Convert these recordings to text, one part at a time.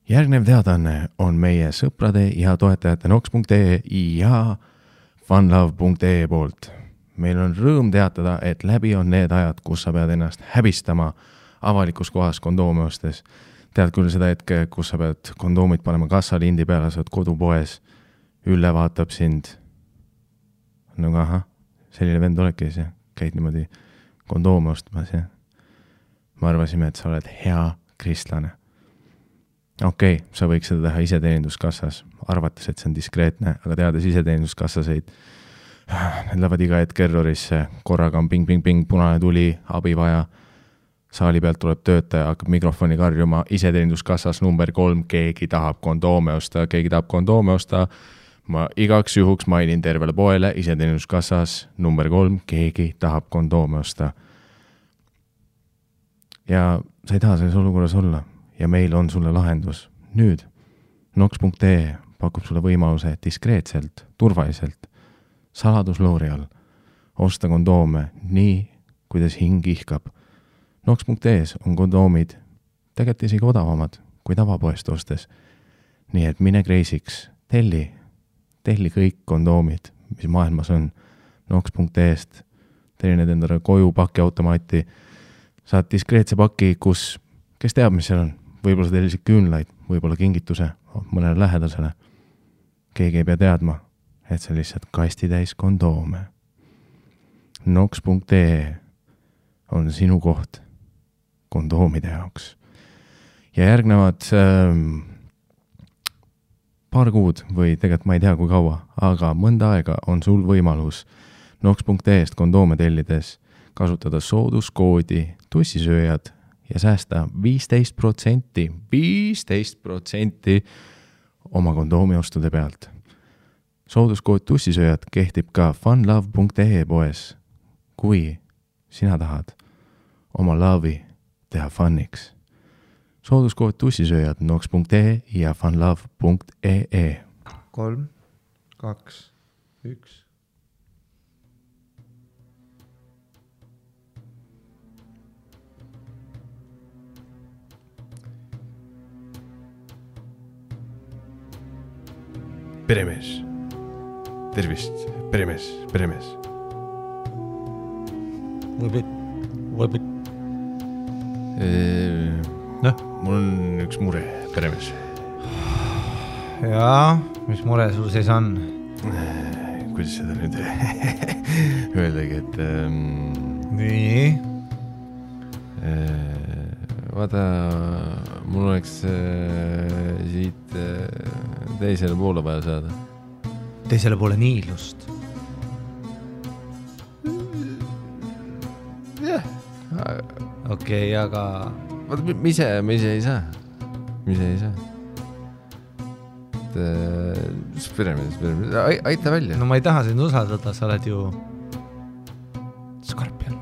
Järgnev teadanne on meie sõprade ja toetajate nox.ee ja funlove.ee poolt. Meil on rõõm teatada, et läbi on need ajad, kus sa pead ennast häbistama avalikus kohas kondoomi ostes. Tead küll seda hetke, kus sa pead kondoomid panema kassalindi peale, sa oled kodupoes, Ülle vaatab sind. No ahah, selline vend oledki see, käid niimoodi kondoomi ostmas ja me arvasime, et sa oled hea kristlane. Okei, sa võiks seda teha iseteeninduskassas, arvates, et see on diskreetne, aga teades iseteeninduskassaseid, need lähevad iga hetk errorisse, korraga on ping, punane tuli, abi vaja, saali pealt tuleb töötaja, hakkab mikrofoni karjuma, iseteeninduskassas number 3, keegi tahab kondoome osta, ma igaks juhuks mainin tervele poele, iseteeninduskassas number 3, keegi tahab kondoome osta. Ja sa ei taha selles olukorras olla. Ja meil on sulle lahendus. Nüüd nox.ee pakub sulle võimaluse diskreetselt, turvaliselt, saladusloori all osta kondoome nii, kuidas hing ihkab. Nox.ees on kondoomid tegelikult isegi odavamad kui tavapoest ostes. Nii et mine kreisiks, telli kõik kondoomid, mis maailmas on. Nox.eest telli need endale koju pakiautomaati. Saad diskreetse paki, kus, kes teab, mis seal on. Võib-olla sa tellisid küünlaid, võib-olla kingituse mõnele lähedasele. Keegi ei pea teadma, et see lihtsalt kasti täis kondoome. Nox.ee on sinu koht kondoomide jaoks. Ja järgnevad paar kuud või tegelikult ma ei tea kui kaua, aga mõnda aega on sul võimalus Nox.eest kondoome tellides kasutada sooduskoodi tussisööjad ja säästa 15% oma kondoomi ostude pealt. Sooduskood tussisööjad kehtib ka funlove.ee poes, kui sina tahad oma love'i teha funniks. Sooduskood tussisööjad nox.ee ja funlove.ee 3, 2, 1 Peremees. Tervist, peremees. Võbit. Mul on üks mure, peremees. Jaa, mis mure sul sees on? Kuidas seda nüüd öeldagi, et Nii? vaata, mul oleks siit teisele poole vaja saada. Teisele poole niilust. Jah. Okei, aga... Vaata, mis ei saa. Peremees. Aita välja. No ma ei taha sind usaldada, sa oled ju... Skorpion.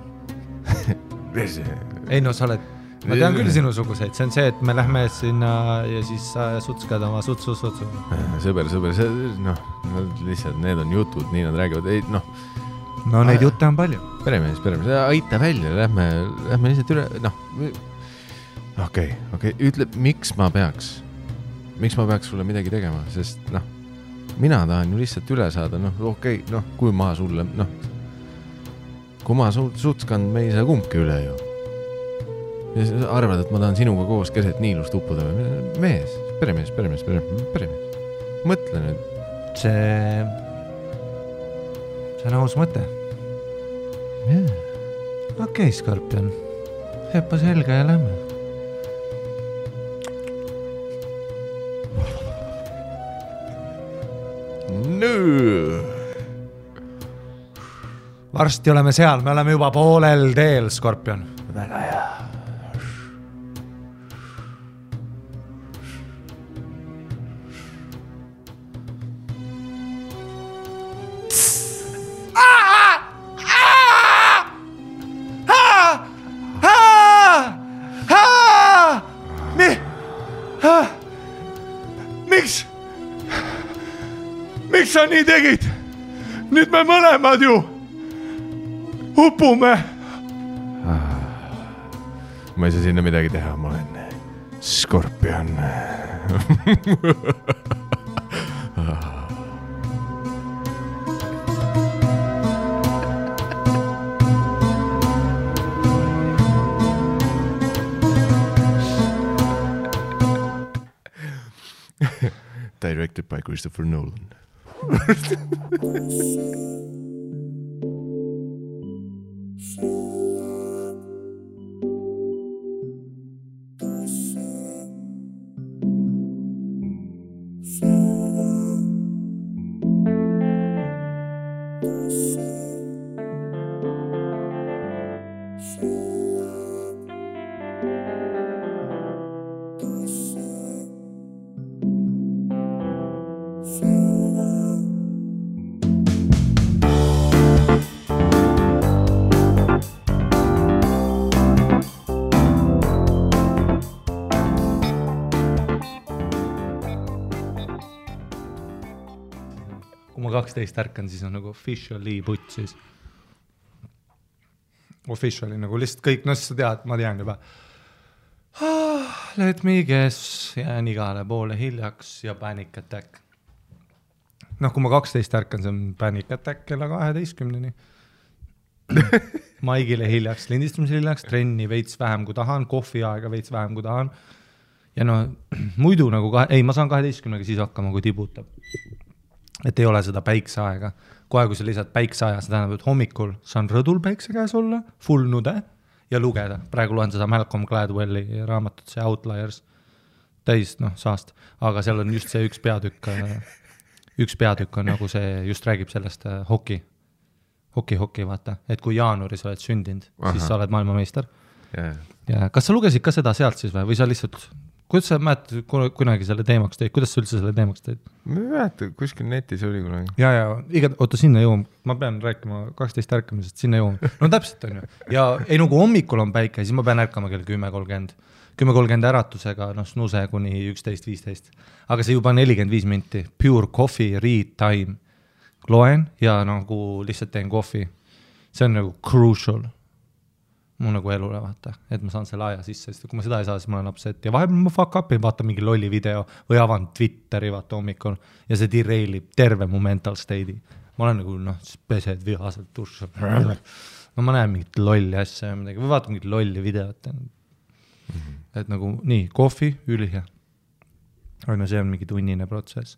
Ei no, sa oled... Ma tean küll sinusuguseid, see on see, et me lähme sinna ja siis sa sutskad oma sutsu. Sõber, lihtsalt need on jutud, nii nad räägivad, ei, noh. No neid jutte on palju. Peremees, aita välja, lähme lihtsalt üle, Okei, ütle, miks ma peaks sulle midagi tegema, sest, mina tahan ju lihtsalt üle saada, kui ma sulle, kui ma sutskan, me ei saa kumbki üle ju. Ja sa arvad, et ma tahan sinuga koos keset niilust uppuda. Mees, peremees. Mõtle nüüd. See on aus mõte. Okei, Skorpion. Hepa selga ja lähme. Varsti oleme seal, me oleme juba poolel teel, Skorpion. Väga hea. Miks sa nii tegid? Nüüd me mõlemad ju upume. Ma ei saa sinna midagi teha, ma olen Skorpion. Directed by Christopher Nolan. Kui ma 12 ärkan, siis on nagu officially putt siis. Officially nagu lihtsalt kõik, no siis sa tead, ma tean juba. Let me guess, jään igale poole hiljaks ja panic attack. Noh, kui ma 12 ärkan, see on panic attack kella 12-ni. Maigile hiljaks, lindistamise hiljaks, trenni veits vähem kui tahan, kohviaega veits vähem kui tahan. Ja no muidu nagu, ma saan 12-ga siis hakkama, kui tibutab. Et ei ole seda päikseaega. Kohe, kui sa lisad päikseaja, see tähendab, et hommikul saan rõdul päikse käes olla, full nude ja lugeda. Praegu loen seda Malcolm Gladwelli raamatut, see Outliers, täis saast. Aga seal on just see üks peatükk on nagu see, just räägib sellest hoki, vaata. Et kui jaanuaris oled sündinud, siis sa oled maailmameister. Ja kas sa lugesid ka seda sealt siis või sa lihtsalt... Kuidas sa mäletad kunagi selle teemaks teid? Kuidas sa üldse selle teemaks teid? Ma ei mäleta, kuskil netis oli kunagi. Ja, oota, sinna jõuam. Ma pean rääkima 12 ärkamisest, sinna jõuam. No täpselt on ju. Ja ei nagu hommikul on päike, siis ma pean ärkama kell 10.30. 10.30 äratusega, snuse kuni 11.15. Aga see juba 45 minti. Pure coffee, read time. Loen ja nagu lihtsalt teen kohvi. See on nagu crucial. Mu nagu elule vaata, et ma saan selle aja sisse, sest kui ma seda ei saa, siis ma olen upset ja vahepeal ma fuck up'in, vaatan mingi lolli video või avan Twitteri vaata hommikul ja see derailib terve mu mental state'i. Ma olen nagu, pesed vihaselt tush. No ma näen mingit lolli asja või vaatan mingit lolli videot. Et nagu nii, kohvi, ülihea. Aga no see on mingi tunnine protsess.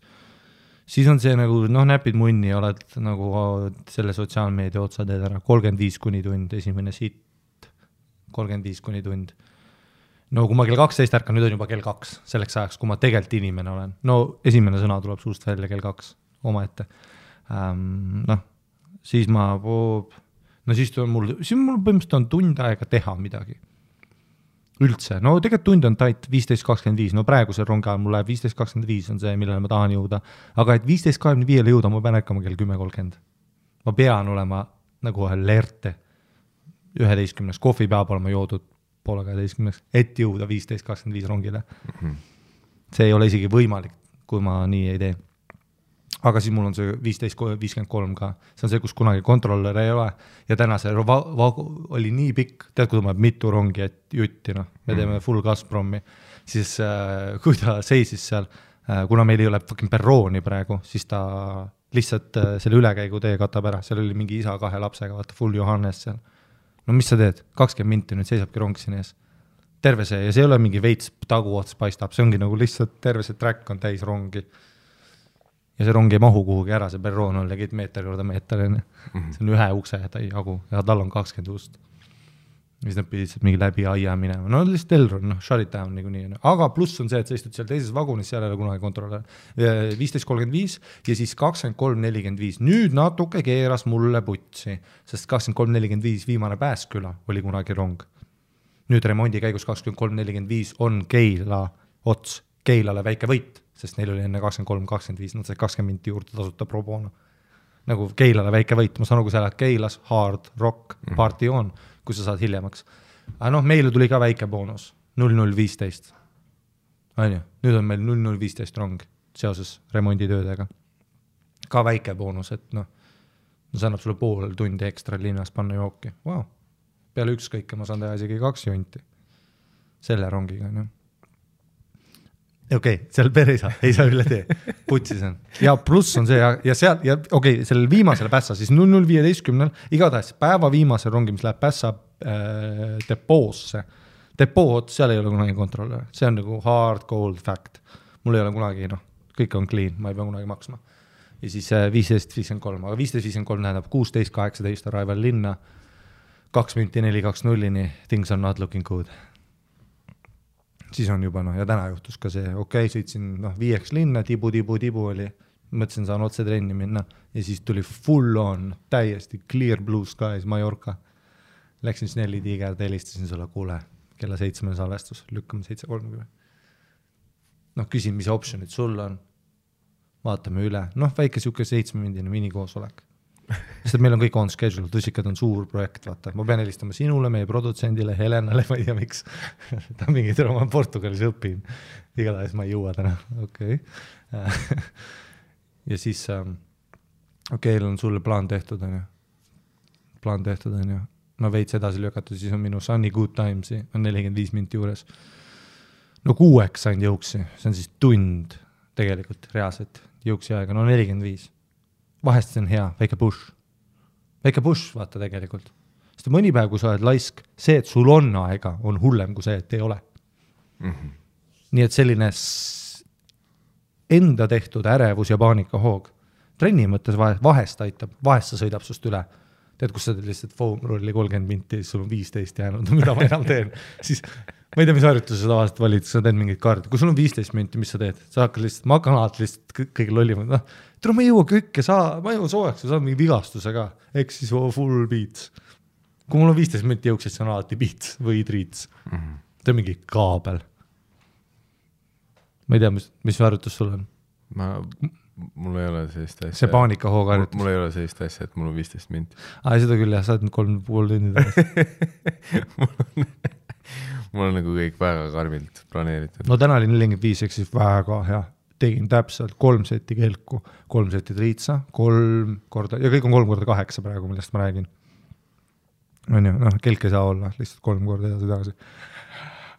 Siis on see nagu, näpid munni ja oled nagu selle sotsiaalmeedia otsa teed ära 35 kuni tund, esimene siit 35 kuni tund. No kui ma kell 12 ärkan, nüüd on juba kell 2 selleks ajaks, kui ma tegelikult inimene olen. No esimene sõna tuleb suust välja kell 2 oma ette. Siis ma siis mul põhimõtteliselt on tund aega teha midagi. Üldse. No tegelikult tund on tait 15.25. No praegu see rongi ajal mul läheb 15.25 on see, millele ma tahan jõuda. Aga et 15.25 jõuda, ma pean ärkama kell 10.30. Ma pean olema nagu alerte. 11. Kohvi peab olema joodud poole 12, et jõuda 15.25 rongile. See ei ole isegi võimalik, kui ma nii ei tee. Aga siis mul on see 15.53 ka. See on see, kus kunagi kontroller ei ole. Ja täna see oli nii pikk, tead, kui tuleb mitu rongi, et jutti, me teeme full Gazpromi. Siis kui ta seisis seal, kuna meil ei ole fucking perrooni praegu, siis ta lihtsalt selle ülekäigu tee katab ära. Seal oli mingi isa 2 lapsega, vaata full Johannes seal. No mis sa teed? 20 minti nüüd seisabki rong siin ees. Terve see, ja see ei ole mingi veits taguots paistab, see ongi nagu lihtsalt terve see track on täis rongi. Ja see rong ei mahu kuhugi ära, see perroon on legit meeter korda meeter. See on ühe ukse jagu ja tal on 20 ust. Ja siis nad pidid mingi läbi aia minema. No lihtsalt Elron, shut it down nii. Aga pluss on see, et sa istud seal teises vagunis, seal ei ole kunagi kontrolle. 15.35 ja siis 23.45. Nüüd natuke keeras mulle putsi, sest 23.45 viimane Pääsküla oli kunagi rong. Nüüd remondi käigus 23.45 on Keila ots, Keilale väike võit, sest neil oli enne 23.25, nad said 20 minti juurde tasuta pro bono. Nagu Keilale väike võit, ma saan aru, kui sa lähed Keilas, hard rock, party on, kui sa saad hiljemaks. Aga meile tuli ka väike boonus, 00.15. Nüüd on meil 00.15 rong seoses remonditöödega. Ka väike boonus, et see annab sulle pool tundi ekstra linnas panna jooki. Wow. Peale ükskõike ma saan teha isegi 2 junti selle rongiga. seal per ei saa üle tee, putsis on. Ja pluss on see ja seal, ja sellel viimasel Pässa, siis 00.15, igatahes päeva viimasel rongi, mis läheb Pässa depoosse. Depood, seal ei ole kunagi kontrolle, see on nagu hard cold fact. Mul ei ole kunagi, kõik on clean, ma ei pea kunagi maksma. Ja siis 15.53, aga 15.53 tähendab 16.18 arrival linna, 2 minti 4.2.0-ni, things are not looking good. Siis on juba, ja täna juhtus ka see, sõitsin 5 linna, tibu oli, mõtlesin, saan otse trenni minna ja siis tuli full on, täiesti clear blue skies, Mallorca. Läksin Snelli tiigerd, helistasin sulle, kuule, kella 7 salvestus, lükkame 7.30. Küsin, mis optionid sul on, vaatame üle, väike siuke 7-mindine minikoosolek. Sest meil on kõik on schedule, Tõsikad on suur projekt, vaata. Ma pean helistama sinule, meie produtsendile, Helenale, ma ei tea miks. Ta mingi ma Portugalis õpin. Igatahes ma ei jõua täna. Ja siis, on sulle plaan tehtud, on ju. Ma veits edasi lükatud, siis on minu Sunny Good Timesi, on 45 minti juures. 6 sain jõuksi, see on siis tund tegelikult reaalselt jõuksi aega, 45. Vahest see on hea, väike push, vaata tegelikult. Sest mõni päev, kui sa oled laisk, see, et sul on aega, on hullem kui see, et ei ole. Mm-hmm. Nii et selline enda tehtud ärevus ja paanika hoog. Trenni mõttes vahest aitab, vahest sa sõidab sust üle. Tead, kus sa teed lihtsalt foam rolli 30 minti, siis sul on 15 jäänud, mida ma enam teen. Siis ma ei tea, mis harjutuses sa tavaliselt valid, sa teed mingid kaardi. Kui sul on 15 minti, mis sa teed? Sa hakkad lihtsalt, ma hakkan alati lihtsalt kõige lollimad. Ma ei jõua kõike, ma ei jõua soojaks, sa saad mingi vigastuse ka. Eks siis full beats. Kui mul on 15 minti jõuks, siis on alati beats või treats. Mm-hmm. See on mingi kaabel. Ma ei tea, mis harjutus sul on? Mul ei ole sellist asja. See paanika hoog harjutus. Mul ei ole sellist asja, et mul on 15 minti. Seda küll, sa oled 3,5 tundi tagasi. Mul on nagu kõik väga karmilt planeeritud. Täna oli 45, eks siis väga hea. Tegin täpselt 3 seti kelku, 3 seti triitsa, 3 korda, ja kõik on 3x8 praegu, millest ma räägin. Kelk ei saa olla, lihtsalt 3 korda edasi.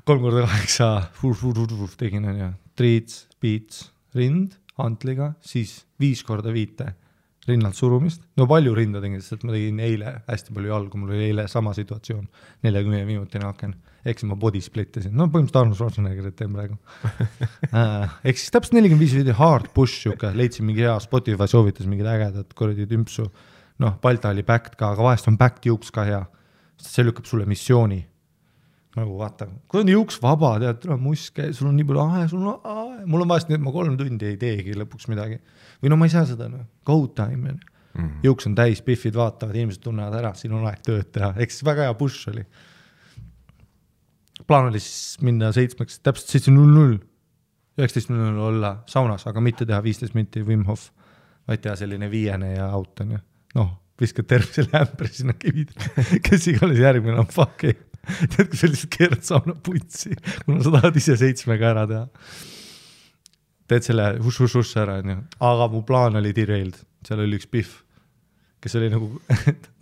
3x8 tegin, triits, beats, rind, hantliga, siis 5 korda 5 rinnalt surumist. Palju rinda tegin, sest ma tegin eile hästi palju jalgu, mul oli eile sama situatsioon, 40 minutine aken. Eks ma body splittisin. Põhimõtteliselt Arnold Schwarzeneggerit teen praegu. Eks siis täpselt 45 video hard push, leidsin mingi hea Spotify soovitas mingid ägedad korradi tümpsu. Balta oli backed ka, aga vahest on backed juuks ka hea. See lükkab sulle missiooni. Vaata, kui on juuks vaba, tead, muske, sul on nii palju mul on vahest nii, et ma 3 tundi ei teegi lõpuks midagi. Või ma ei saa seda, go time. Mm-hmm. Juuks on täis, biffid vaatavad, inimesed tunnevad ära, siin on aeg tööd teha. Eks väga hea push oli. Plaan oli siis minna 7, täpselt 7.00, 19.00 olla saunas, aga mitte teha 15 minti Wim Hof, vaid teha selline 5 ja out on ju. Viskad tervisele ämbri sinna kivid, kes iganes järgmine on fuck ei. Tead, kui sellised keerad sauna putsi, kuna sa tahad ise 7-ga ära teha. Teed selle hush ära, on ju. Aga mu plaan oli derailed, seal oli üks biff, kes oli nagu,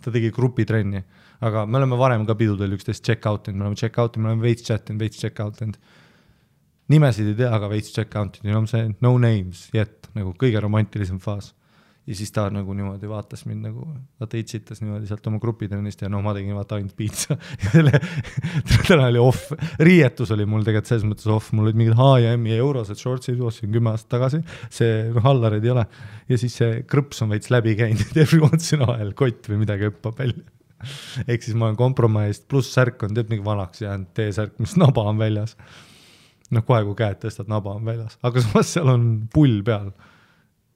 ta tegi grupitrenni. Aga me oleme varem ka pidudel üksteist check-out'ind, me oleme veits check-out'ind. Nimesid ei tea, aga veits check-out'ind, see no names yet, nagu kõige romantilisem faas. Ja siis ta nagu niimoodi vaatas mind nagu, vaata itsitas niimoodi sealt oma grupitrennist ja ma tegin vaata ainult piitsa. Täna oli off, riietus oli mul tegelikult selles mõttes off, mul olid mingid H&M eurosed shortsid, ostsin 10 aastat tagasi, see hallarid ei ole. Ja siis see krõps on veits läbi käinud, every once in a while kott või midagi õppab välja. Ehk siis ma olen kompromaist, pluss särk on teeb mingi vanaks jäänud T-särk, mis naba on väljas. Kohe kui käed tõstad, naba on väljas. Aga samas seal on pull peal.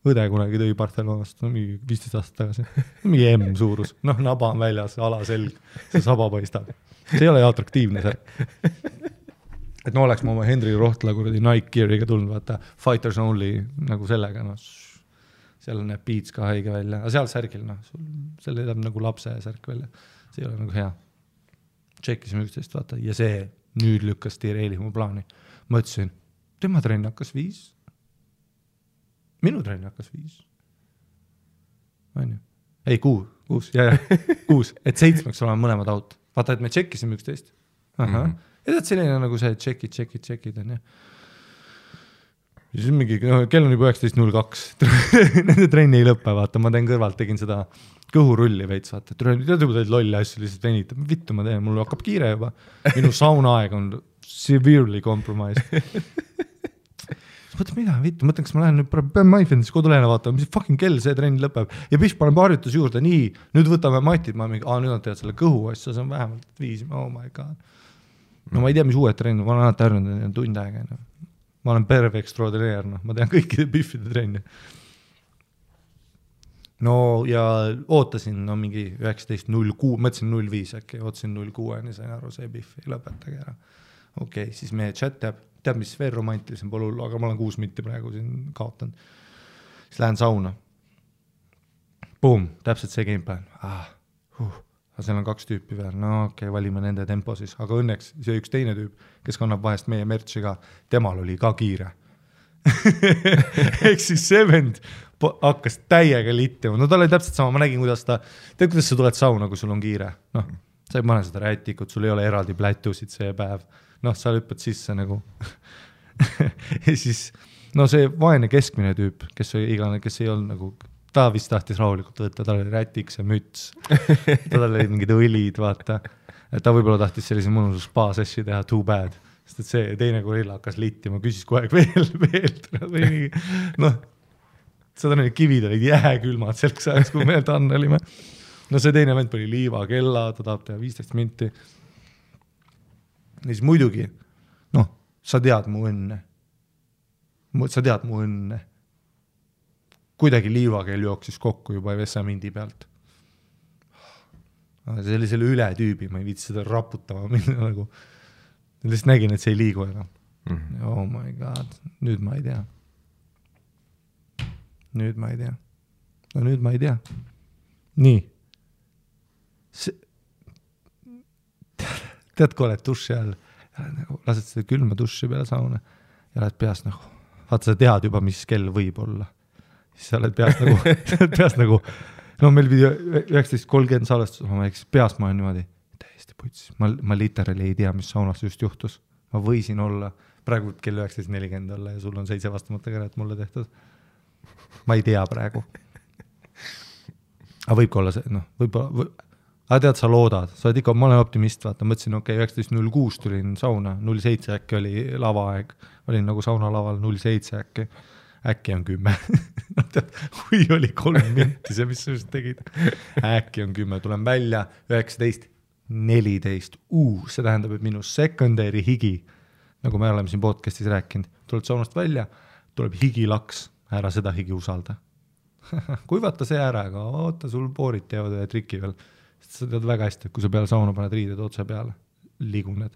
Õde kunagi tõi Barcelonast, mingi 15 aastat tagasi. Mingi M suurus. Naba on väljas, alaselg, see saba paistab. See ei ole atraktiivne särk. Et oleks ma oma Henry Rohtla kuradi Nike Geariga tulnud, vaata, Fighters Only nagu sellega, seal näeb Beats ka haige välja, aga seal särgil, seal edab nagu lapse särk välja, see ei ole nagu hea. Tšekkisime üksteist, vaata, ja see nüüd lükkas tireeli mu plaani. Ma ütlesin, tema trenn hakkas 5. Minu trenn hakkas 5. Ei, 6, 6, et 7 olema mõlemad out. Vaata, et me tšekkisime üksteist. Ja tead selline nagu see tšekid, on ju. siis mingi, kell on juba 19.02. Nende trenni ei lõppe, vaata, ma teen kõrvalt, tegin seda kõhurulli veits, vaata, tead juba teed lolli asju, lihtsalt venitab, vittu ma teen, mul hakkab kiire juba. Minu saunaaeg on severely compromised. Mõtle, mida, vittu, mõtlen, kas ma lähen nüüd, pean MyFitnessi kodulehele vaatama, mis fucking kell see trenn lõpeb. Ja Bish paneb harjutus juurde, nii, nüüd võtame matid, ma mingi, nüüd on tead selle kõhu asja, see on vähemalt 5, oh my god. No ma ei tea, mis uued trenn, ma olen alati harjunud tund aega. Ma olen perve extraordinaire, ma tean kõikide Bifide trenni. No ja ootasin mingi 19.06, mõtlesin 05 äkki, ootasin 06, nii sain aru, see Bif ei lõpetage ära. Okei, siis meie chat teab, mis veel romantilisem pole hullu, aga ma olen 6 minti praegu siin kaotanud. Siis lähen sauna. Boom, täpselt see gameplan. Aga seal on 2 tüüpi veel, no okei, valime nende tempo siis, aga õnneks see üks teine tüüp, kes kannab vahest meie mertsi ka, temal oli ka kiire. Ehk siis see vend hakkas täiega littima, no ta oli täpselt sama, ma nägin, kuidas sa tuled sauna, kui sul on kiire, noh, sa ei pane seda rätikut, sul ei ole eraldi plätusid see päev, noh, sa lüppad sisse nagu ja siis, no see vaene keskmine tüüp, kes ei olnud nagu, ta vist tahtis rahulikult võtta, tal oli rätiks ja müts, tal oli mingid õlid, vaata, ta võib-olla tahtis sellise mõnusus spa-sessi teha, too bad, sest et see teine gorilla hakkas littima, küsis kogu aeg veel, noh, seda need kivid olid jääkülmad selleks ajaks, kui meil tann olime. No see teine vend oli liiva kella, ta tahab teha 15 minti. Ja siis muidugi, noh, sa tead mu õnne. Kuidagi liivakeel jooksis kokku juba Vesamindi pealt. See oli selle üle tüübi, ma ei viitsi seda raputama minna nagu. Lihtsalt nägin, et see ei liigu enam. Oh my god, nüüd ma ei tea. Nüüd ma ei tea. Nii. Tead, kui oled duši all, lased seda külma duši peale sauna ja oled peas nagu, vaata sa tead juba, mis kell võib olla. Siis sa oled peas nagu, no meil pidi 19.30 salvestus, ma peas ma olen niimoodi, täiesti putsis, ma literally ei tea, mis saunas just juhtus. Ma võisin olla, praegu kell 19.40 olla ja sul on 7 vastamata käret mulle tehtud. Ma ei tea praegu. Aga võib olla see, noh, aga tead, sa loodad, sa oled ikka, ma olen optimist, vaata, mõtlesin, 19.06 tulin sauna, 07 äkki oli lavaaeg, olin nagu sauna laval 07 äkki on 10. Kui oli 3 minti see, mis sa just tegid. Äkki on 10, tulen välja, 19.14, see tähendab, et minu secondary higi, nagu me oleme siin podcastis rääkinud, tuled saunast välja, tuleb higilaks, ära seda higi usalda. Kuivata see ära, aga oota, sul poorid teevad ühe triki veel. Sa tead väga hästi, et kui sa peale sauna paned riided otse peale, liiguned.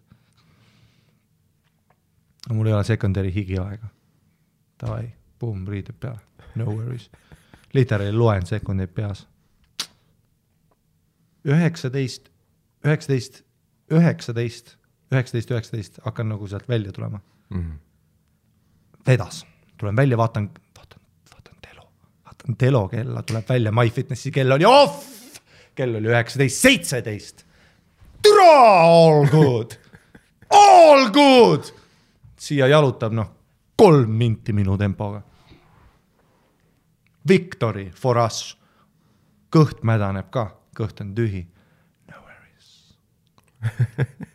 Mul ei ole secondary higi aega. Davai, boom, riided peale. No worries. Literally loen sekundeid peas. 19 hakkan nagu sealt välja tulema. Vedas. Tulen välja, vaatan Telo kella, tuleb välja, MyFitnessi kell oli off! Kell oli 19.17. Türa, all good! All good! Siia jalutab, 3 minti minu tempoga. Victory for us. Kõht mädaneb ka, kõht on tühi. No worries.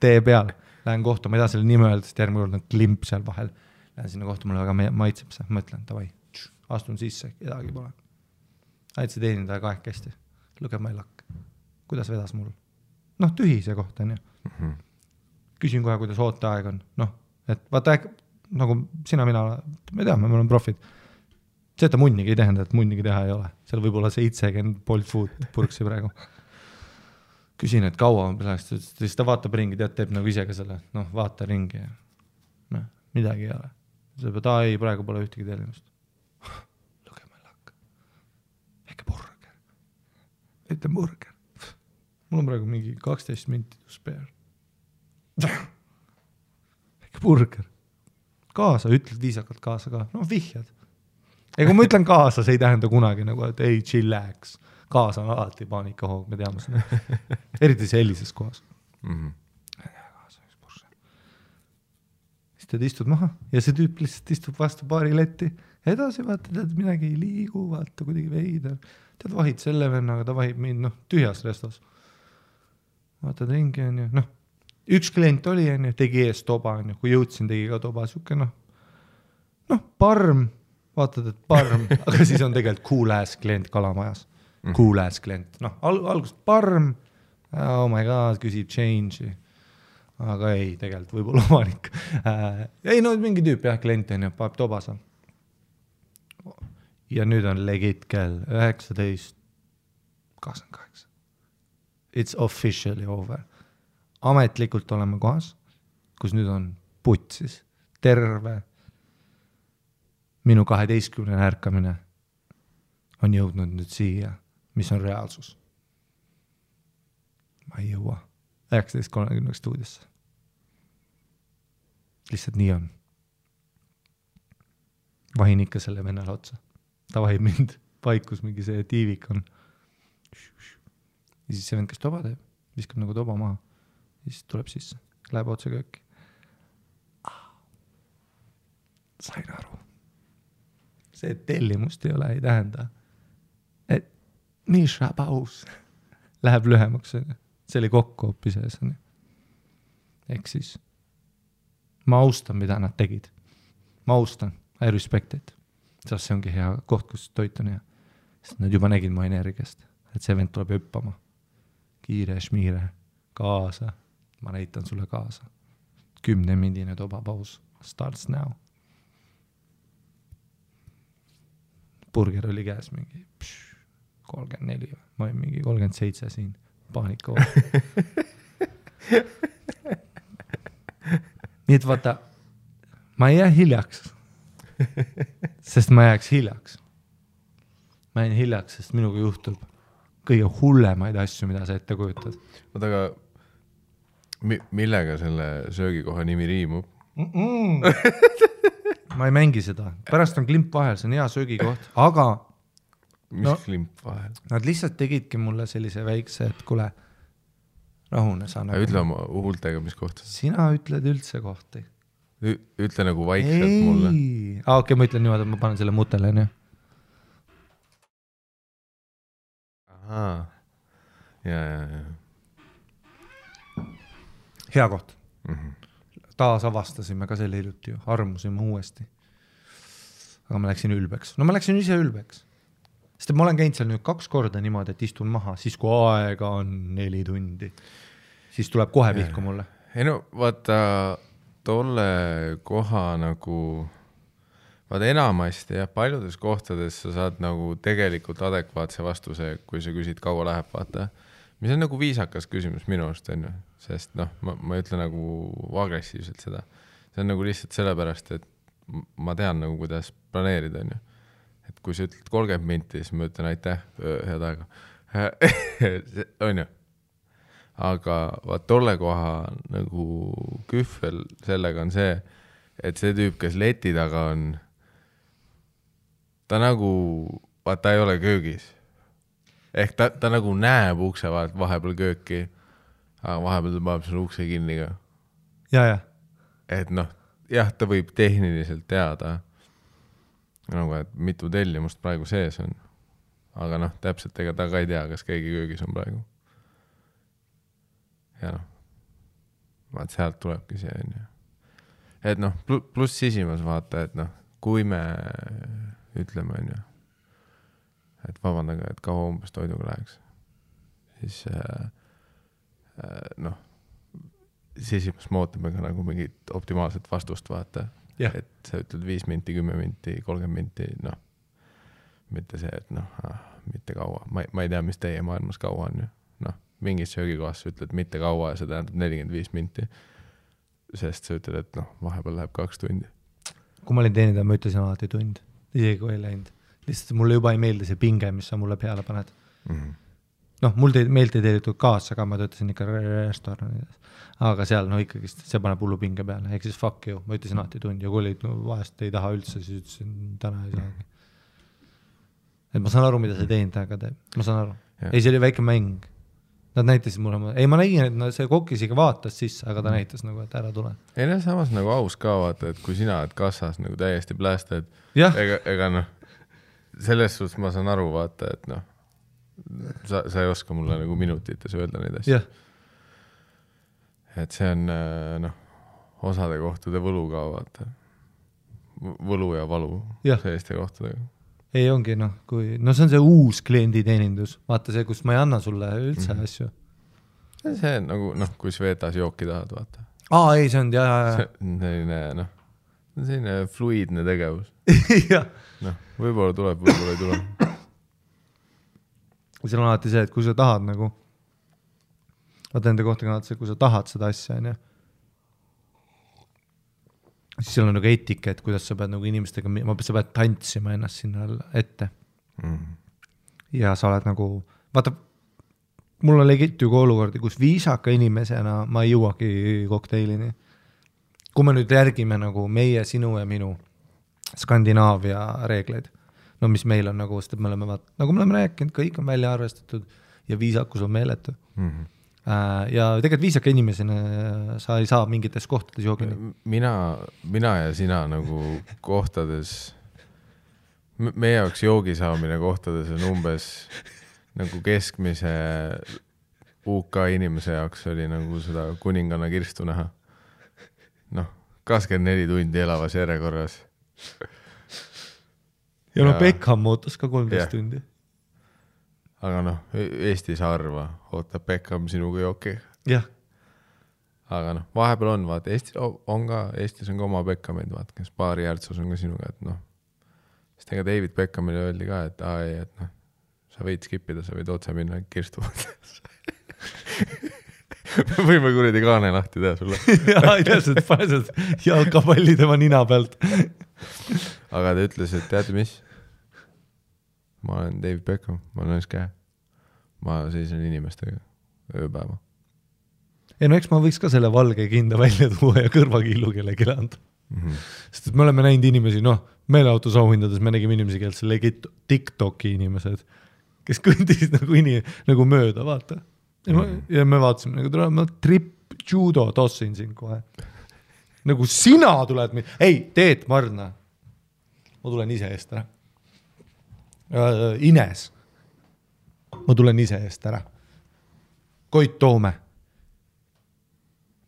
Tee peal. Lähen kohta, ma ei taha selle nime öelda, sest järgmine kord on klimp seal vahel. Lähen sinna kohta, mulle väga maitseb see. Mõtlen, davai. Astun sisse, kedagi pole. Aitsi teenindaja kahekesti. Look at my luck. Kuidas vedas mul? Tühi see koht on ju. Küsin kohe, kuidas ooteaeg on. Et vaata, nagu sina, mina, me teame, me oleme profid. See, et ta munnigi ei tähenda, et munnigi teha ei ole. Seal võib olla 70 Bolt Food purksi praegu. Küsin, et kaua on peale, siis ta vaatab ringi, teeb nagu ise ka selle, vaata ringi ja midagi ei ole. See peab, ei, praegu pole ühtegi tellimust. Ette burger. Mul on praegu mingi 12 minti spare. Väike burger. Kaasa, ütled viisakalt kaasa ka. Vihjad. Kui ma ütlen kaasa, see ei tähenda kunagi nagu, et ei, chillax. Kaasa on alati paanikahoog, me teame seda. Eriti sellises kohas. siis tead istud maha ja see tüüp lihtsalt istub vastu baariletti. Edasi vaata, tead midagi ei liigu, vaata kuidagi veider. Tead vahid selle vennaga, ta vahib mind tühjas restos. Vaatad ringi on ju, üks klient oli on ju, tegi ees toba on ju, kui jõudsin, tegi ka toba, siuke parm, vaatad, et parm, aga siis on tegelikult cool ass klient Kalamajas. Cool ass klient, algust parm, oh my god, küsib change'i, aga ei, tegelikult võib-olla omanik. Ei, mingi tüüp jah, klient on ju, paeb toba seal. Ja nüüd on legit kell 19:28. It's officially over. Ametlikult oleme kohas, kus nüüd on putsis. Terve minu 12 ärkamine on jõudnud nüüd siia, mis on reaalsus. Ma ei jõua 19:30 stuudiosse. Lihtsalt nii on. Vahin ikka selle vennale otsa. Ta vahib mind paikus, mingi see tiivik on. Ja siis see vend, kes toba teeb, viskab nagu toba maha. Ja siis tuleb sisse, läheb otse kööki. Sain aru. See tellimust ei ole, ei tähenda, et Misha paus läheb lühemaks. See oli kokku hoopis ees. Ehk siis ma austan, mida nad tegid. Ma austan, I respect it. Sest see ongi hea koht, kus toit on hea. Sest nad juba nägid mu energiast, et see vend tuleb hüppama. Kiire, šmiire, kaasa. Ma näitan sulle kaasa. 10-mindine tobapaus. Starts now. Burger oli käes mingi 34. Ma olin mingi 37 siin. Paanika Nii et vaata, ma ei jää hiljaks. Sest ma jääks hiljaks. Ma jään hiljaks, sest minuga juhtub kõige hullemaid asju, mida sa ette kujutad. Oota, aga millega selle söögikoha nimi riimub? Ma ei mängi seda. Pärast on klimp vahel, see on hea söögikoht, aga mis klimp vahel? Nad lihtsalt tegidki mulle sellise väikse, et kule, rahune sa nagu. Ütle oma huultega, mis kohta. Sina ütled üldse kohti. Ütle nagu vaikselt mulle. Okei, ma ütlen niimoodi, et ma panen selle mutele, nii. Ahaa. Ja. Hea koht. Taas avastasime ka selle hiljuti ju, armusime uuesti. Aga ma läksin ülbeks. Ma läksin ise ülbeks. Sest ma olen käinud seal nüüd 2 korda niimoodi, et istun maha, siis kui aega on 4 tundi. Siis tuleb kohe pihku mulle. Ei vaata, tolle koha nagu, vaata enamasti ja paljudes kohtades sa saad nagu tegelikult adekvaatse vastuse, kui sa küsid, kaua läheb, vaata. Mis on nagu viisakas küsimus minu arust, on ju. Sest ma ei ütle nagu agressiivselt seda. See on nagu lihtsalt sellepärast, et ma tean nagu, kuidas planeerida, on ju. Et kui sa ütled 30 minti, siis ma ütlen aitäh, head aega. On ju. Aga vaat tolle koha nagu kühvel sellega on see, et see tüüp, kes leti taga on, ta nagu, vaat ta ei ole köögis. Ehk ta nagu näeb ukse vahepeal kööki, aga vahepeal ta paneb selle ukse kinni ka. Ja. Et jah, ta võib tehniliselt teada, nagu, et mitu tellimust praegu sees on. Aga täpselt ega ta ka ei tea, kas keegi köögis on praegu. Ja vaat sealt tulebki see on ju. Et pluss sisimas vaata, et kui me ütleme on ju, et vabandage, et kaua umbes toiduga läheks, siis sisimas me ootame ka nagu mingit optimaalset vastust vaata, et sa ütled 5 minti, 10 minti, 30 minti, mitte see, et mitte kaua, ma ei tea, mis teie maailmas kaua on ju, mingis söögikohas sa ütled mitte kaua ja see tähendab 45 minti, sest sa ütled, et vahepeal läheb 2 tundi. Kui ma olin teenida, ma ütlesin alati tund, isegi kui ei läinud. Lihtsalt mulle juba ei meeldi see pinge, mis sa mulle peale paned. Mul meeldi teelitud kaasa, aga ma töötasin ikka restoranides. Aga seal ikkagi see paneb hullu pinge peale. Ehk siis fuck you, ma ütlesin alati tund ja kui olid vahest ei taha üldse, siis ütlesin täna ei saagi. Et ma saan aru, mida see teenindajaga teeb. Ma saan aru. Ei, see oli väike mäng. Nad näitasid mulle, ei ma nägin, et see kokk isegi vaatas sisse, aga ta näitas nagu, et ära tule. Ei no samas nagu aus ka vaata, et kui sina oled kassas nagu täiesti plästad, ega noh, selles suhtes ma saan aru vaata, et noh, sa ei oska mulle nagu minutites öelda neid asju. Et see on noh, osade kohtade võlu ka vaata. Võlu ja valu selliste kohtadega. Ei ongi noh, no see on see uus klienditeenindus. Vaata see, kus ma ei anna sulle üldse asju. See on nagu, noh, kui Svetas jooki tahad, vaata. Ei, see on, selline, noh, selline fluidne tegevus. Noh, võib-olla tuleb, võib-olla ei tule. Seal on alati see, et kui sa tahad nagu, vaata enda kohta kannad see, kui sa tahad seda asja, on ju. Siis seal on nagu etiket, kuidas sa pead nagu inimestega, sa pead tantsima ennast sinna ette. Ja sa oled nagu, vaata, mul on legit ju olukordi, kus viisaka inimesena ma ei jõuagi kokteilini. Kui me nüüd järgime nagu meie, sinu ja minu Skandinaavia reegleid, no mis meil on nagu, sest me oleme, nagu me oleme rääkinud, kõik on välja arvestatud ja viisakus on meeletu. Ja tegelikult viisaka inimesena sa ei saa mingites kohtades joogini. Mina ja sina nagu kohtades, meie jaoks joogi saamine kohtades on umbes nagu keskmise UK inimese jaoks oli nagu seda kuninganna kirstu näha. Noh, 24 tundi elavas järjekorras. Ja no Beckham ootas ka 13 tundi. Aga noh, Eestis harva ootab Beckham sinuga jooki. Jah. Aga noh, vahepeal on, vaata, Eestis on ka oma Beckhamid, vaata, kes paari järtsus on ka sinuga, et noh, sest ega David Beckhamile öeldi ka, et noh, sa võid skipida, sa võid otse minna kirstu. Võime kuradi kaane lahti teha sulle. Jaa, ei tea, panesed jalkapalli tema nina pealt. Aga ta ütles, et teate mis? Ma olen David Beckham, ma olen käe. Ma seisen inimestega ööpäeva. Ei no eks ma võiks ka selle valge kinda välja tuua ja kõrvakiilu kellegi anda. Sest me oleme näinud inimesi, noh, meeleautos auhindades me nägime inimesi, kes legit TikToki inimesed, kes kõndisid nagu mööda, vaata. Ja me vaatasime, nagu ma judo tossin siin kohe. Nagu sina tuled ei, Teet Marna. Ma tulen ise eest ära. Ines. Ma tulen ise eest ära. Koit Toome.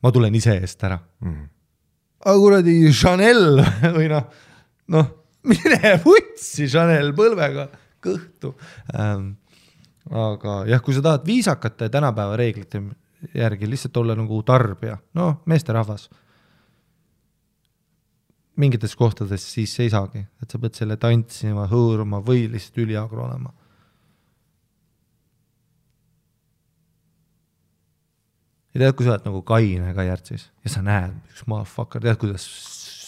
Ma tulen ise eest ära. Aga kuradi Chanel või noh, mine vutsi Chanel põlvega kõhtu. Aga jah, kui sa tahad viisakate tänapäeva reeglite järgi lihtsalt olla nagu tarbija, no meesterahvas mingites kohtades siis ei saagi, et sa pead selle tantsima, hõõruma või lihtsalt üliagro olema. Ja tead, kui sa oled nagu kaine ka järtsis ja sa näed, üks motherfucker, tead, kuidas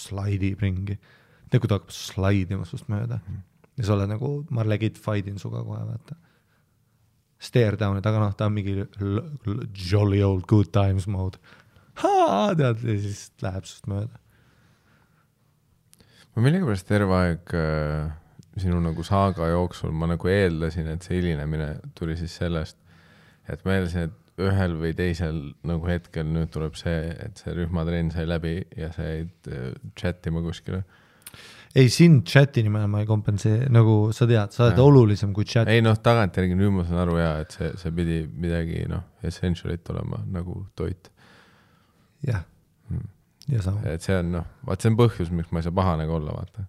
slaidib ringi. Tead, kui ta hakkab slaidima sust mööda. Ja sa oled nagu, ma legit fightin suga kohe, vaata. Stare down, aga noh, ta on mingi jolly old good times mode. Tead, ja siis läheb sust mööda. Ma millegipärast terve aeg sinu nagu saaga jooksul ma nagu eeldasin, et see hilinemine tuli siis sellest, et ma eeldasin, et ühel või teisel nagu hetkel nüüd tuleb see, et see rühmatrenn sai läbi ja sa jäid chatima kuskile. Ei, siin chati nimel ma ei kompensee, nagu sa tead, sa oled olulisem kui chat. Ei noh, tagantjärgi nüüd ma saan aru et see pidi midagi essentialit olema nagu toit. Jah. Et see on vaat see on põhjus, miks ma ei saa pahane olla, vaata.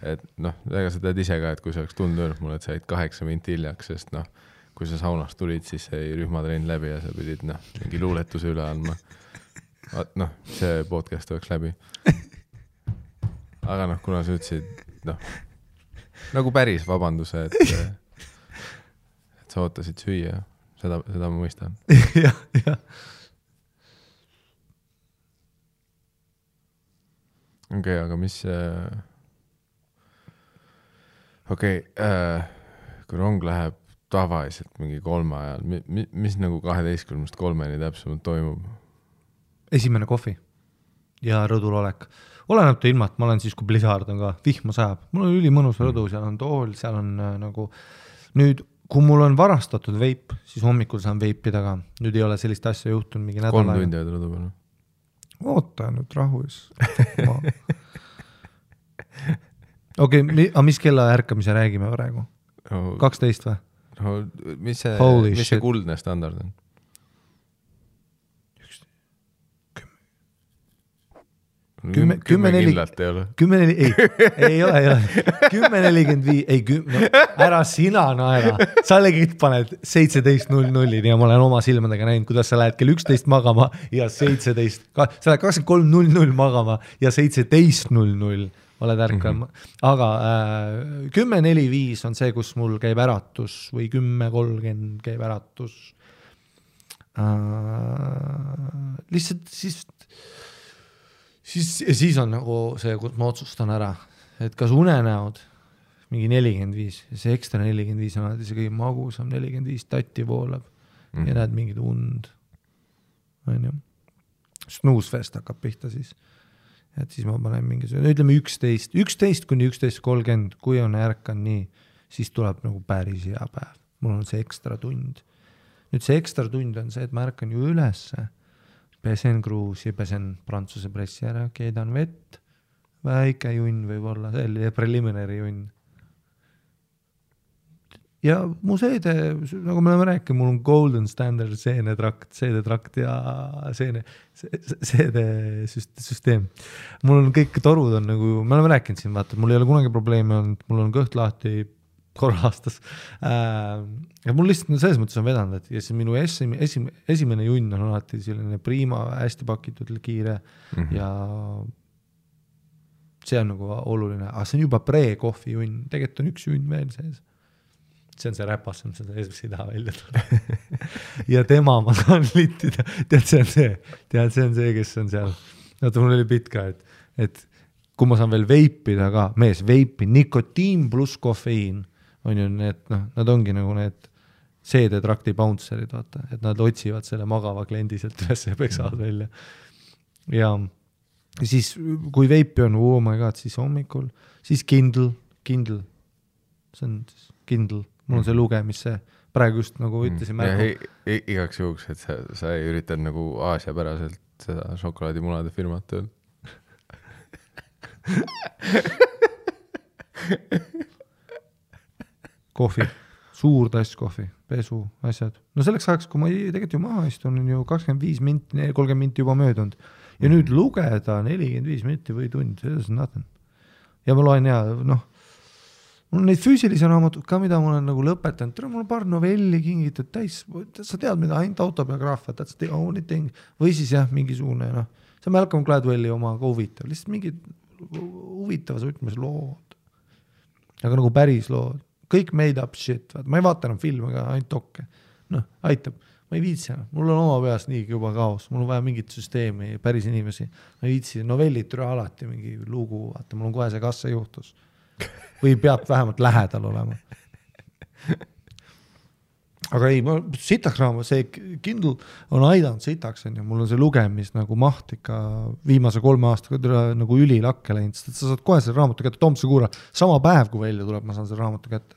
Et noh, ega sa tead ise ka, et kui sa oleks tulnud öelnud mulle, et sa jäid 8 minti hiljaks, sest noh, kui sa saunast tulid, siis sai rühmatrenn läbi ja sa pidid mingi luuletuse üle andma. Vaat see podcast oleks läbi. Aga kuna sa ütlesid nagu päris vabanduse, et sa ootasid süüa, seda ma mõistan. Jah. Okei, aga mis kui rong läheb tavaliselt mingi 3 ajal, mis nagu 12-3 täpsemalt toimub? Esimene kohvi ja rõdul olek. Oleneb ta ilma, et ma olen siis, kui blizzard on ka, vihma sajab. Mul on ülimõnus rõdu, seal on tool, seal on nagu nüüd, kui mul on varastatud veip, siis hommikul saan veipida ka. Nüüd ei ole sellist asja juhtunud mingi 3 tundi ei tule peale. Oota nüüd rahus. Okei, mis kella ärkamise räägime praegu? 12 või? No, mis see kuldne standard on? 10 kindlalt ei ole. 10 ei ole. 10:45, ära sina naera. Sa legit paned 17:00 ja ma olen oma silmadega näinud, kuidas sa lähed kell 11 magama ja 17, sa lähed 23:00 magama ja 17:00 oled ärkal. Aga 10:45 on see, kus mul käib äratus või 10:30 käib äratus. Lihtsalt siis on nagu see, kus ma otsustan ära, et kas unenäod mingi 45 ja see ekstra 45 on alati see kõige magusam 45 tatti voolab ja näed mingid und. Snoozefest hakkab pihta siis. Et siis ma panen ütleme 11 kuni 11:30, kui on ärkan nii, siis tuleb nagu päris hea päev. Mul on see ekstra tund. Nüüd see ekstra tund on see, et ma ärkan ju ülesse. Pesen kruusi, pesen prantsuse pressi ära, keedan vett, väike junn võib olla, selline preliminary junn. Ja mu seede, nagu me oleme rääkinud, mul on golden standard seedetrakt ja seedesüsteem. Mul on kõik torud on nagu, me oleme rääkinud siin, vaata, mul ei ole kunagi probleeme olnud, mul on kõht lahti korra aastas. Ja mul lihtsalt selles mõttes on vedanud, et ja siis minu esimene junn on alati selline prima, hästi pakitud, kiire ja see on nagu oluline. Aga see on juba pre-kohvi junn, tegelikult on üks junn veel sees. See on see räpas, seda esimese ei taha välja tulla. Ja tema ma saan littida. Tead, see on see, kes on seal. Vaata, mul oli pitt ka, et kui ma saan veel veipida ka, veipi, nikotiin pluss kofeiin on ju need, nad ongi nagu need seedetrakti bouncerid, vaata, et nad otsivad selle magava kliendi sealt üles ja peksavad välja. Ja siis, kui veipi on, oh my god, siis hommikul, siis Kindle, see on Kindle, mul on see lugemisse, praegu just nagu ütlesin märgu. Igaks juhuks, et sa ei üritad nagu Aasia päraselt seda šokolaadimunade firmat tööl. Kohvi, suur tass kohvi, pesu, asjad. No selleks ajaks, kui ma tegelikult ju maha istun, on ju 25 minti, 30 minti juba möödunud. Ja nüüd lugeda 45 minti või tund, see on nothing. Ja ma loen mul on neid füüsilisi raamatud ka, mida ma olen nagu lõpetanud. Mul on paar novelli kingitud täis, sa tead, mida ainult autobiograafia, that's the only thing. Või siis mingisugune, see on Malcolm Gladwelli oma ka huvitav, lihtsalt mingid huvitavas võtmes lood. Aga nagu päris lood. Kõik made up shit. Ma ei vaata enam filme, aga ainult dokke. Aitab. Ma ei viitsi. Mul on oma peas nii juba kaos. Mul on vaja mingit süsteemi, päris inimesi. Ma ei viitsi. Novellid türa alati mingi lugu. Vaata, mul on kohe see kas see juhtus. Või peab vähemalt lähedal olema. Aga ei, sitaks raamat, see Kindle on aidanud sitaks, mul on see lugemis nagu maht ikka viimase 3 aastaga nagu ülilakke läinud, sest sa saad kohe selle raamatu kätte, Tomse kuura, sama päev kui välja tuleb, ma saan selle raamatu kätte.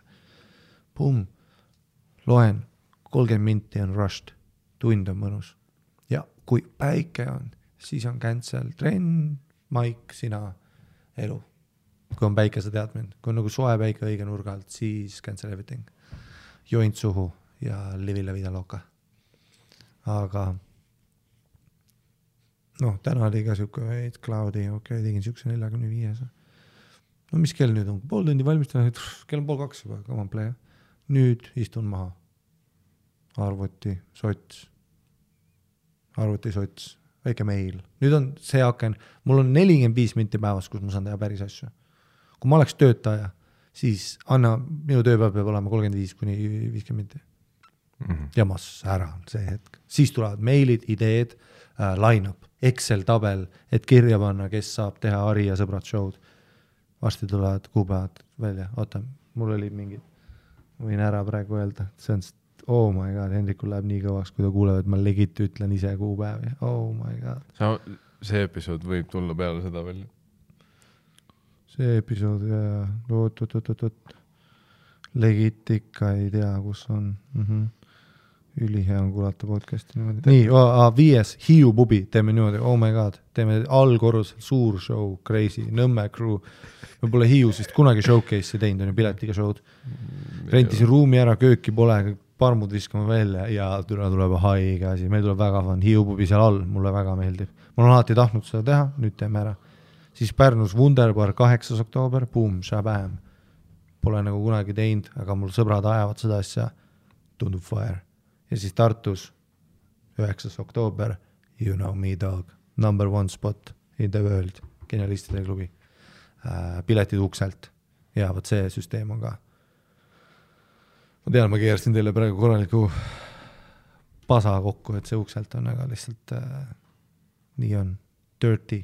Pum, loen, 30 minti on rushed, tund on mõnus. Ja kui päike on, siis on cancel, trenn, maik, sina, elu. Kui on päike, sa tead mind, kui on nagu soe päike õige nurga alt, siis cancel everything. Joint suhu. Ja livi la vida loca. Aga täna oli ka siuke veid cloudy, tegin siukse 45. No mis kell nüüd on? Pool tundi valmistan, kell on 1:30 juba, come on play. Nüüd istun maha. Arvuti, sots, väike meil. Nüüd on see aken, mul on 45 minti päevas, kus ma saan teha päris asju. Kui ma oleks töötaja, siis minu tööpäev peab olema 35 kuni 50 minti. Ja mas ära see hetk. Siis tulevad meilid, ideed, line-up, Excel-tabel, et kirja panna, kes saab teha Ari ja sõbrad show'd. Vasti tulevad kuupäevad välja. Oota, mul oli mingid, võin ära praegu öelda. See on, oh my god, Hendrikul läheb nii kõvaks, kui ta kuuleb, et ma legit ütlen ise kuupäevi. Oh my god. See episood võib tulla peale seda välja. See episood, Legit ikka ei tea, kus on. Ülihea on kuulata podcasti niimoodi. Nii, 5. Hiiu pubi, teeme niimoodi, oh my god, teeme allkorrusel, suur show, crazy, Nõmme crew. Me pole Hiius vist kunagi showcase'i teinud, on ju piletiga show'd. Rentisin ruumi ära, kööki pole, parmud viskame välja ja tuleb haige asi. Meil tuleb väga fun, Hiiu pubi seal all, mulle väga meeldib. Ma olen alati tahtnud seda teha, nüüd teeme ära. Siis Pärnus Wunderbar 8. oktoober, boom, shabam. Pole nagu kunagi teinud, aga mul sõbrad ajavad seda asja, tundub fire. Ja siis Tartus 9. oktoober, you know me dog, number 1 spot in the world, genialistide klubi. Piletid ukselt ja võt see süsteem on ka. Ma tean, ma keerasin teile praegu korraliku pasa kokku, et see ukselt on, aga lihtsalt nii on dirty.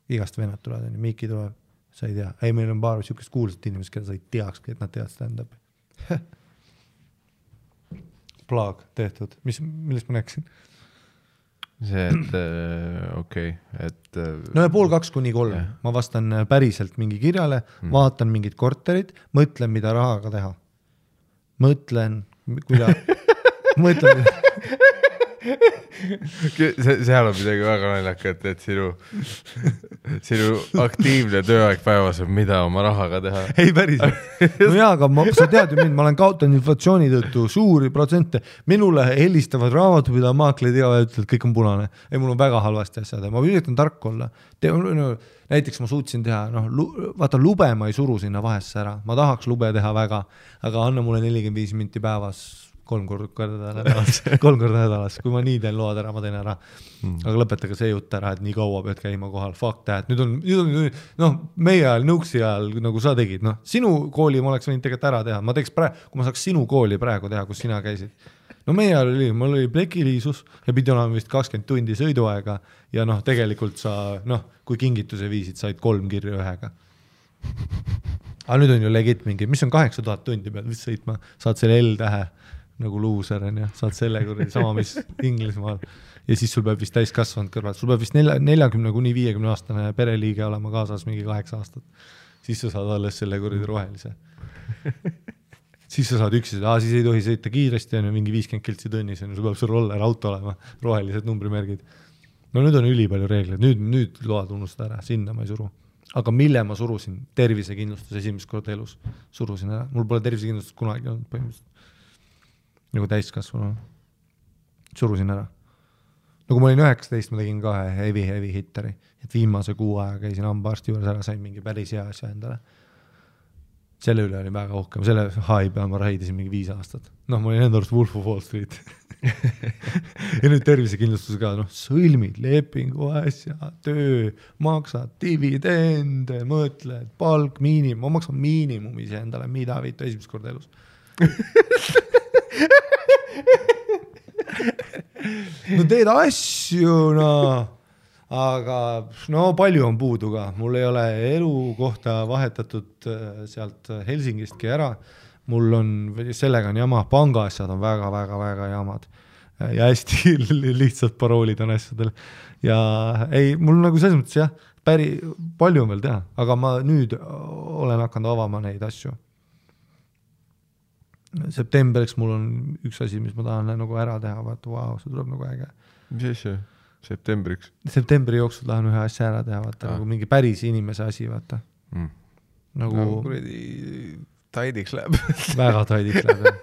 Igast vennad tulevad, Miki tuleb, sa ei tea. Ei, meil on paar sihukest kuulsat inimest, keda sa ei teakski, et nad teavad stand-up. Plaag tehtud. Millest ma näeksin? See, et okei, et... No ja 1:30–3. Ma vastan päriselt mingi kirjale, vaatan mingid korterid, mõtlen, mida rahaga teha. Mõtlen, seal on midagi väga naljakat, et sinu aktiivne tööaeg päevas on mida oma rahaga teha. Ei päriselt. No jaa, aga sa tead ju mind, ma olen kaotanud inflatsiooni tõttu suuri protsente. Minule helistavad raamatupidaja maakleid ja ütlevad, kõik on punane. Ei, mul on väga halvasti asjad. Ma üritan tark olla. Näiteks ma suutsin teha, vaata lube ma ei suru sinna vahesse ära. Ma tahaks lube teha väga, aga anna mulle 45 minti päevas 3 korda nädalas. Kui ma nii teen load ära, ma teen ära. Aga lõpetage see jutt ära, et nii kaua pead käima kohal. Fuck that. Nüüd on meie ajal, nõuksi ajal, nagu sa tegid. Sinu kooli ma oleks võinud tegelikult ära teha. Ma teeks kui ma saaks sinu kooli praegu teha, kus sina käisid. No meie ajal mul oli plekiliisus ja pidi olema vist 20 tundi sõiduaega ja tegelikult sa, kui kingituse viisid, said 3 kirju ühega. Aga nüüd on ju legit mingi, mis on 8000 tundi peal, mis sõitma, saad selle L-tähe nagu luuser on ja saad selle kuradi sama, mis Inglismaal. Ja siis sul peab vist täiskasvanud kõrval. Sul peab vist 40–50 aastane pereliige olema kaasas mingi 8 aastat. Siis sa saad alles selle kuradi rohelise. Siis sa saad üksi, siis ei tohi sõita kiiresti, on ju mingi 50 kiltsi tunnis, sul peab sul roller auto olema, rohelised numbrimärgid. No nüüd on üli palju reegleid, nüüd load unustada ära, sinna ma ei suru. Aga mille ma surusin? Tervisekindlustus esimest korda elus surusin ära. Mul pole tervisekindlustus kunagi olnud põhimõtteliselt. Nagu täiskasvanu. Surusin ära. Nagu ma olin 19, ma tegin ka heavy hitteri. Et viimase 6 aega käisin hambaarsti juures ära, sain mingi päris hea asja endale. Selle üle oli väga uhkem. Selle high peal ma raidisin mingi 5 aastat. Ma olin enda arust Wolf of Wall Street. Ja nüüd tervisekindlustus ka, sõlmid, lepingu asja, töö, maksad, dividende, mõtled, palk, miinimum. Ma maksan miinimum ise endale, mida viitu esimest korda elus. No teed asju, aga palju on puudu ka. Mul ei ole elukohta vahetatud sealt Helsingistki ära. Mul on, sellega on jama, pangaasjad on väga jamad. Ja hästi lihtsalt paroolid on asjadel. Ja ei, mul nagu selles mõttes jah, palju on veel teha, aga ma nüüd olen hakanud avama neid asju. Septembriks mul on üks asi, mis ma tahan nagu ära teha, vaata, see tuleb nagu äge. Mis asja? Septembriks? Septembri jooksul tahan ühe asja ära teha, vaata, nagu mingi päris inimese asi, vaata. Nagu kuradi taidiks läheb. Väga taidiks läheb, jah.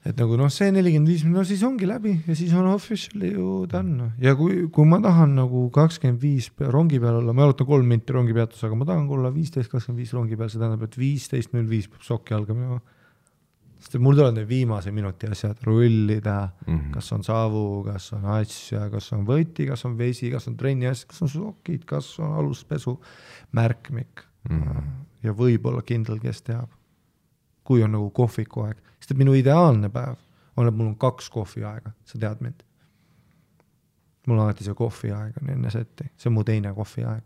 Et nagu see 45 minut, siis ongi läbi ja siis on officially ju done. Ja kui ma tahan nagu 25 rongi peal olla, ma jalutan 3 minti rongi peatus, aga ma tahan olla 15-25 rongi peal, see tähendab, et 15.05 peab sokki alga minema. Sest mul tuleb need viimase minuti asjad rullida, kas on savu, kas on asja, kas on võti, kas on vesi, kas on trenni asjad, kas on sokid, kas on aluspesu, märkmik. Ja võib-olla kindel, kes teab. Kui on nagu kohviku aeg. Sest minu ideaalne päev on, et mul on 2 kohvi aega. Sa tead mind. Mul on alati see kohvi aeg on enne setti. See on mu teine kohvi aeg.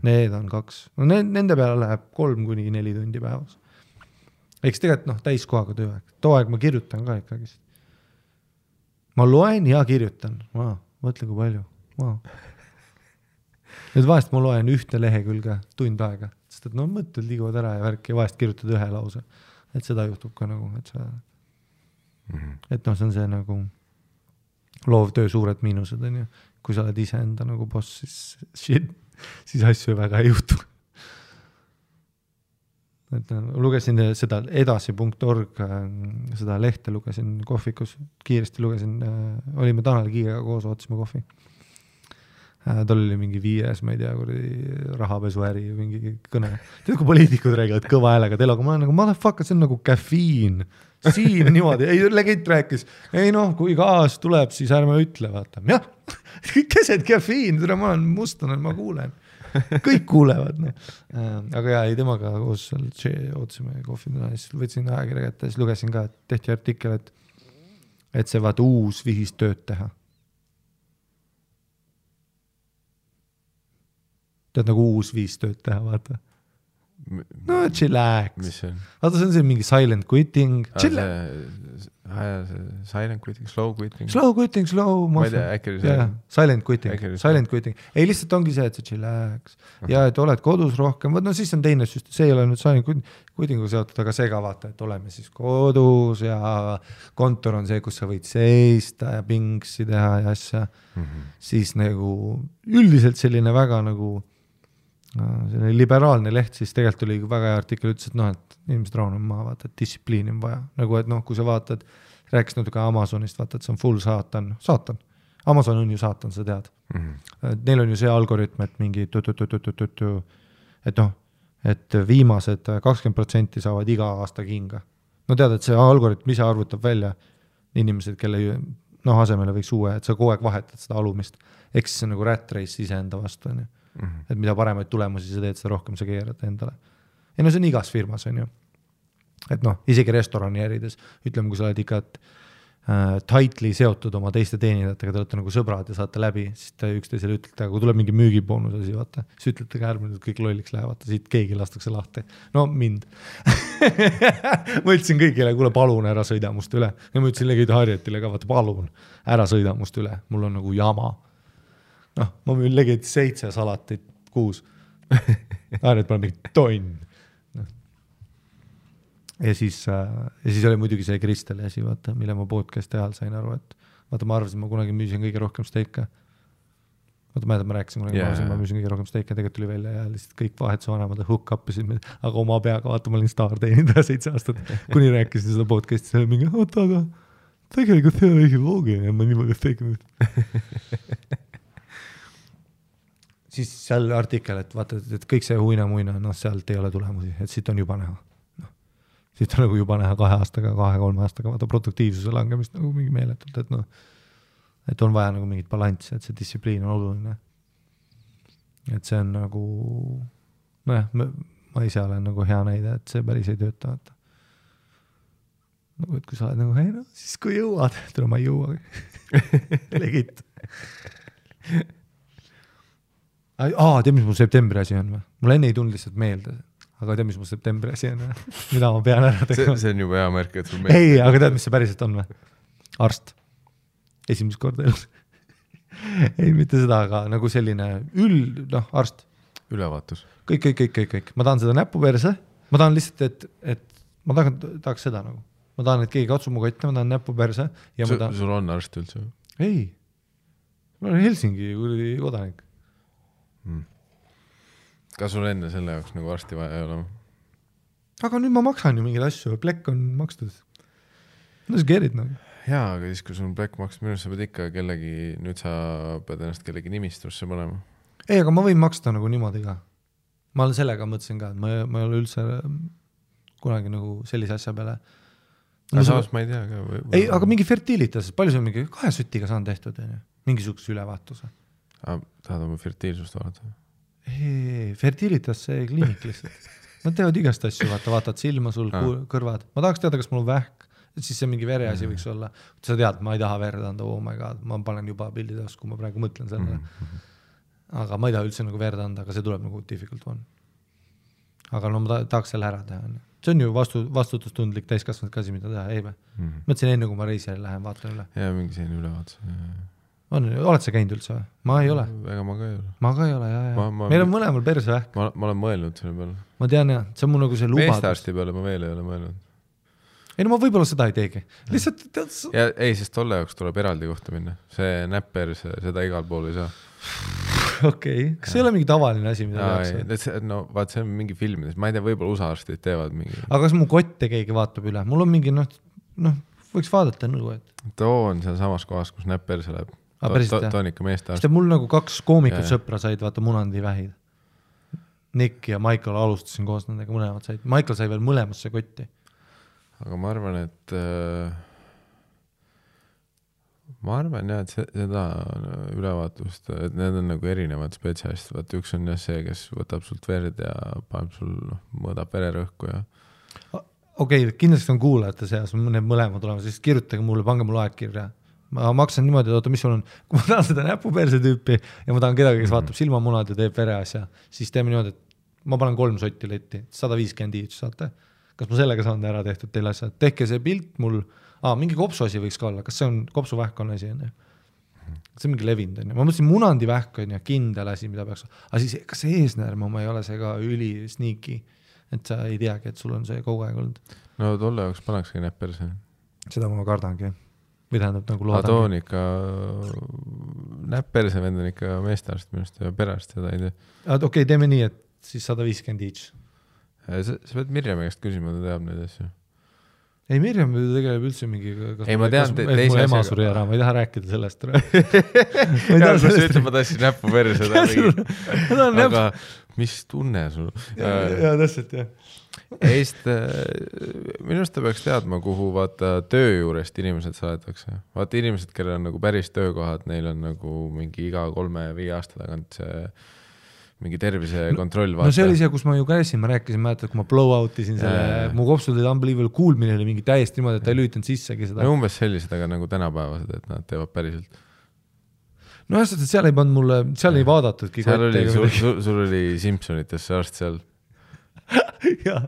Need on 2. No nende peale läheb 3–4 tundi päevas. Eks tegelikult täiskohaga tööaeg. Too aeg ma kirjutan ka ikkagi. Ma loen ja kirjutan. Mõtle kui palju. Nüüd vahest ma loen ühte lehekülge tund aega, sest et no mõtted liiguvad ära ja värk ja vahest kirjutad ühe lause. Et seda juhtub ka nagu, et sa et noh, see on see nagu loovtöö suured miinused, on ju. Kui sa oled ise enda nagu boss, siis asju väga ei juhtu. Et lugesin seda edasi.org, seda lehte lugesin kohvikus, kiiresti lugesin, olime Tanel Kiigega koos, ootasime kohvi. Tal oli mingi 5, ma ei tea, rahapesuäri mingi kõne. Tead, kui poliitikud räägivad kõva häälega teloga, ma olen nagu, motherfucker, see on nagu kafiin. Siin niimoodi, ei, legend rääkis, ei noh, kui gaas tuleb, siis ärme ütle, vaata. Jah, keset kafiin, ma olen mustane, ma kuulen. Kõik kuulevad. No. Aga jah, ei temaga koos ootasime kohvina, siis võtsin ajakirja kätte, siis lugesin ka, et tehti artikkel, et see vaata uus vihis tööd teha. Tead nagu uus viis tööd teha, vaata. No chillax. Mis see on? Vaata, see on see mingi silent quitting. Silent quitting, slow quitting. Slow quitting, slow. Ma ei tea, äkki oli see. Silent quitting. Silent quitting. Ei, lihtsalt ongi see, et see chillax. Ja et oled kodus rohkem. No siis on teine süst. See ei ole nüüd silent quittingu seotud, aga see ka vaata, et oleme siis kodus ja kontor on see, kus sa võid seista ja pingsi teha ja asja. Siis nagu üldiselt selline väga nagu selline liberaalne leht, siis tegelikult oli väga hea artikkel, ütles, et noh, et inimesed raunum maha, vaata, et distsipliini on vaja. Nagu, et noh, kui sa vaatad, rääkis natuke Amazonist, vaata, et see on full saatan. Amazon on ju saatan, sa tead. Neil on ju see algoritm, et mingi et noh, et viimased 20% saavad iga aasta kinga. No tead, et see algoritm ise arvutab välja inimesed, kelle asemele võiks uue, et sa kogu aeg vahetad seda alumist. Eks see on nagu rat race iseenda vastu, on ju. Et mida paremaid tulemusi sa teed, seda rohkem sa keerad endale. Ja no see on igas firmas, on ju. Et noh, isegi restorani ärides, ütleme, kui sa oled ikka tightly seotud oma teiste teenindajatega, te olete nagu sõbrad ja saate läbi, siis te üksteisele ütlete, aga kui tuleb mingi müügiboonus asi, vaata, siis ütlete ka ärmine, et kõik lolliks lähevad, siit keegi lastakse lahti. No mind. Ma ütlesin kõigile, kuule, palun ära sõida must üle. Ja ma ütlesin legid Harjetile ka, vaata, palun ära sõida must üle. Mul on nagu jama. Noh, ma müün legid 7 salatit 6. Harjet pole mingi tonn. Ja siis oli muidugi see Kristel asi, vaata, mille ma podcast ajal sain aru, et vaata, ma arvasin, ma kunagi müüsin kõige rohkem steika. Vaata, ma rääkisin kunagi, ma müüsin kõige rohkem steika, tegelikult tuli välja ja lihtsalt kõik vahetuse vanemad hook up'isid, aga oma peaga, vaata, ma olin staar teenindaja 7 aastat, kuni rääkisin seda podcasti, see oli mingi, oota, aga tegelikult see on õige loogiline ja ma niimoodi steika siis seal artikkel, et vaata, et kõik see huina-muina, noh, sealt ei ole tulemusi, et siit on juba näha. Siit on nagu juba näha 2 aastaga, 2-3 aastaga, vaata produktiivsuse langemist nagu mingi meeletult, et noh, et on vaja nagu mingit balanssi, et see distsipliin on oluline. Et see on nagu, nojah, ma ise olen nagu hea näide, et see päris ei tööta, vaata. Nagu, et kui sa oled nagu, hei no, siis kui jõuad, tule ma ei jõua. Legit. Tead, mis mul septembri asi on või? Mul enne ei tulnud lihtsalt meelde, aga tead, mis mul septembri asi on või? Mida ma pean ära tegema? See on juba hea märk, et sul meelde. Ei, aga tead, mis see päriselt on või? Arst. Esimest korda elus. Ei, mitte seda, aga nagu selline arst. Ülevaatus. Kõik. Ma tahan seda näpuperse. Ma tahan lihtsalt, et ma tahaks seda nagu. Ma tahan, et keegi katsub mu kotti, ma tahan näpuperse. Sul on arst üldse? Ei. Ma olen Helsingi kodanik. Kas sul enne selle jaoks nagu arsti vaja ei ole? Aga nüüd ma maksan ju mingeid asju, plekk on makstud. No see keerid nagu. Jaa, aga siis kui sul on plekk makstud, minu sa pead ikka kellegi, nüüd sa pead ennast kellegi nimistusse panema. Ei, aga ma võin maksta nagu niimoodi ka. Ma olen sellega mõtlesin ka, et ma ei ole üldse kunagi nagu sellise asja peale. Aga saas ma ei tea ka. Ei, aga mingi fertilitas, palju see on mingi 2 sütiga saan tehtud, mingisuguse ülevaatuse. Tahad oma fertiilsust vaadata? Ei, fertilitas see kliinik lihtsalt. Nad teevad igast asju, vaatad silma sul, kõrvad. Ma tahaks teada, kas mul on vähk, et siis see mingi vereasi võiks olla. Sa tead, ma ei taha verd anda, oh my god, ma panen juba pildides, kui ma praegu mõtlen sellele. Aga ma ei taha üldse nagu verd anda, aga see tuleb nagu difficult one. Aga no ma tahaks selle ära teha. See on ju vastutustundlik täiskasvanud kasi, mida teha, ei või? Mõtlesin enne, kui ma reisijale lähen, vaatan üle. Ja mingi selline ülevaatus. Oled sa käinud üldse või? Ma ei ole. Ega ma ka ei ole. Ma ka ei ole, jah. Meil on mõlemal persevähk. Ma olen mõelnud selle peale. Ma tean, jah. See on mul nagu see lubadus. Meestearsti peale ma veel ei ole mõelnud. Ei, no ma võib-olla seda ei teegi. Lihtsalt... Ja ei, sest tolle jaoks tuleb eraldi kohta minna. See näpper, seda igal pool ei saa. Okei. Kas ei ole mingi tavaline asi, mida tehakse? No vaat see on mingi filmides. Ma ei tea, võib-olla USA arstid teevad mingi... Aga kas mu kotte keegi vaatab üle? Mul on mingi, võiks vaadata nõu, et... Too on seal samas kohas, kus näpper see läheb. Too on ikka meestearst. Sest mul nagu 2 koomikut sõpra said, vaata munandi vähid. Nick ja Michael alustasin koos nendega, mõlemad said. Michael sai veel mõlemasse kotti. Aga ma arvan, et seda ülevaatust, et need on nagu erinevad spetsialistid. Vaat üks on jah see, kes võtab sult verd ja paneb sul, mõõdab vererõhku ja... Okei, kindlasti on kuulajate seas, need mõlemad olema, siis kirjutage mulle, pange mulle aegkirja. Ma maksan niimoodi, et mis sul on, kui ma tahan seda näpuperse tüüpi ja ma tahan kedagi, kes vaatab silmamunad ja teeb vereasja, siis teeme niimoodi, et ma panen 3 sotti letti, 150 iits saate. Kas ma sellega saan ära tehtud teile asja? Tehke see pilt mul, mingi kopsuasi võiks ka olla, kas see on kopsuvähk on asi? See on mingi levind. Ma mõtlesin, munandi vähk on ja kindel asi, mida peaks... Aga siis, kas see eesnäärme oma ei ole see ka üli sneaky, et sa ei teagi, et sul on see kogu aeg olnud? No tolle jaoks pannakski näpperse. Seda ma kardangi. Või tähendab nagu loodangi. Too on ikka... Näpperse vend on ikka meestearst minust ja perearst seda ei tee. Okei, teeme nii, et siis 150 each. Sa pead Mirjami käest küsima, ta teab neid asju. Ei, Mirjam tegeleb üldse mingi... Ei, ma tean teise asjaga. Ema suri ära, ma ei taha rääkida sellest. Ja, kus sa ütleb, ma tassin näppu perse. Aga mis tunne sul? Ja, täpselt, jah. Minust ta peaks teadma, kuhu vaata töö juurest inimesed saadetakse. Vaata inimesed, kellel on nagu päris töökohad, neil on nagu mingi iga 3-5 aasta tagant see mingi tervisekontroll vaata. No see oli see, kus ma ju käisin, ma rääkisin, mäletad, kui ma blow-outisin selle, mu kopsud olid unbelievable kuulmine oli mingi täiesti niimoodi, et ta ei lüütanud sissegi seda. No umbes sellised, aga nagu tänapäevased, et nad teevad päriselt. No just, et seal ei pannud mulle, seal ei vaadatudki. Seal oli, sul oli Simpsonites see arst seal. Jah.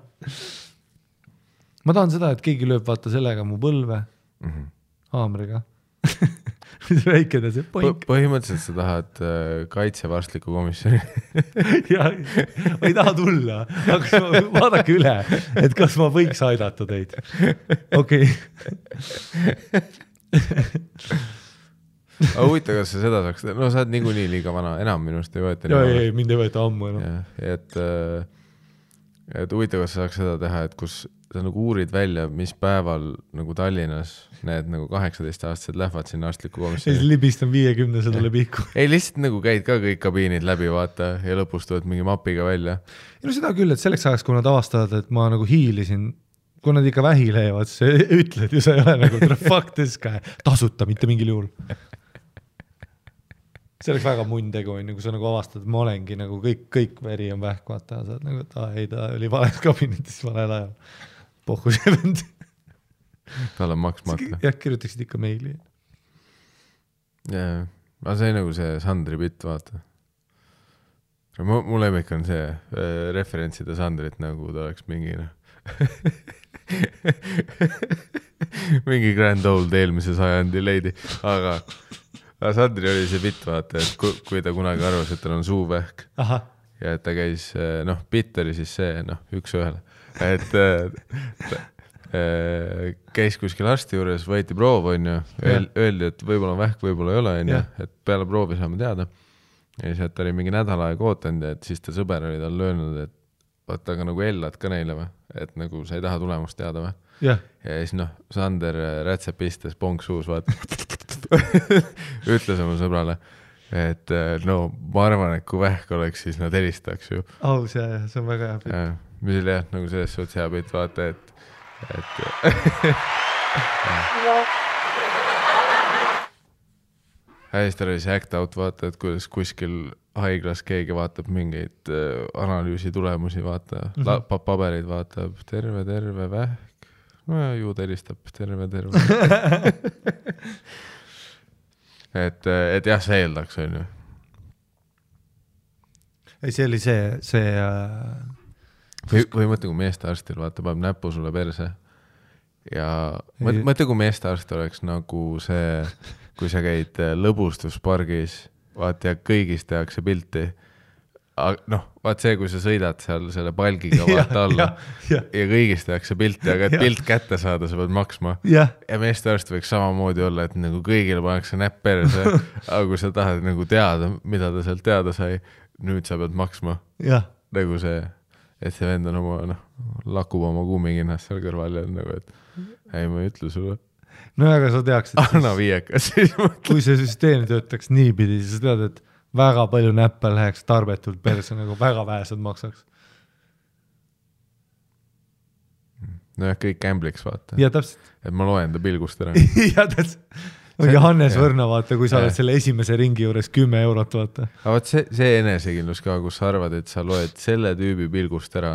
Ma tahan seda, et keegi lööb vaata sellega mu põlve haamriga. Väike ta see poink. Põhimõtteliselt sa tahad kaitsevarstliku komisjoni. Ja, ma ei taha tulla, aga vaadake üle, et kas ma võiks aidata teid. Okei. Aga huvita, kas sa seda saaks, no sa oled niikuinii liiga vana, enam minust ei võeta. Ei, mind ei võeta ammu enam. Et huvita, kas sa saaks seda teha, et kus sa nagu uurid välja, mis päeval nagu Tallinnas need nagu 18-aastased lähevad sinna arstliku komisjoni. Siis libistan 50 seda pihku. Ei, lihtsalt nagu käid ka kõik kabiinid läbi, vaata, ja lõpus tuled mingi mapiga välja. Ja no seda küll, et selleks ajaks, kui nad avastavad, et ma nagu hiilisin, kui nad ikka vähi leiavad, siis ütled ju sa ei ole nagu fuck this guy, tasuta mitte mingil juhul. See oleks väga munn tegu, kui sa nagu avastad, et ma olengi nagu kõik veri on vähk, vaata, sa oled nagu, et ei, ta oli vales kabinetis valel ajal. Pohku see vend. Tal on maksmata. Jah, kirjutaksid ikka meili. Jaa, aga see nagu see Sandri bitt, vaata. Mul lemmik on see referentsida Sandrit, nagu ta oleks mingi mingi grand old eelmise sajandi leidi, aga Sandri oli see bitt, vaata, et kui ta kunagi arvas, et tal on suuvähk ja et ta käis, bitt oli siis see, üks ühele. Et käis kuskil arsti juures, võeti proov, öeldi, et võib-olla on vähk, võib-olla ei ole, et peale proovi saame teada. Ja siis, et ta oli mingi nädal aeg ootanud, et siis ta sõber oli tal löönud, et vaata, aga nagu ellad ka neile või, et nagu sa ei taha tulemust teada või. Ja siis Sander rätsepistes ponksuus, vaata, ütles oma sõbrale, et ma arvan, et kui vähk oleks, siis nad helistaks ju. Aus, see on väga hea pilt. Mis oli jah, nagu selles suhtes hea pilt, vaata, et hästi oli see act out, vaata, et kuidas kuskil haiglas keegi vaatab mingeid analüüsi tulemusi, vaata, pabereid vaatab, terve vähk, no ja ju ta helistab, terve. et jah, see eeldaks, on ju. Ei, see oli see või mõtle, kui meestearstil vaata, paneb näpu sulle perse ja mõtle, kui meestearst oleks nagu see kui sa käid lõbustuspargis, vaat ja kõigist tehakse pilti. Noh, vaat see, kui sa sõidad seal selle palgiga vaata alla ja kõigist tehakse pilti, aga et pilt kätte saada, sa pead maksma. Ja meeste arst võiks samamoodi olla, et nagu kõigile pannakse näpp perse, aga kui sa tahad nagu teada, mida ta sealt teada sai, nüüd sa pead maksma. Nagu see, et see vend on oma, lakub oma kummikinnast seal kõrval ja nagu, et ei, ma ei ütle sulle. No aga sa teaks, et anna viiekas siis kui see süsteem töötaks niipidi, siis sa tead, et väga palju näppe läheks tarbetult perse, nagu väga vähesed maksaks. Nojah, kõik gambliks vaata. Ja täpselt. Et ma loen ta pilgust ära. Ja täpselt. Hannes Võrna vaata, kui sa oled selle esimese ringi juures 10 eurot vaata. Aga vaat see enesekindlus ka, kus sa arvad, et sa loed selle tüübi pilgust ära,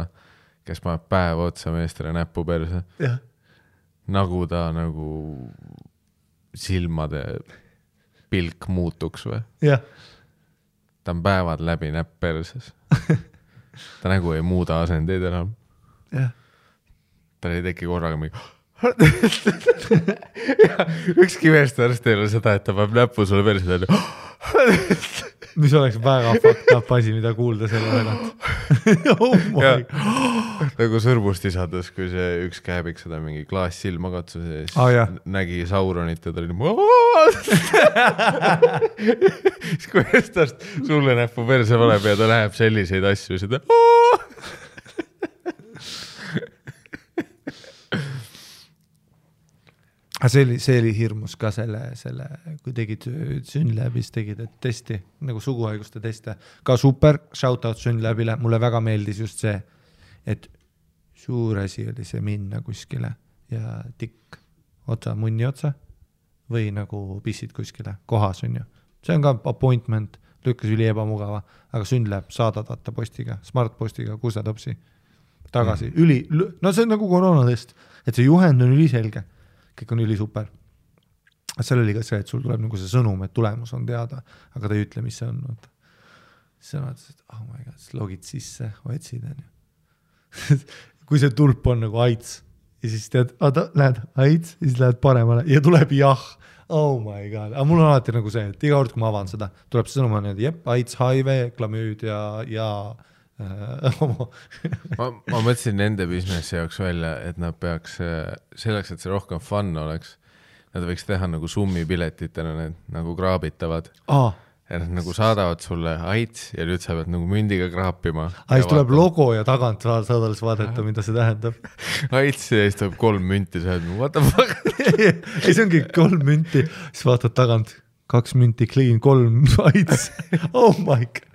kes paneb päev otsa meestele näppu perse. Jah. Nagu ta nagu silmade pilk muutuks või? Jah. Ta on päevad läbi näpp perses. Ta nagu ei muuda asendeid enam. Jah. Ta ei teki korraga mingi... Ükski meest arst ei ole seda, et ta peab näppu sulle perse. Mis oleks väga fucked up asi, mida kuulda selle tagant. Oh my God. Nagu sõrmust isades, kui see üks käebik seda mingi klaas silma katsus ja siis nägi Sauronit ja ta oli siis kui eestast sulle näppu perse valeb ja ta läheb selliseid asju seda see oli hirmus ka selle, kui tegid Synlabis, tegid testi, nagu suguhaiguste teste. Ka super, shoutout Synlabile, mulle väga meeldis just see, et suur asi oli see minna kuskile ja tikk otsa, munni otsa või nagu pissid kuskile kohas on ju. See on ka appointment, lükkas üli ebamugava, aga Synlab saadad vaata postiga, smartpostiga, kusetopsi tagasi. No see on nagu koroonatest, et see juhend on üliselge. Kõik on üli super. Seal oli ka see, et sul tuleb nagu see sõnum, et tulemus on teada, aga ta ei ütle, mis see on. Siis on, et oh my God, siis logid sisse, otsid. Kui see tulp on nagu AIDS ja siis tead, näed AIDS ja siis lähed paremale ja tuleb jah. Oh my God. Aga mul on alati nagu see, et iga kord, kui ma avan seda, tuleb see sõnum, et jep, AIDS, HIV, klamüüd ja ma mõtlesin nende businessi jaoks välja, et nad peaks selleks, et see rohkem fun oleks, nad võiks teha nagu summipiletitena, need nagu kraabitavad. Ja nad nagu saadavad sulle AIDS ja nüüd sa pead nagu mündiga kraapima. Siis tuleb logo ja tagant saad alles vaadata, mida see tähendab. AIDS ja siis tuleb 3 münti, sa oled, what the fuck? Ei, see ongi 3 münti, siis vaatad tagant, 2 münti clean, 3 AIDS. Oh my God.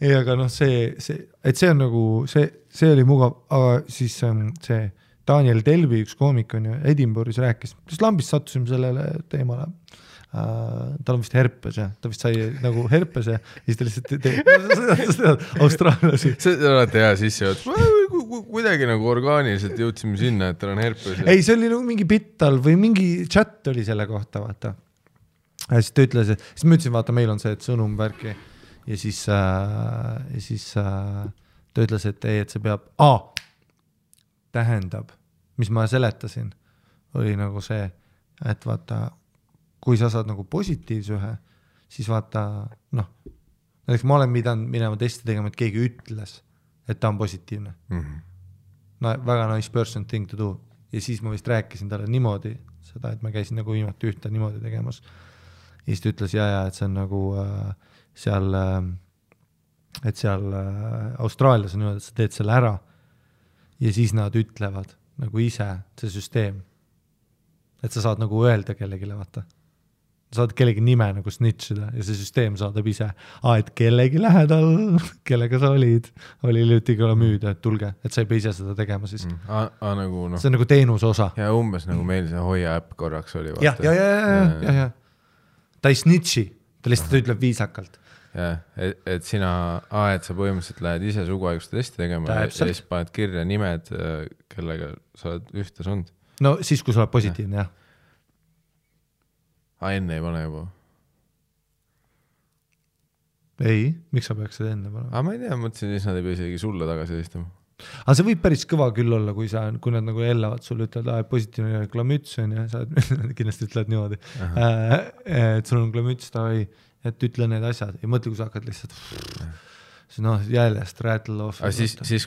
Ei, aga et see on nagu, see oli mugav, aga siis see Daniel Delvi, üks koomik on ju, Edinburghis rääkis, siis lambist sattusime sellele teemale. Tal on vist herpes ja ta vist sai nagu herpes ja siis ta lihtsalt austraallasi. See on alati hea sisse, kuidagi nagu orgaaniliselt jõudsime sinna, et tal on herpes. Ei, see oli nagu mingi bittal või mingi chat oli selle kohta, vaata. Ja siis ta ütles, siis ma ütlesin, vaata, meil on see, et sõnum värki ja siis ta ütles, et ei, et see peab tähendab, mis ma seletasin, oli nagu see, et vaata, kui sa saad nagu positiivse ühe, siis vaata, näiteks ma olen minema testi tegema, et keegi ütles, et ta on positiivne. No, väga nice person thing to do. Ja siis ma vist rääkisin talle niimoodi, seda, et ma käisin nagu viimati ühte niimoodi tegemas. Ja siis ta ütles, et see on nagu seal Austraalias on niimoodi, et sa teed selle ära ja siis nad ütlevad nagu ise, see süsteem, et sa saad nagu öelda kellegile, vaata. Saad kellegi nime nagu snitchida ja see süsteem saadab ise, et kellegi lähedal, kellega sa olid, oli hiljuti müüda, et tulge, et sa ei pea ise seda tegema siis. Nagu, see on nagu teenuse osa. Ja umbes nagu meil see hoia äpp korraks oli. Ja. Ta ei snitchi, ta lihtsalt ütleb viisakalt. Ja, et sina, et sa põhimõtteliselt lähed ise suguhaiguste testi tegema ja siis paned kirja nimed, kellega sa oled ühte sund. No siis, kui sa oled positiivne, jah. Enne ei pane juba? Ei, miks sa peaks seda enne panema? Ma ei tea, mõtlesin, siis nad ei pea isegi sulle tagasi helistama. Aga see võib päris kõva küll olla, kui nad nagu hellavad sulle, ütlevad, positiivne klamüts on ja sa kindlasti ütled niimoodi, et sul on klamüts, et ütle need asjad ja mõtle, kui sa hakkad lihtsalt jäljest rattle off,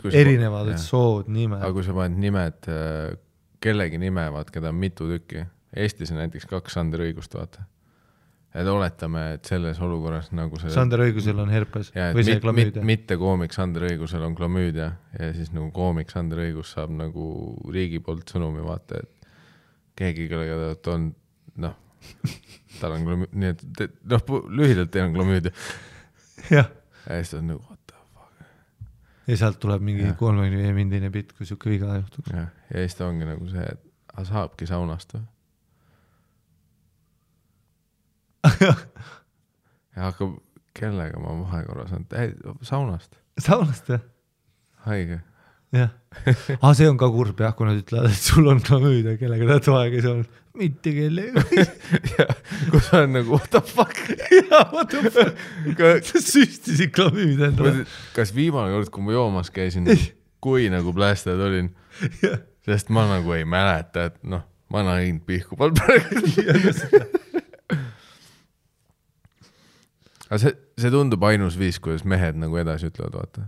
erinevad sood, nimed. Aga kui sa paned nimed, kellegi nime, keda on mitu tükki, Eestis on näiteks 2 Sander Õigust, vaata. Et oletame, et selles olukorras nagu see... Sander Õigusel on herpes või see klamüüdia. Mitte koomik Sander Õigusel on klamüüdia ja siis nagu koomik Sander Õigus saab nagu riigi poolt sõnumi, vaata, et keegi, kellega ta on, tal on klamüüdia, nii et lühidalt teil on klamüüdia. Ja siis on nagu, what the fuck. Ja sealt tuleb mingi 35-mindine bitt, kui siuke viga juhtuks. Ja siis ta ongi nagu see, et saabki saunast või? ja hakkab, kellega ma vahekorras on, saunast. Saunast, jah? Haige. Jah. See on ka kurb, jah, kui nad ütlevad, et sul on klamüüdia, kellega ta toega ei saanud. Mitte kellega. Kus on nagu, what the fuck? What the fuck? Sa süstisid klamüüdia endale. Kas viimane kord, kui ma joomas käisin, kui nagu plästajad olin, sest ma nagu ei mäleta, et ma näin pihku pal praegu. Aga see tundub ainus viis, kuidas mehed nagu edasi ütlevad, vaata.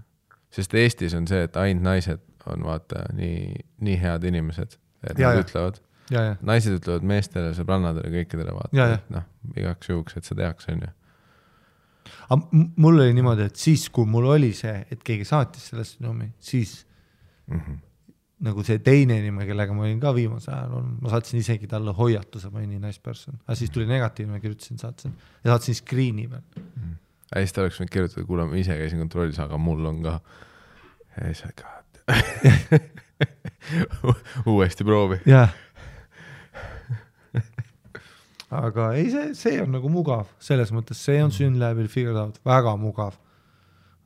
Sest Eestis on see, et ainult naised on, vaata, nii head inimesed, et nad ütlevad. Naised ütlevad meestele, sõbrannadele, kõikidele, vaata. Igaks juhuks, et see tehakse, on ju. Aga mul oli niimoodi, et siis, kui mul oli see, et keegi saatis selle sõnumi, siis nagu see teine nime, kellega ma olin ka viimase ajal olnud, ma saatsin isegi talle hoiatuse, ma olin nii nice person. Aga siis tuli negatiivne, kirjutasin, ja saatsin screeni peal. Ja siis ta oleks võinud kirjutada, kuule, ma ise käisin kontrollis, aga mul on ka uuesti proovi. Jah. Aga ei, see on nagu mugav, selles mõttes, see on Synlabil figured out, väga mugav.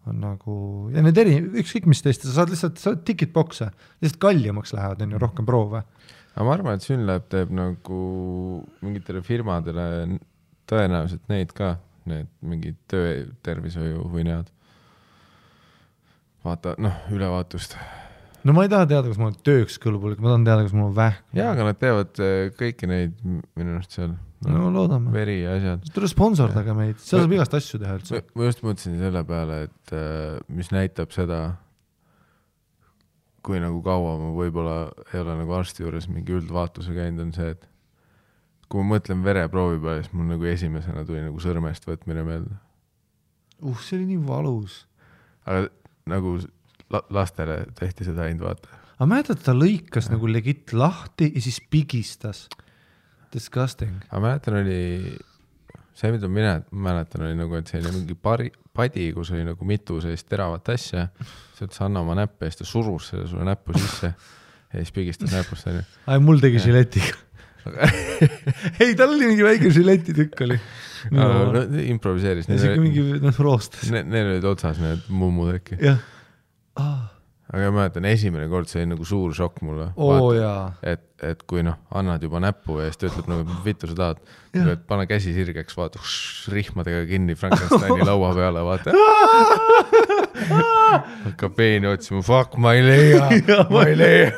On nagu, ja need ükskõik mis teist, sa saad ticketboxe, lihtsalt kallimaks lähevad, on ju rohkem proove. Aga ma arvan, et Synlab teeb nagu mingitele firmadele tõenäoliselt neid ka, need mingid töötervishoiu või need. Vaata, ülevaatust. No ma ei taha teada, kas ma olen tööks kõlbulik, ma tahan teada, kas mul on vähk. Jaa, aga nad teevad kõiki neid minu arust seal. No loodame. Veri ja asjad. Tule sponsordaga meid, seal saab igast asju teha üldse. Ma just mõtlesin selle peale, et mis näitab seda, kui nagu kaua ma võib-olla ei ole nagu arsti juures mingi üldvaatuse käinud, on see, et kui ma mõtlen vereproovi peale, siis mul nagu esimesena tuli nagu sõrmest võtmine meelde. See oli nii valus. Aga nagu lastele tehti seda ainult vaata. Aga mäletad, ta lõikas nagu legit lahti ja siis pigistas. Disgusting. Aga mäletan oli, see mida mäletan oli nagu, et see oli mingi padi, kus oli nagu mitu sellist teravat asja, see ütles anna oma näppe ja siis ta surus selle sulle näppu sisse ja siis pigistas näpust. Mul tegi žiletiga. Ei, tal oli mingi väike žiletitükk oli. Improviseeris. Ja siuke mingi roostas. Neil olid otsas need mummud äkki. Jah. Aga ma mäletan, esimene kord see oli nagu suur šokk mulle. Et kui annad juba näppu ja siis ta ütleb nagu, vittu sa tahad, et pane käsi sirgeks, vaata, rihmadega kinni Frankensteini laua peale, vaata. Hakkab peeni otsima, fuck, ma ei leia.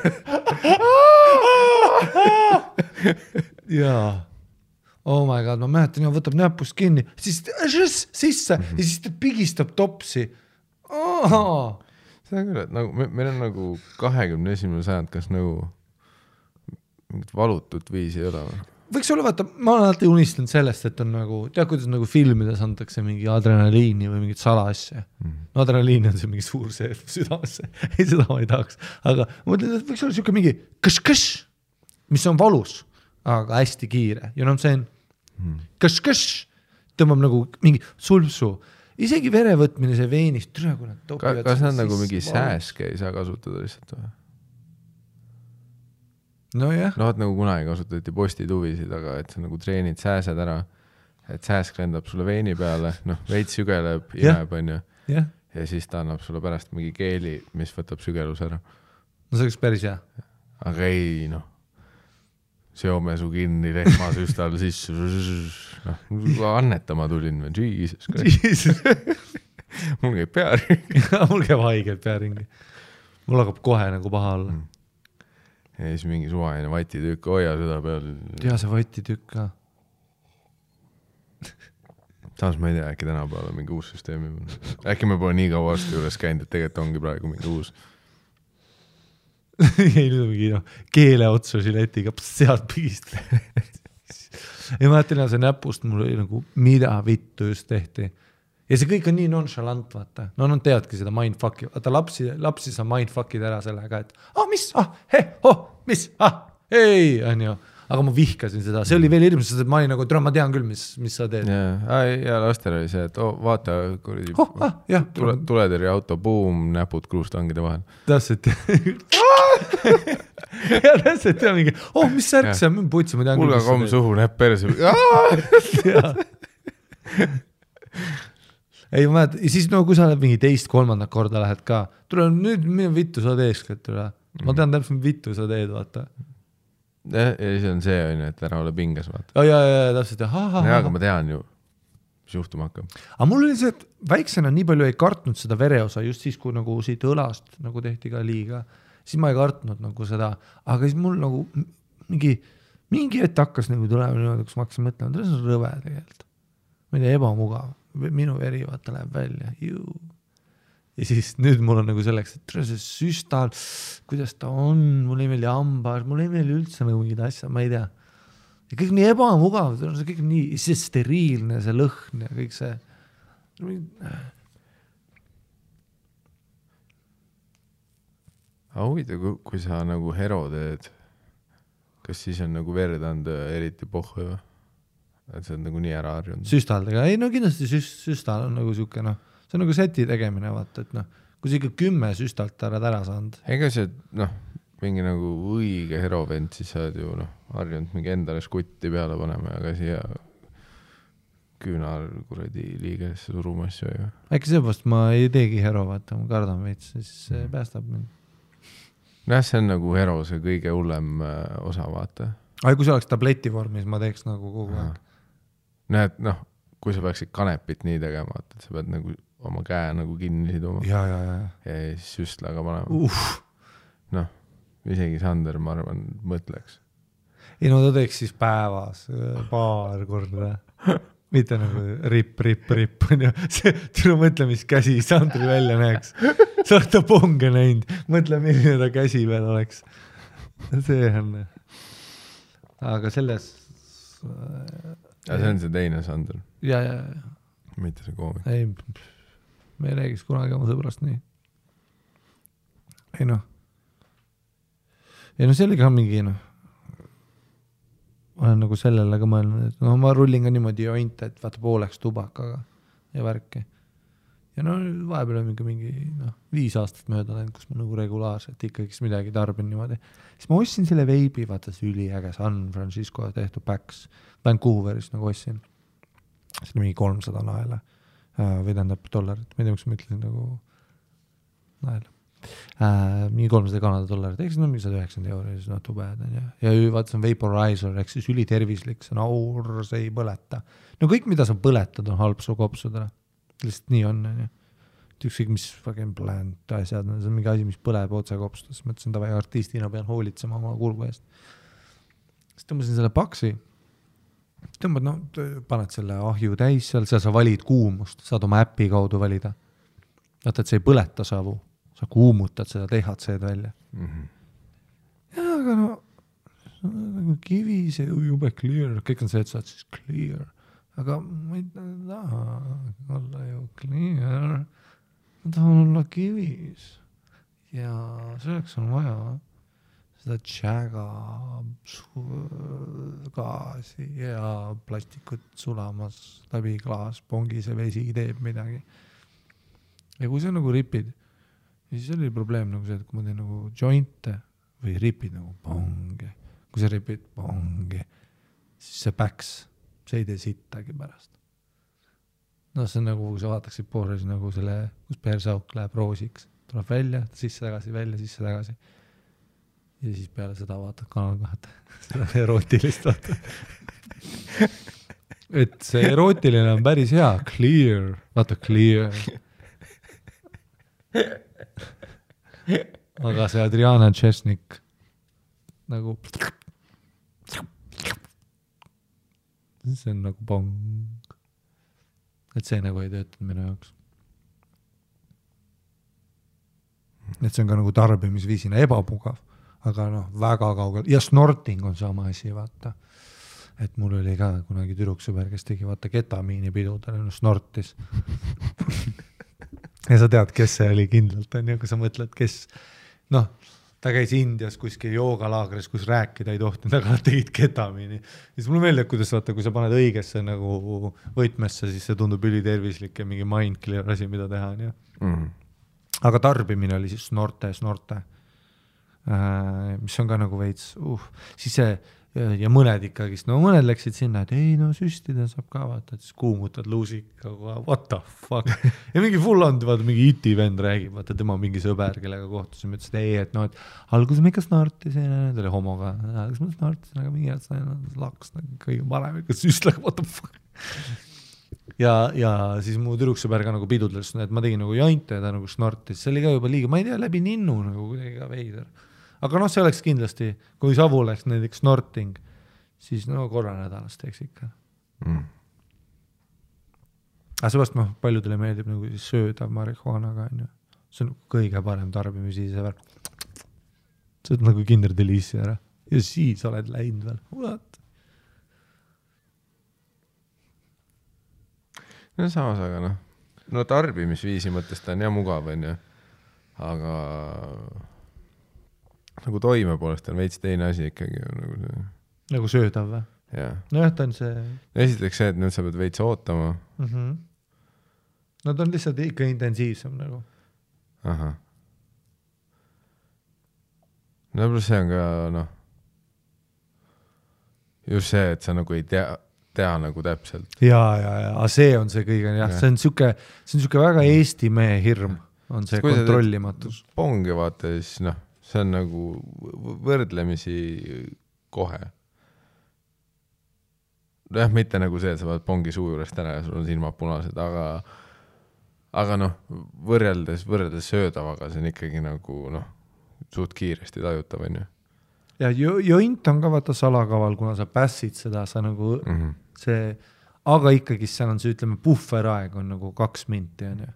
Jaa. Oh my god, ma mäletan, võtab näpust kinni, siis sisse ja siis ta pigistab topsi. See on küll, et nagu, meil on nagu 21. sajand, kas nagu mingit valutut viisi ei ole? Võiks olla, vaata, ma olen alati unistanud sellest, et on nagu, kuidas nagu filmides antakse mingi adrenaliini või mingit salaasja. No adrenaliini on see mingi suur see südamesse. Ei, seda ma ei tahaks. Aga ma mõtlen, et võiks olla siuke mingi kõš-kõš, mis on valus, aga hästi kiire. You know what I'm saying? Kõš-kõš tõmbab nagu mingi sulpsu. Isegi verevõtmine see veenist, türa kui nad topivad. Kas nad nagu mingi sääske ei saa kasutada lihtsalt või? No jah. No nagu kunagi kasutati postituvisid, aga et sa nagu treenid sääsed ära, et sääsk lendab sulle veini peale, veits sügeleb, imeb on ju. Ja siis ta annab sulle pärast mingi keeli, mis võtab sügelus ära. No see oleks päris hea. Aga ei, seome su kinni rehmasüstal sisse. Annetama tulin või? Jesus. Mul käib pearingi. Mul käib haigelt pearingi. mul hakkab kohe nagu paha olla. Ja siis mingi suvaline vatitükk, hoia seda peal. Ja see vatitükk ka. Samas ma ei tea, äkki tänapäeval on mingi uus süsteemi. Äkki me pole nii kaua aasta juures käinud, et tegelikult ongi praegu mingi uus. ei, nüüd on mingi keele otsa žiletiga, sealt pigist. ja ma mõtlen, see näpust mul oli nagu, mida vittu just tehti. Ja see kõik on nii nonchalant, vaata. No nad teadki seda mindfucki. Vaata, lapsi sa mindfuckid ära sellega, et mis, mis, hei, on ju. Aga ma vihkasin seda. See oli veel hirmus, sest ma olin nagu, ma tean küll, mis sa teed. Ja lastel oli see, et vaata, tuletõrje auto, buum, näpud kruustangide vahel. Täpselt. ja täpselt, ja mingi, mis särk see on, putsi, ma tean küll. Kulga komm suhu, näpp perse. Ei, ma mälet, ja siis kui sa oled mingi teist, kolmandat korda lähed ka, tule nüüd, mida vittu sa teeskad, tule. Ma tean täpselt, vittu sa teed, vaata. Ja siis on see, et ära ole pinges, vaata. Ja, täpselt, ja aga ma tean ju, mis juhtuma hakkab. Aga mul oli see, et väiksena nii palju ei kartnud seda vereosa, just siis, kui nagu siit õlast nagu tehti ka liiga, siis ma ei kartnud nagu seda, aga siis mul nagu mingi ette hakkas nagu tulema niimoodi, kus ma hakkasin mõtlema, et see on rõve tegelikult. Ma ei tea, ebamugav. Minu veri vaata läheb välja. Ja siis nüüd mul on nagu selleks, et see süstal, kuidas ta on, mul ei meeli hambaar, mul ei meeli üldse nagu mingid asjad, ma ei tea. Ja kõik nii ebamugav, see kõik nii see steriilne, see lõhn ja kõik see. Aga huvitav, kui sa nagu hero teed, kas siis on nagu verd anda eriti pohhu või? Et see on nagu nii ära harjunud. Süstaldega, ei no kindlasti süstal on nagu siuke, see on nagu seti tegemine, vaata, et kui sa ikka 10 süstalt ära saanud. Ega see, mingi nagu õige herovend, siis sa oled ju harjunud mingi endale skutti peale panema, aga siia küünar kuradi liigesse suruma asju. Äkki seepärast ma ei teegi hero, vaata, ma kardan veits, siis see päästab mind. See on nagu hero, see kõige hullem osa, vaata. Aga kui see oleks tableti vormis, ma teeks nagu kogu aeg. Näed, kui sa peaksid kanepit nii tegema, et sa pead nagu oma käe nagu kinni siduma. Ja siis süstlaga panema. Isegi Sander, ma arvan, mõtleks. Ei no ta teeks siis päevas paar korda. Mitte nagu rip. Tule mõtle, mis käsi Sandri välja näeks. Sa oled ta ponge näinud. Mõtle, milline ta käsi veel oleks. See on. Aga selles... Ja see on see teine Sander. Ja. Mitte see koomik. Ei, me ei räägiks kunagi oma sõbrast nii. Ei see oli ka mingi olen nagu sellele ka mõelnud, et ma rullin ka niimoodi jointe, et vaata pooleks tubakaga ja värki. Ja vahepeal on mingi 5 aastat mööda läinud, kus ma nagu regulaarselt ikkagi midagi tarbin niimoodi. Siis ma ostsin selle veibi, vaata see üliäge San Francisco tehtud Pax. Vancouveris nagu ostsin. See oli mingi 300 naela. Või tähendab dollarit. Ma ei tea, kus ma ütlesin nagu naela. Mingi 300 Kanada dollarit. Eks mingi 190 €, siis too bad. Ja vaata see on vaporizer, eks siis ülitervislik, see on aur, see ei põleta. No kõik, mida sa põletad, on halb su kopsudele. Lihtsalt nii on. Ükskõik, mis fucking plant asjad, see on mingi asi, mis põleb otse kopsudest. Mõtlesin, et artistina pean hoolitsema oma kurgu eest. Siis tõmbasin selle paksi. Tõmbad, paned selle ahju täis seal sa valid kuumust, saad oma äppi kaudu valida. Vaata, et see ei põleta savu. Sa kuumutad seda THC-d välja. Ja, aga nagu kivi, see jube clear. Kõik on see, et sa oled siis clear. Aga ma ei taha olla ju clear. Ma tahan olla kivis. Ja selleks on vaja seda tšäga gaasi ja plastikut sulamas läbi klaas, pongi see vesi teeb midagi. Ja kui sa nagu ripid, siis oli probleem nagu see, et kui ma teen nagu jointe või ripid nagu pongi, kui sa ripid pongi, siis see päks, see ei tee sittagi pärast. See on nagu, kui sa vaataksid poole, siis nagu selle, kus persauk läheb roosiks, tuleb välja, sisse tagasi, välja, sisse tagasi. Ja siis peale seda vaatad kanal kohata. Seda erootilist vaata. Et see erootiline on päris hea. Clear. Vaata, clear. aga see Adriana Chesnik nagu see on nagu pong. Et see nagu ei töötanud minu jaoks. Et see on ka nagu tarbimisviisina ebamugav, aga noh, väga kaugel. Ja snorting on sama asi, vaata. Et mul oli ka kunagi tüdruksõber, kes tegi vaata ketamiini pidudele, snortis. Ja sa tead, kes see oli kindlalt, on ju, kui sa mõtled, kes, noh, ta käis Indias kuskil joogalaagris, kus rääkida ei tohtinud, aga nad tegid ketamiini. Siis mulle meeldib, kuidas vaata, kui sa paned õigesse nagu võtmesse, siis see tundub ülitervislik ja mingi mindclear asi, mida teha. On, ja? Aga tarbimine oli siis snorte, mis on ka nagu veits, siis see, ja mõned ikkagist, no mõned läksid sinna, et ei, no süstida saab ka vaata, et siis kuumutad luusika, what the fuck. Ja mingi full on, vaata, mingi iti vend räägib, vaata, tema mingi sõber, kellega kohtusime, ütles, et ei, et no, et alguses me ikka snortisin, ta oli homoga, kas ma snortisin, aga mingi et laks kõige parem, ikka süstlag, what the fuck. Ja siis mu tüdruksõber ka nagu pidudles, et ma tegin nagu jointe ja ta nagu snortis, see oli ka juba liiga, ma ei tea, läbi ninnu nagu kuidagi ka veider. Aga noh, see oleks kindlasti, kui savu oleks näiteks snorting, siis no korra nädalas teeks ikka. Aga sebast noh, paljudele meeldib nagu siis sööda marihuanaga, on ju. See on kõige parem tarbimisi see see on nagu Kinder Delici ära. Ja siis oled läinud veel. What? No samas, aga noh. No tarbimisviisi mõttes ta on ja mugav, on ju. Aga nagu toime poolest on veits teine asi ikkagi. Nagu söödav või? Jah. No jah, ta on see... Esiteks see, et nüüd sa pead veits ootama. No ta on lihtsalt ikka intensiivsem nagu. Aha. No pluss see on ka, noh, just see, et sa nagu ei tea nagu täpselt. Ja, see on see kõige, jah. See on siuke väga Eesti mehe hirm, on see kontrollimatus. Pongi vaata, siis noh, see on nagu võrdlemisi kohe. Jah, mitte nagu see, et sa vaad pongi suu juurest ära ja sul on silmad punased, aga noh, võrreldes söödavaga, see on ikkagi nagu noh, suht kiiresti tajutav, on ju. Ja joint on ka vaata salakaval, kuna sa pässid seda, sa nagu see, aga ikkagi seal on see, ütleme, puhveraeg on nagu 2 minti, on ju.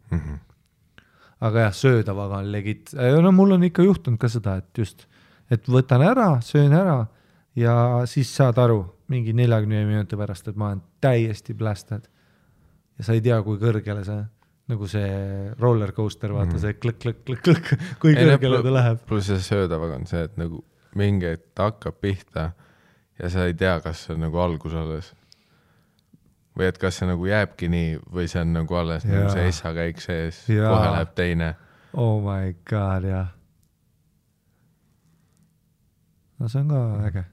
Aga jah, söödavaga on legit. No mul on ikka juhtunud ka seda, et just, et võtan ära, söön ära ja siis saad aru mingi 40 minuti pärast, et ma olen täiesti blasted. Ja sa ei tea, kui kõrgele see, nagu see roller coaster, vaata see klõk, kui kõrgele ta läheb. Plus see söödavaga on see, et nagu mingi ta hakkab pihta ja sa ei tea, kas see on nagu algus alles. Või et kas see nagu jääbki nii või see on nagu alles nagu see essa käik sees, kohe läheb teine. Oh my god, jah. No see on ka äge.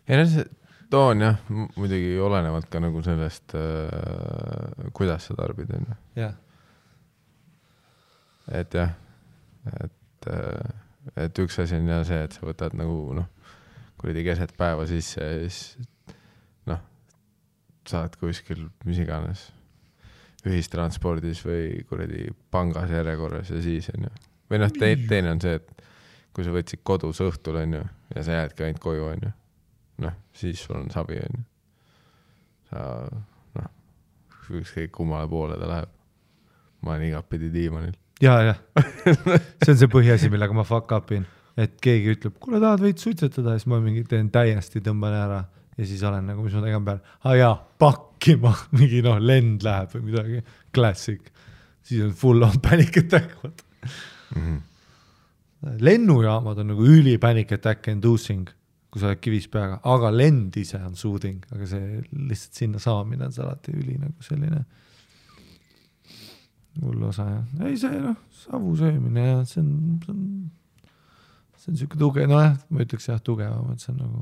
Ja see toon jah, muidugi olenevalt ka nagu sellest, kuidas sa tarbid. Jah. Et jah, et üks asi on ja see, et sa võtad nagu kuradi keset päeva sisse ja siis saad kuskil mis iganes ühistranspordis või kuradi pangas järjekorras ja siis on ju. Või teine on see, et kui sa võtsid kodus õhtul on ju ja sa jäädki ainult koju on ju. Siis sul on savi on ju. Sa ükskõik kummale poole ta läheb. Ma olen igapidi diimanil. Ja. See on see põhiasi, millega ma fuck upin. Et keegi ütleb, kuule tahad võid suitsetada ja siis ma mingi teen täiesti tõmban ära. Ja siis olen nagu, mis ma tegin peal, pakkima, mingi lend läheb või midagi, klassik. Siis on full on panic attack. Lennujaamad on nagu üli panic attack inducing, kui sa oled kivis peaga, aga lend ise on soothing, aga see lihtsalt sinna saamine on see alati üli nagu selline hull osa. Ja. Ei see savu söömine ja see on siuke tuge, ma ütleks jah tugevam, et see on nagu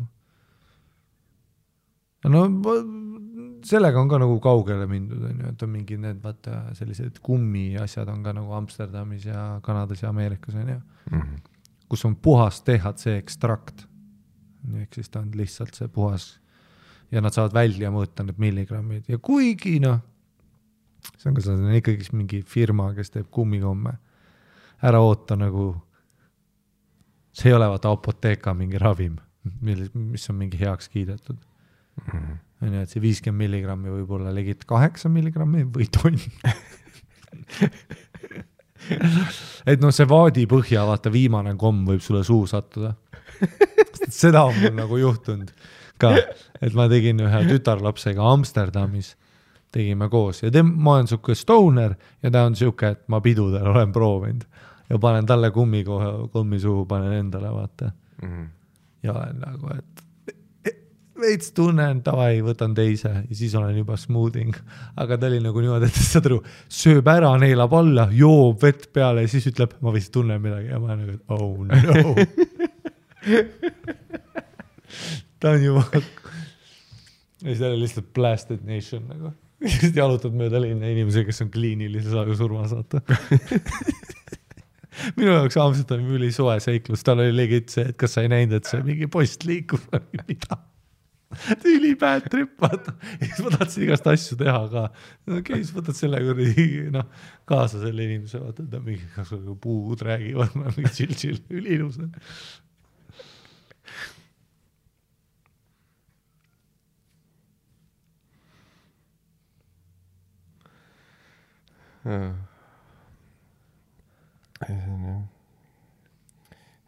no sellega on ka nagu kaugele mindud, et on mingi need vaata sellised kummi asjad on ka nagu Amsterdamis ja Kanadas ja Ameerikas on ju, kus on puhas THC ekstrakt. Ehk siis ta on lihtsalt see puhas ja nad saavad välja mõõta need milligrammid ja kuigi see on ka ikkagi mingi firma, kes teeb kummikomme. Ära oota nagu see ei ole vaata apoteeka mingi ravim, mis on mingi heaks kiidetud. Nii, et see 50 milligrammi võib olla legit 8 milligrammi või tonn. Et noh, see vaadi põhja, vaata viimane komm võib sulle suu sattuda. Seda on mul nagu juhtunud ka, et ma tegin ühe tütarlapsega Amsterdamis, tegime koos ja ma olen siuke stoner ja ta on siuke, et ma pidudel olen proovinud ja panen talle kummi suhu, panen endale, vaata. Ja olen nagu, et veits tunnen, tavai, võtan teise ja siis olen juba smoothing. Aga ta oli nagu niimoodi, et saad aru, sööb ära, neelab alla, joob vett peale ja siis ütleb, ma vist tunnen midagi ja ma olen nagu, oh no. Ta on juba ja siis ta oli lihtsalt blasted nation nagu. Just jalutad mööda linna inimese, kes on kliinilise surma saata. Minu jaoks Amsterdami üli soe seiklus, tal oli legit see, et kas sa ei näinud, et see mingi post liikub või mida. Üli bad trip, vaata. Ja siis ma tahtsin igast asju teha ka. Okei, siis võtad selle kaasa selle inimese, vaata, ta mingi puud räägivad, mingi chill, üli ilus.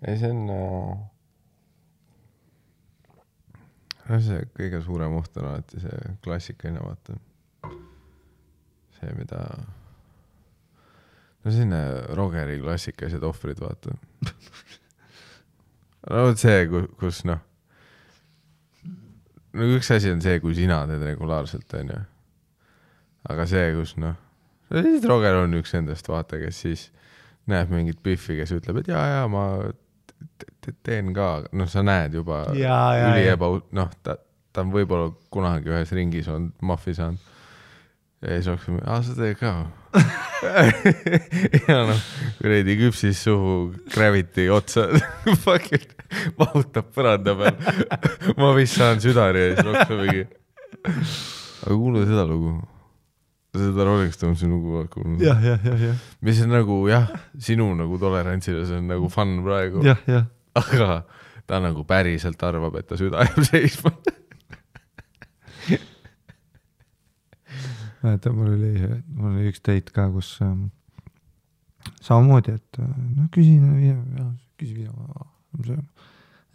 See on see kõige suurem oht on alati see klassikaline, vaata. See, mida selline Rogeri klassikalised ohvrid, vaata. See, kus üks asi on see, kui sina teed regulaarselt, on ju. Aga see, kus Roger on üks endast, vaata, kes siis näeb mingit Biffi, kes ütleb, et jaa, ma teen ka, sa näed juba ta on võib-olla kunagi ühes ringis on maffi saanud ja siis oksime, sa teed ka ja kuredi küpsis suhu Gravity otsa vahutab põranda peal ma vist saan südari ja siis oksime mingi aga kuule seda lugu seda Rolling Stonesi lugu kuulnud. Ja. Mis on nagu, sinu nagu tolerantsile, see on nagu fun praegu. Ja. Aga ta nagu päriselt arvab, et ta süda jääb seisma. Mul oli üks teit ka, kus samamoodi, et küsin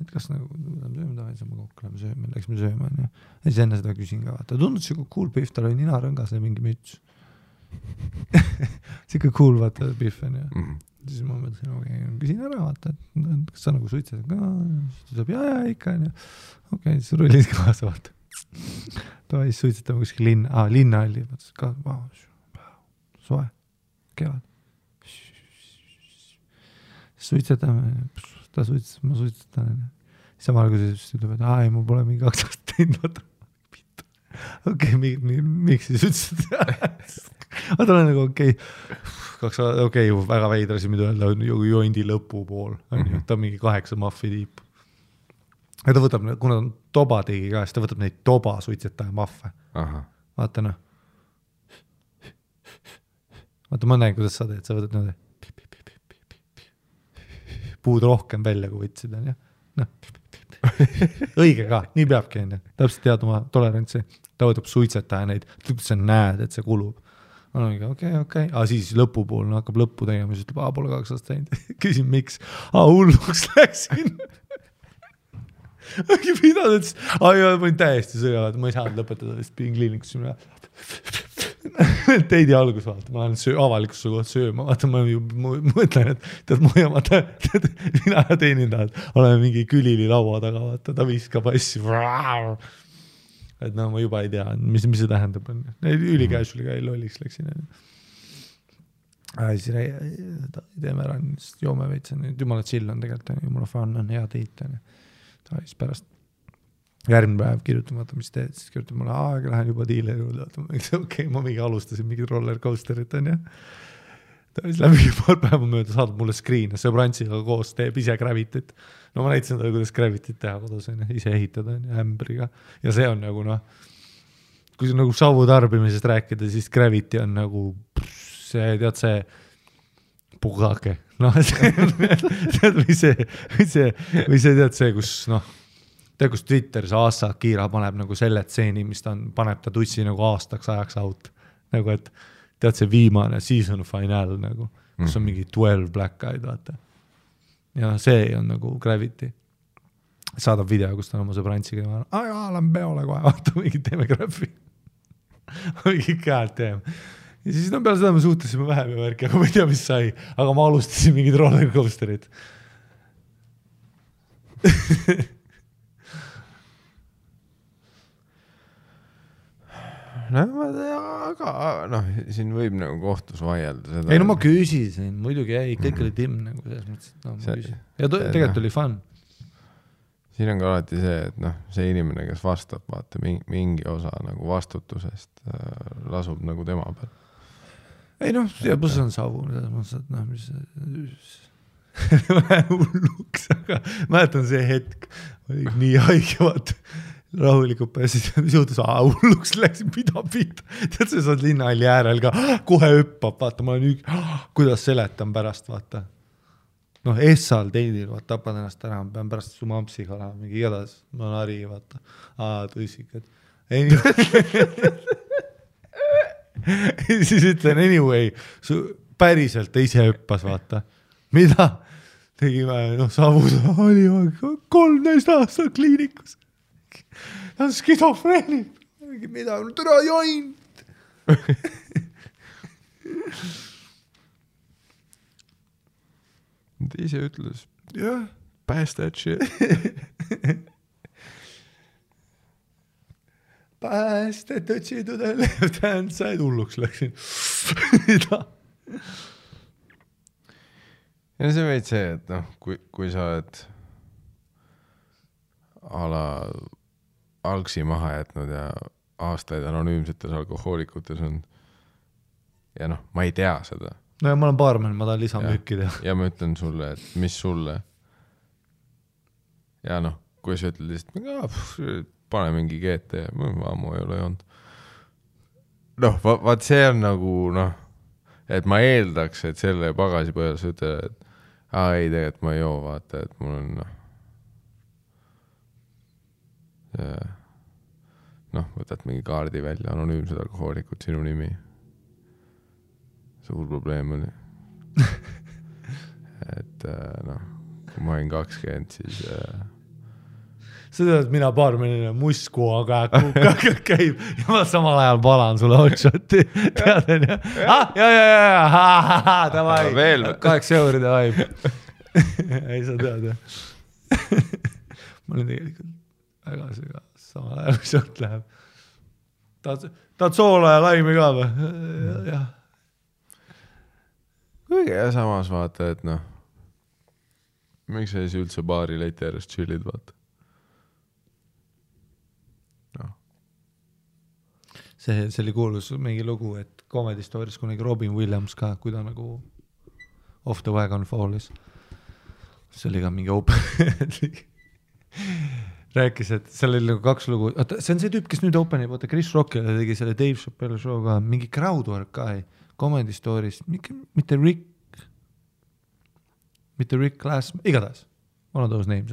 et kas nagu sööme taha, siis ma kokku läksime sööma. Ja siis enne seda küsin ka, vaata, tundus siuke cool Biff, tal oli ninarõngas ja mingi müts. Siuke cool, vaata, Biff on ja. Siis ma mõtlesin, küsin ära, vaata, et kas sa nagu suitsed ka, siis tuleb ja ikka on ja. Okei, siis rullid kaasa, vaata. Ta siis suitsetame kuskil linna oli, mõtlesin ka, soe, kevad. Suitsetame, ta suitsetab, ma suitsetan. Samal kui see ütleb, et ei, mul pole mingi 2 aastat teinud. Okei, miks siis suitsetab? Aga ta on nagu okei, väga veidrasi, mida öelda, joindi lõpu pool. Ta on mingi 8 maffi tiip. Ja ta võtab, kuna toba tegi ka, siis ta võtab neid toba suitsetaja maffe. Vaata Vaata, ma näen, kuidas sa teed, sa võtad niimoodi. Puud rohkem välja, kui võtsid, on jah. Õige ka, nii peabki, on jah. Täpselt tead oma tolerantsi. Ta võtab suitsetaja neid, sa näed, et see kulub. Okei. Aga siis lõpupool hakkab lõppu tegema, siis ütleb, pole 2 aastat teinud. Küsin, miks? Hulluks läksin. Mida ta ütles? Ma olin täiesti sõjavad, ma ei saanud lõpetada, sest pidin kliinikusse minna. Teidi algus, vaata, ma olen avalikusse kohta sööma, vaata, ma mõtlen, et mina teenindajad oleme mingi külili laua taga, vaata, ta viskab asju. Et ma juba ei tea, mis see tähendab. Ülikäisuliga ei lolliks läksin. Siis teeme ära, joome veitsen, jumala chill on tegelikult, jumala fun on, hea teit. Ta siis pärast järgmine päev kirjutan, vaata, mis teed, siis kirjutan mulle, aga lähen juba diileri juurde, okei, ma mingi alustasin mingid roller coasterit, on ja. Ta siis läbi paar päeva mööda saadab mulle screen, sõbrantsiga koos teeb ise Gravityt. No ma näitasin talle, kuidas Gravityt teha kodus, ise ehitada ämbriga. Ja see on nagu, kui see nagu savu tarbimisest rääkida, siis Gravity on nagu see, tead see pugake. Noh, või see tead see, kus noh, tead, kus Twitteris Asa Kiira paneb nagu selle tseeni, mis ta paneb ta tussi nagu aastaks ajaks out. Nagu, et tead see viimane season final nagu, kus on mingi 12 black eyed, vaata. Ja see on nagu Gravity. Saadab video, kus ta on oma sõbrantsiga ja lähen peole kohe, vaata, mingi teeme graffi. Mingi käed teeme. Ja siis peale seda me suhtlesime vähem ja värki, aga ma ei tea, mis sai. Aga ma alustasin mingid rollercoasterid. aga siin võib nagu kohtus vaielda seda. Ei, no ma küsisin, muidugi ei, kõik oli timm nagu selles mõttes, et ma küsisin. Ja tegelikult oli fun. Siin on ka alati see, et see inimene, kes vastab, vaata, mingi osa nagu vastutusest lasub nagu tema peal. Ei ja pluss on savu, mis hulluks, aga mäletan see hetk, oli nii haige, vaata, rahulikult pääsid, mis juhtus, hulluks läksin, mida pihta, tead, sa saad linnahalli äärel ka, kohe hüppab, vaata, ma olen kuidas seletan pärast, vaata. Essal teidil, vaata, tapad ennast ära, ma pean pärast su mampsiga olema, mingi igatahes, ma olen hari, vaata. Tõsikad. Siis ütlen, anyway, päriselt ise hüppas, vaata. Mida? Tegime, savus oli 13 aastat kliinikus. Ta on skidofreenid. Mida? Türa joint. Ta ise ütles, jah, pass that shit. Pass that shit to the left hand side, hulluks läksin. Ja see veid see, et kui sa oled algsi maha jätnud ja aastaid anonüümsetes alkohoolikutes on ja ma ei tea seda. No ja ma olen baarmen, ma tahan lisamüüki teha. Ja ma ütlen sulle, et mis sulle. Ja kui sa ütled lihtsalt, pane mingi GT, ammu ei ole joonud. Vaat see on nagu, et ma eeldaks, et selle pagasi põhjal sa ütled, et ei, tegelikult ma ei joo, vaata, et mul on võtad mingi kaardi välja, anonüümsed alkohoolikud, sinu nimi. Suur probleem oli. Et kui ma olin 20, siis sa tead, mina baarmenina musku, aga käib ja ma samal ajal palan sulle hotshoti. Teaden ja? Davai, 8 euri davai. Ei sa tead, jah. Ma olen tegelikult väga süga samal ajal, mis sealt läheb. Tahad soola ja laimi ka või? Jah. Kuigi ja samas vaata, et miks sa siis üldse baari leiti järjest chillid, vaata? See oli kuulus mingi lugu, et Comedy Stories kunagi Robin Williams ka, kui ta nagu off the wagon fallis. See oli ka mingi open. Rääkis, et seal oli nagu 2 lugu. See on see tüüp, kes nüüd openi, vaata Chris Rockile tegi selle Dave Chappelle show ka, mingi crowdwork ka, Comedy Stories, mitte Rick Glass, igatahes, one of those names,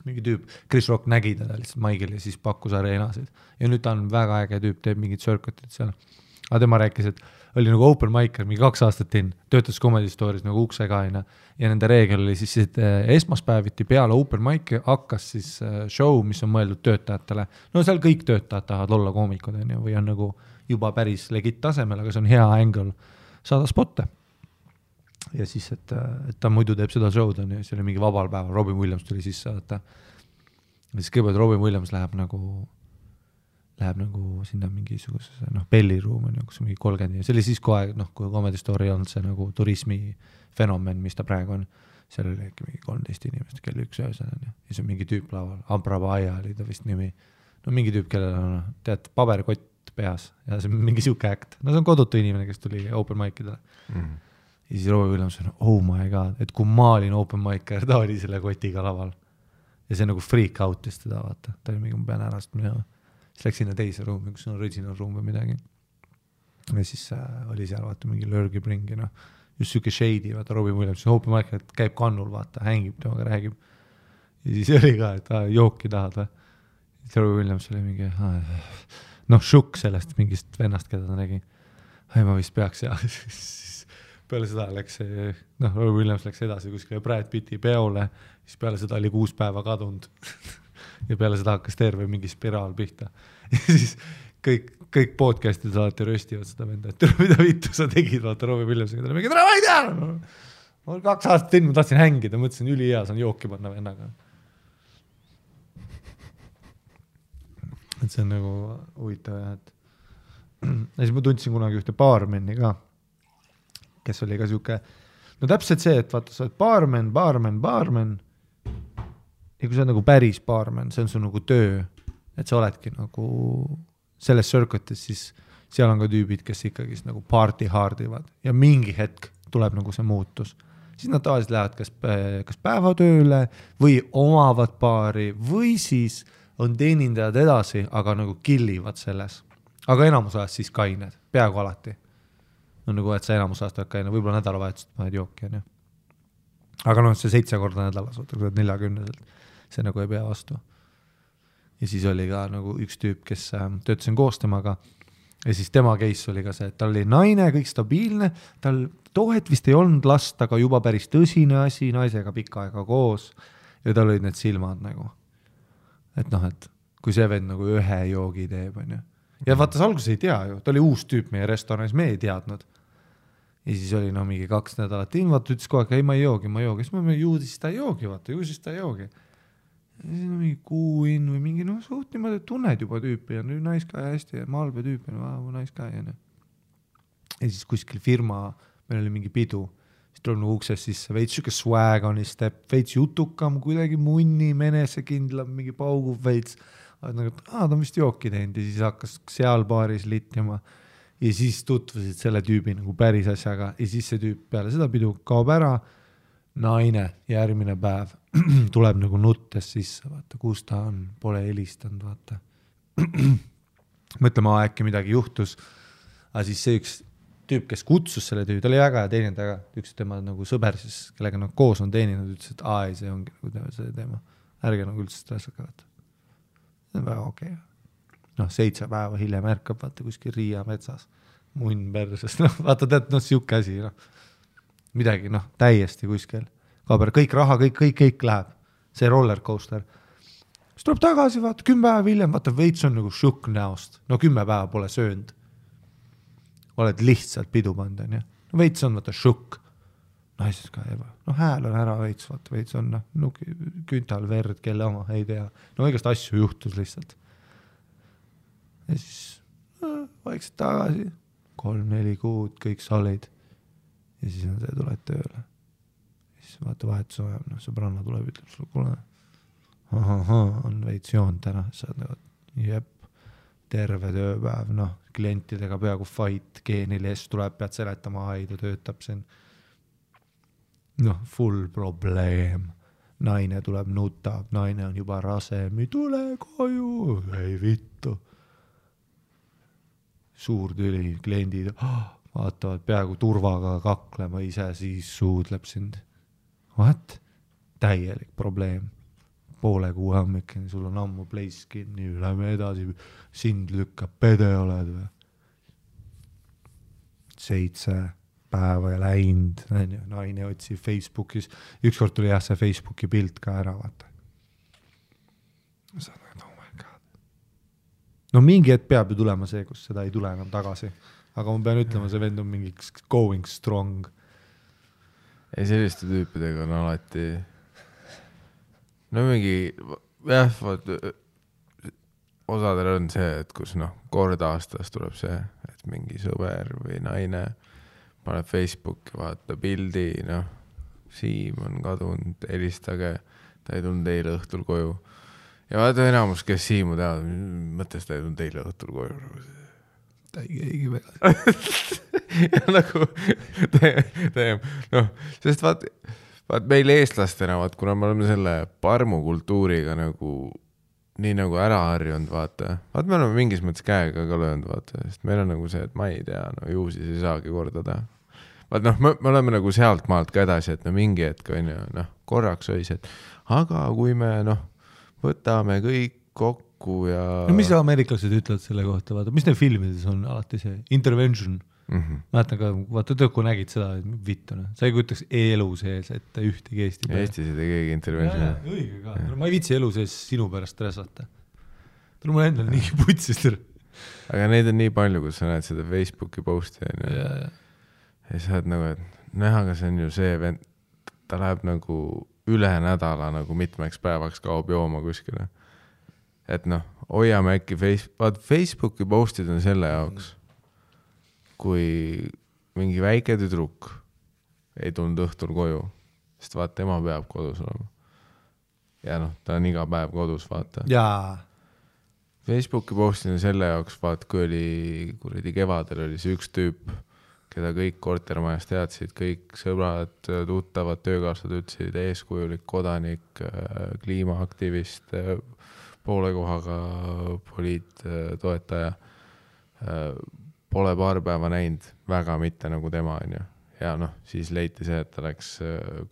mingi tüüp, Chris Rock nägi teda lihtsalt maigil ja siis pakkus areenasid ja nüüd ta on väga äge tüüp, teeb mingid circuited seal, aga tema rääkis, et oli nagu open micer, mingi 2 aastat töötas Comedy Stories nagu uksega ja nende reegel oli siis, et esmaspäeviti peale open mic hakkas siis show, mis on mõeldud töötajatele, seal kõik töötajad tahavad olla koomikud või on nagu juba päris legit tasemel, aga see on hea angle saada spotte. Ja siis, et ta muidu teeb seda show'd ja see oli mingi vabal päeval, Robin Williams tuli sisse, ja siis kõigepealt Robin Williams läheb nagu sinna mingisuguse belliruum, kus on mingi 30 ja see oli siis kohe, kui Comedy Story on see nagu turismi fenomen, mis ta praegu on, seal oli äkki mingi 13 inimest, kell 1 öösel ja siis on mingi tüüp laval, Abrabaia oli ta vist nimi, mingi tüüp, kellel on, tead, paberkott peas ja see on mingi siuke act, see on kodutu inimene, kes tuli open mic'idele. Ja siis Robin Williams on, oh my god, et kui ma olin open micer, ta oli selle kotiga laval. Ja see nagu freak out'is teda, vaata. Ta oli mingi, ma pean ära, siis läks sinna teise ruumi, kus on original room või midagi. Ja siis oli seal, vaata, mingi lurgib ringi, just siuke shady, vaata Robin Williams, Hopi Michael käib kannul, vaata, hängib temaga, räägib. Ja siis oli ka, et jooki tahad või. Siis Robin Williams oli mingi, šukk sellest mingist vennast, keda ta nägi. Ma vist peaks ja siis peale seda läks see, Robin Williams läks edasi kuskile Brad Pitti peole, siis peale seda oli 6 päeva kadunud ja peale seda hakkas terve mingi spiraal pihta. Ja siis kõik podcastid alati röstivad seda venda, et mida vittu sa tegid, vaata Robin Williamsiga, ta oli mingi, ma ei tea, ma olen 2 aastat teinud, ma tahtsin hängida, mõtlesin üli hea, saan jooki panna vennaga. Et see on nagu huvitav, et ja siis ma tundsin kunagi ühte baarmeni ka, kes oli ka siuke, no täpselt see, et vaata, sa oled baarmen ja kui sa oled nagu päris baarmen, see on su nagu töö, et sa oledki nagu selles circuitis, siis seal on ka tüübid, kes ikkagi nagu party hardivad ja mingi hetk tuleb nagu see muutus. Siis nad tavaliselt lähevad kas päevatööle või omavad baari või siis on teenindajad edasi, aga nagu killivad selles. Aga enamus ajast siis kained, peaaegu alati. No nagu, et sa enamus ajast kaine, võib-olla nädalavahetust paned jooki. Aga see 7 korda nädalas, 40-selt, see nagu ei pea vastu. Ja siis oli ka nagu üks tüüp, kes töötasin koos temaga ja siis tema case oli ka see, et tal oli naine, kõik stabiilne, tal tohet vist ei olnud last, aga juba päris tõsine asi, naisega pikka aega koos ja tal olid need silmad nagu. Et et kui see vend nagu ühe joogi teeb, on ju. Ja vaata, alguses ei tea ju, ta oli uus tüüp meie restoranis, me ei teadnud. Ja siis oli mingi 2 nädalat vaata, ütles kogu aeg, ei ma ei joogi, siis ma juudis ta ei joogi, vaata, juusis ta ei joogi. Ja siis on mingi kuuin või mingi, suht niimoodi, et tunned juba tüüpi ja nice guy hästi ja malbe tüüpi, nice guy. Ja siis kuskil firma, meil oli mingi pidu, siis tuleb nagu ukses sisse, veits siuke swag on step, veits jutukam, kuidagi munni, menesekindlam, mingi paugub veits. Nagu, ta on vist jooki teinud ja siis hakkas seal baaris littima ja siis tutvusid selle tüübi nagu päris asjaga ja siis see tüüp peale seda pidu kaob ära, naine järgmine päev tuleb nagu nuttes sisse, vaata, kus ta on, pole helistanud, vaata. Mõtlema, äkki midagi juhtus, aga siis see üks tüüp, kes kutsus selle tüübi, ta oli väga ja teinud väga, üks tema nagu sõber siis, kellega nad koos on teeninud, ütles, et ei, see ongi nagu see teema, ärge nagu üldse stressaka, vaata. See on väga okei. 7 päeva hiljem ärkab, vaata, kuskil Riia metsas, munn persest, vaata, tead, siuke asi, midagi, täiesti kuskil. Kaaber, kõik raha, kõik läheb. See roller coaster. Siis tuleb tagasi, vaata, 10 päeva hiljem, vaata, veits on nagu šukk näost. 10 päeva pole söönud. Oled lihtsalt pidu pand, on, ja? Veits on, vaata, šukk. Naises ka eba. Hääl on ära veits, vaata, veits on, küntal, verd, kelle oma, ei tea. Igast asju juhtus lihtsalt. Ja siis vaikselt tagasi, 3-4 kuud, kõik solid. Ja siis on see, tuled tööle. Ja siis vaata vahetus ajab, sõbranna tuleb, ütleb sulle, kuule, on veits joon täna, sa oled nagu, jep, terve tööpäev, klientidega peaaegu fight, geenil tuleb, pead seletama, ta töötab siin. Full probleem. Naine tuleb, nutab, naine on juba rase, mi tule koju, ei vittu. Suur tüli, kliendid vaatavad peaaegu turvaga kaklema ise, siis suudleb sind. What? Täielik probleem. Poole kuu hommikeni, sul on ammu place kinni, lähme edasi, sind lükkab, pede oled või? 7 päeva ja läinud, naine otsib Facebookis, ükskord tuli see Facebooki pilt ka ära, vaata. Sa oled, oh my god. Mingi hetk peab ju tulema see, kus seda ei tule enam tagasi. Aga ma pean ütlema, see vend on mingi going strong. Ei, selliste tüüpidega on alati mingi, osadel on see, et kus kord aastas tuleb see, et mingi sõber või naine paneb Facebooki, vaata pildi, Siim on kadunud, helistage, ta ei tulnud eile õhtul koju. Ja vaata enamus, kes Siimu teavad, mõttes ta ei tulnud eile õhtul koju. Ta ei keegi väga. Ja nagu sest vaat meil eestlastena, kuna me oleme selle parmukultuuriga nii nagu ära harjunud, vaata me oleme mingis mõttes käega ka löönud, vaata, sest meil on nagu see, et ma ei tea, ju siis ei saagi kordada. vaat noh, me oleme nagu sealt maalt ka edasi, et no mingi hetk on ju, noh, korraks õis, et aga kui me noh, võtame kõik kokku ja... No mis ameeriklased ütlevad selle kohta, vaata, mis neil filmides on alati see intervention? Mäletan ka, vaata tõkku nägid seda, et vittune. Sa ei kujutaks elu sees, et ühtegi Eesti peale. Eestis ei tee keegi intervention. Õige ka. Ma ei viitsi elu sees sinu pärast resata. Tule mul endal nii putsis. Aga neid on nii palju, kus sa näed seda Facebooki posti. Ja sa oled nagu, et näha, aga see on ju see vend, ta läheb nagu üle nädala nagu mitmeks päevaks kaob jooma kuskile. Et noh, hoiame äkki Facebooki postid on selle jaoks, kui mingi väike tüdruk ei tulnud õhtul koju, sest vaata, tema peab kodus olema. Ja noh, ta on iga päev kodus, vaata. Jaa. Facebooki postid on selle jaoks, vaata, kui oli kuradi kevadel oli see üks tüüp, keda kõik kortermajas teadsid, kõik sõbrad, tuttavad, töökaaslased ütlesid, eeskujulik kodanik, kliimaaktivist, poole kohaga poliittoetaja, pole paar päeva näinud, väga mitte nagu tema on ju. Ja noh, siis leiti see, et ta läks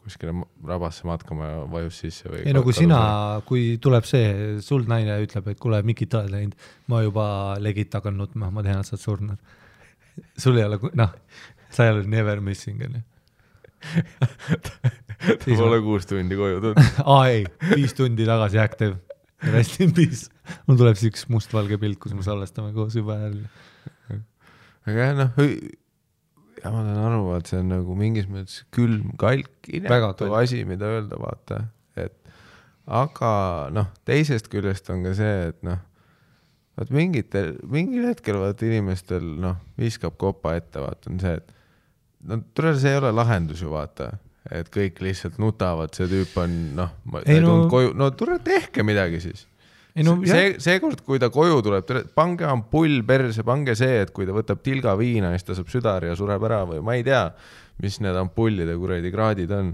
kuskile rabasse matkama ja vajus sisse. Või ei no kui sina, kui tuleb see, sul naine ütleb, et kuule, Mikit oled läinud, ma juba legit tagan nutma, ma tean, et sa oled surnud. Sul ei ole, noh, sa ei ole never missing. Ta pole 6 tundi koju tulnud. Ei, 5 tundi tagasi active. Rest in peace. Mul tuleb üks mustvalge pilt, kus me salvestame koos juba jälle. Aga noh, ja ma tahan aru, et see on nagu mingis mõttes külm, kalk, inetu asi, mida öelda, vaata. Aga noh, teisest küljest on ka see, et noh, mingil hetkel vaata inimestel noh, viskab kopa ette, vaata, on see, et no see ei ole lahendus ju, vaata, et kõik lihtsalt nutavad, see tüüp on noh, koju, no tehke midagi siis. Seekord, kui ta koju tuleb, pange ampull perse, pange see, et kui ta võtab tilga viina, siis ta saab südari ja sureb ära või ma ei tea, mis need ampullide kuradi kraadid on.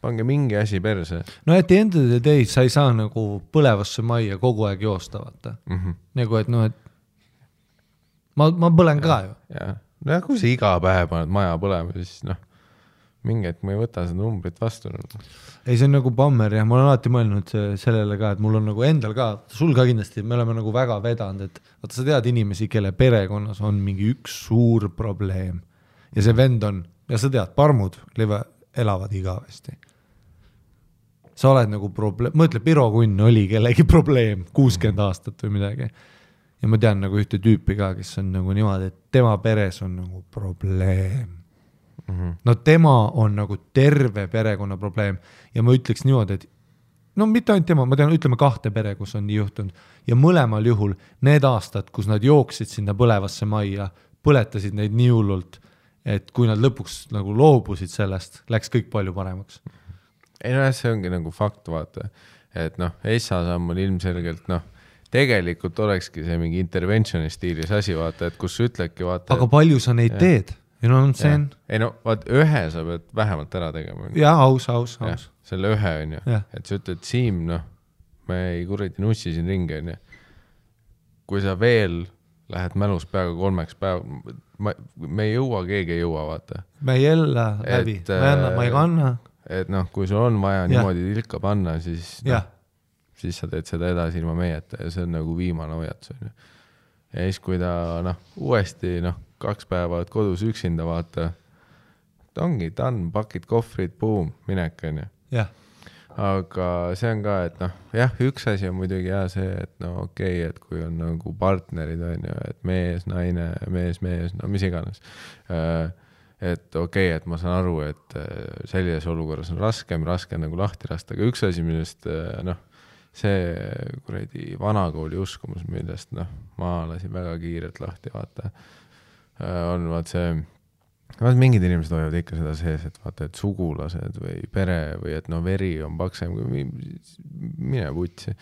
Pange mingi asi perse. No et end of the day sa ei saa nagu põlevasse majja kogu aeg joosta, vaata. Nagu, et noh, et ma põlen ka ju. No kui sa iga päev paned maja põlema, siis noh, mingi, et ma ei võta seda numbrit vastu. Ei, see on nagu bammer ja ma olen alati mõelnud sellele ka, et mul on nagu endal ka, sul ka kindlasti, me oleme nagu väga vedanud, et vaata, sa tead inimesi, kelle perekonnas on mingi üks suur probleem ja see vend on, ja sa tead, parmud elavad igavesti. Sa oled nagu probleem, mõtle, Piro Kunn oli kellegi probleem 60 aastat või midagi ja ma tean nagu ühte tüüpi ka, kes on nagu niimoodi, et tema peres on nagu probleem. No tema on nagu terve perekonna probleem ja ma ütleks niimoodi, et no mitte ainult tema, ma tean, ütleme 2 pere, kus on nii juhtunud ja mõlemal juhul need aastad, kus nad jooksid sinna põlevasse majja, põletasid neid nii hullult, et kui nad lõpuks nagu loobusid sellest, läks kõik palju paremaks. Ei no see ongi nagu fakt, vaata, et noh, Essa samm on ilmselgelt noh, tegelikult olekski see mingi interventioni stiilis asi, vaata, et kus ütledki, vaata. Aga palju sa neid teed? You know what I'm saying? Ei no, vaat ühe sa pead vähemalt ära tegema. Ja, aus. Selle ühe on ju. Et sa ütled, Siim, noh, me ei kuradi nussi siin ringi, on ju. Kui sa veel lähed mälus peaga 3 päev, me ei jõua, keegi ei jõua, vaata. Me ei jälle läbi, ma ei kanna. Et noh, kui sul on vaja niimoodi tilka panna, siis sa teed seda edasi ilma meieta ja see on nagu viimane hoiatus, on ju. Ja siis, kui ta noh, uuesti noh, 2 päeva kodus üksinda vaata, ongi done, pakid kohvrid, boom, minek on ju. Aga see on ka, et noh, jah, üks asi on muidugi see, et no okei, et kui on nagu partnerid on ju, et mees, naine, mees, no mis iganes. Et okei, et ma saan aru, et sellises olukorras on raske nagu lahti lasta, aga üks asi, millest noh, see kuradi vanakooli uskumus, millest noh, ma lasin väga kiirelt lahti, vaata, on vaat see, mingid inimesed hoiavad ikka seda sees, et vaata, et sugulased või pere või et no veri on paksem, mine putsi.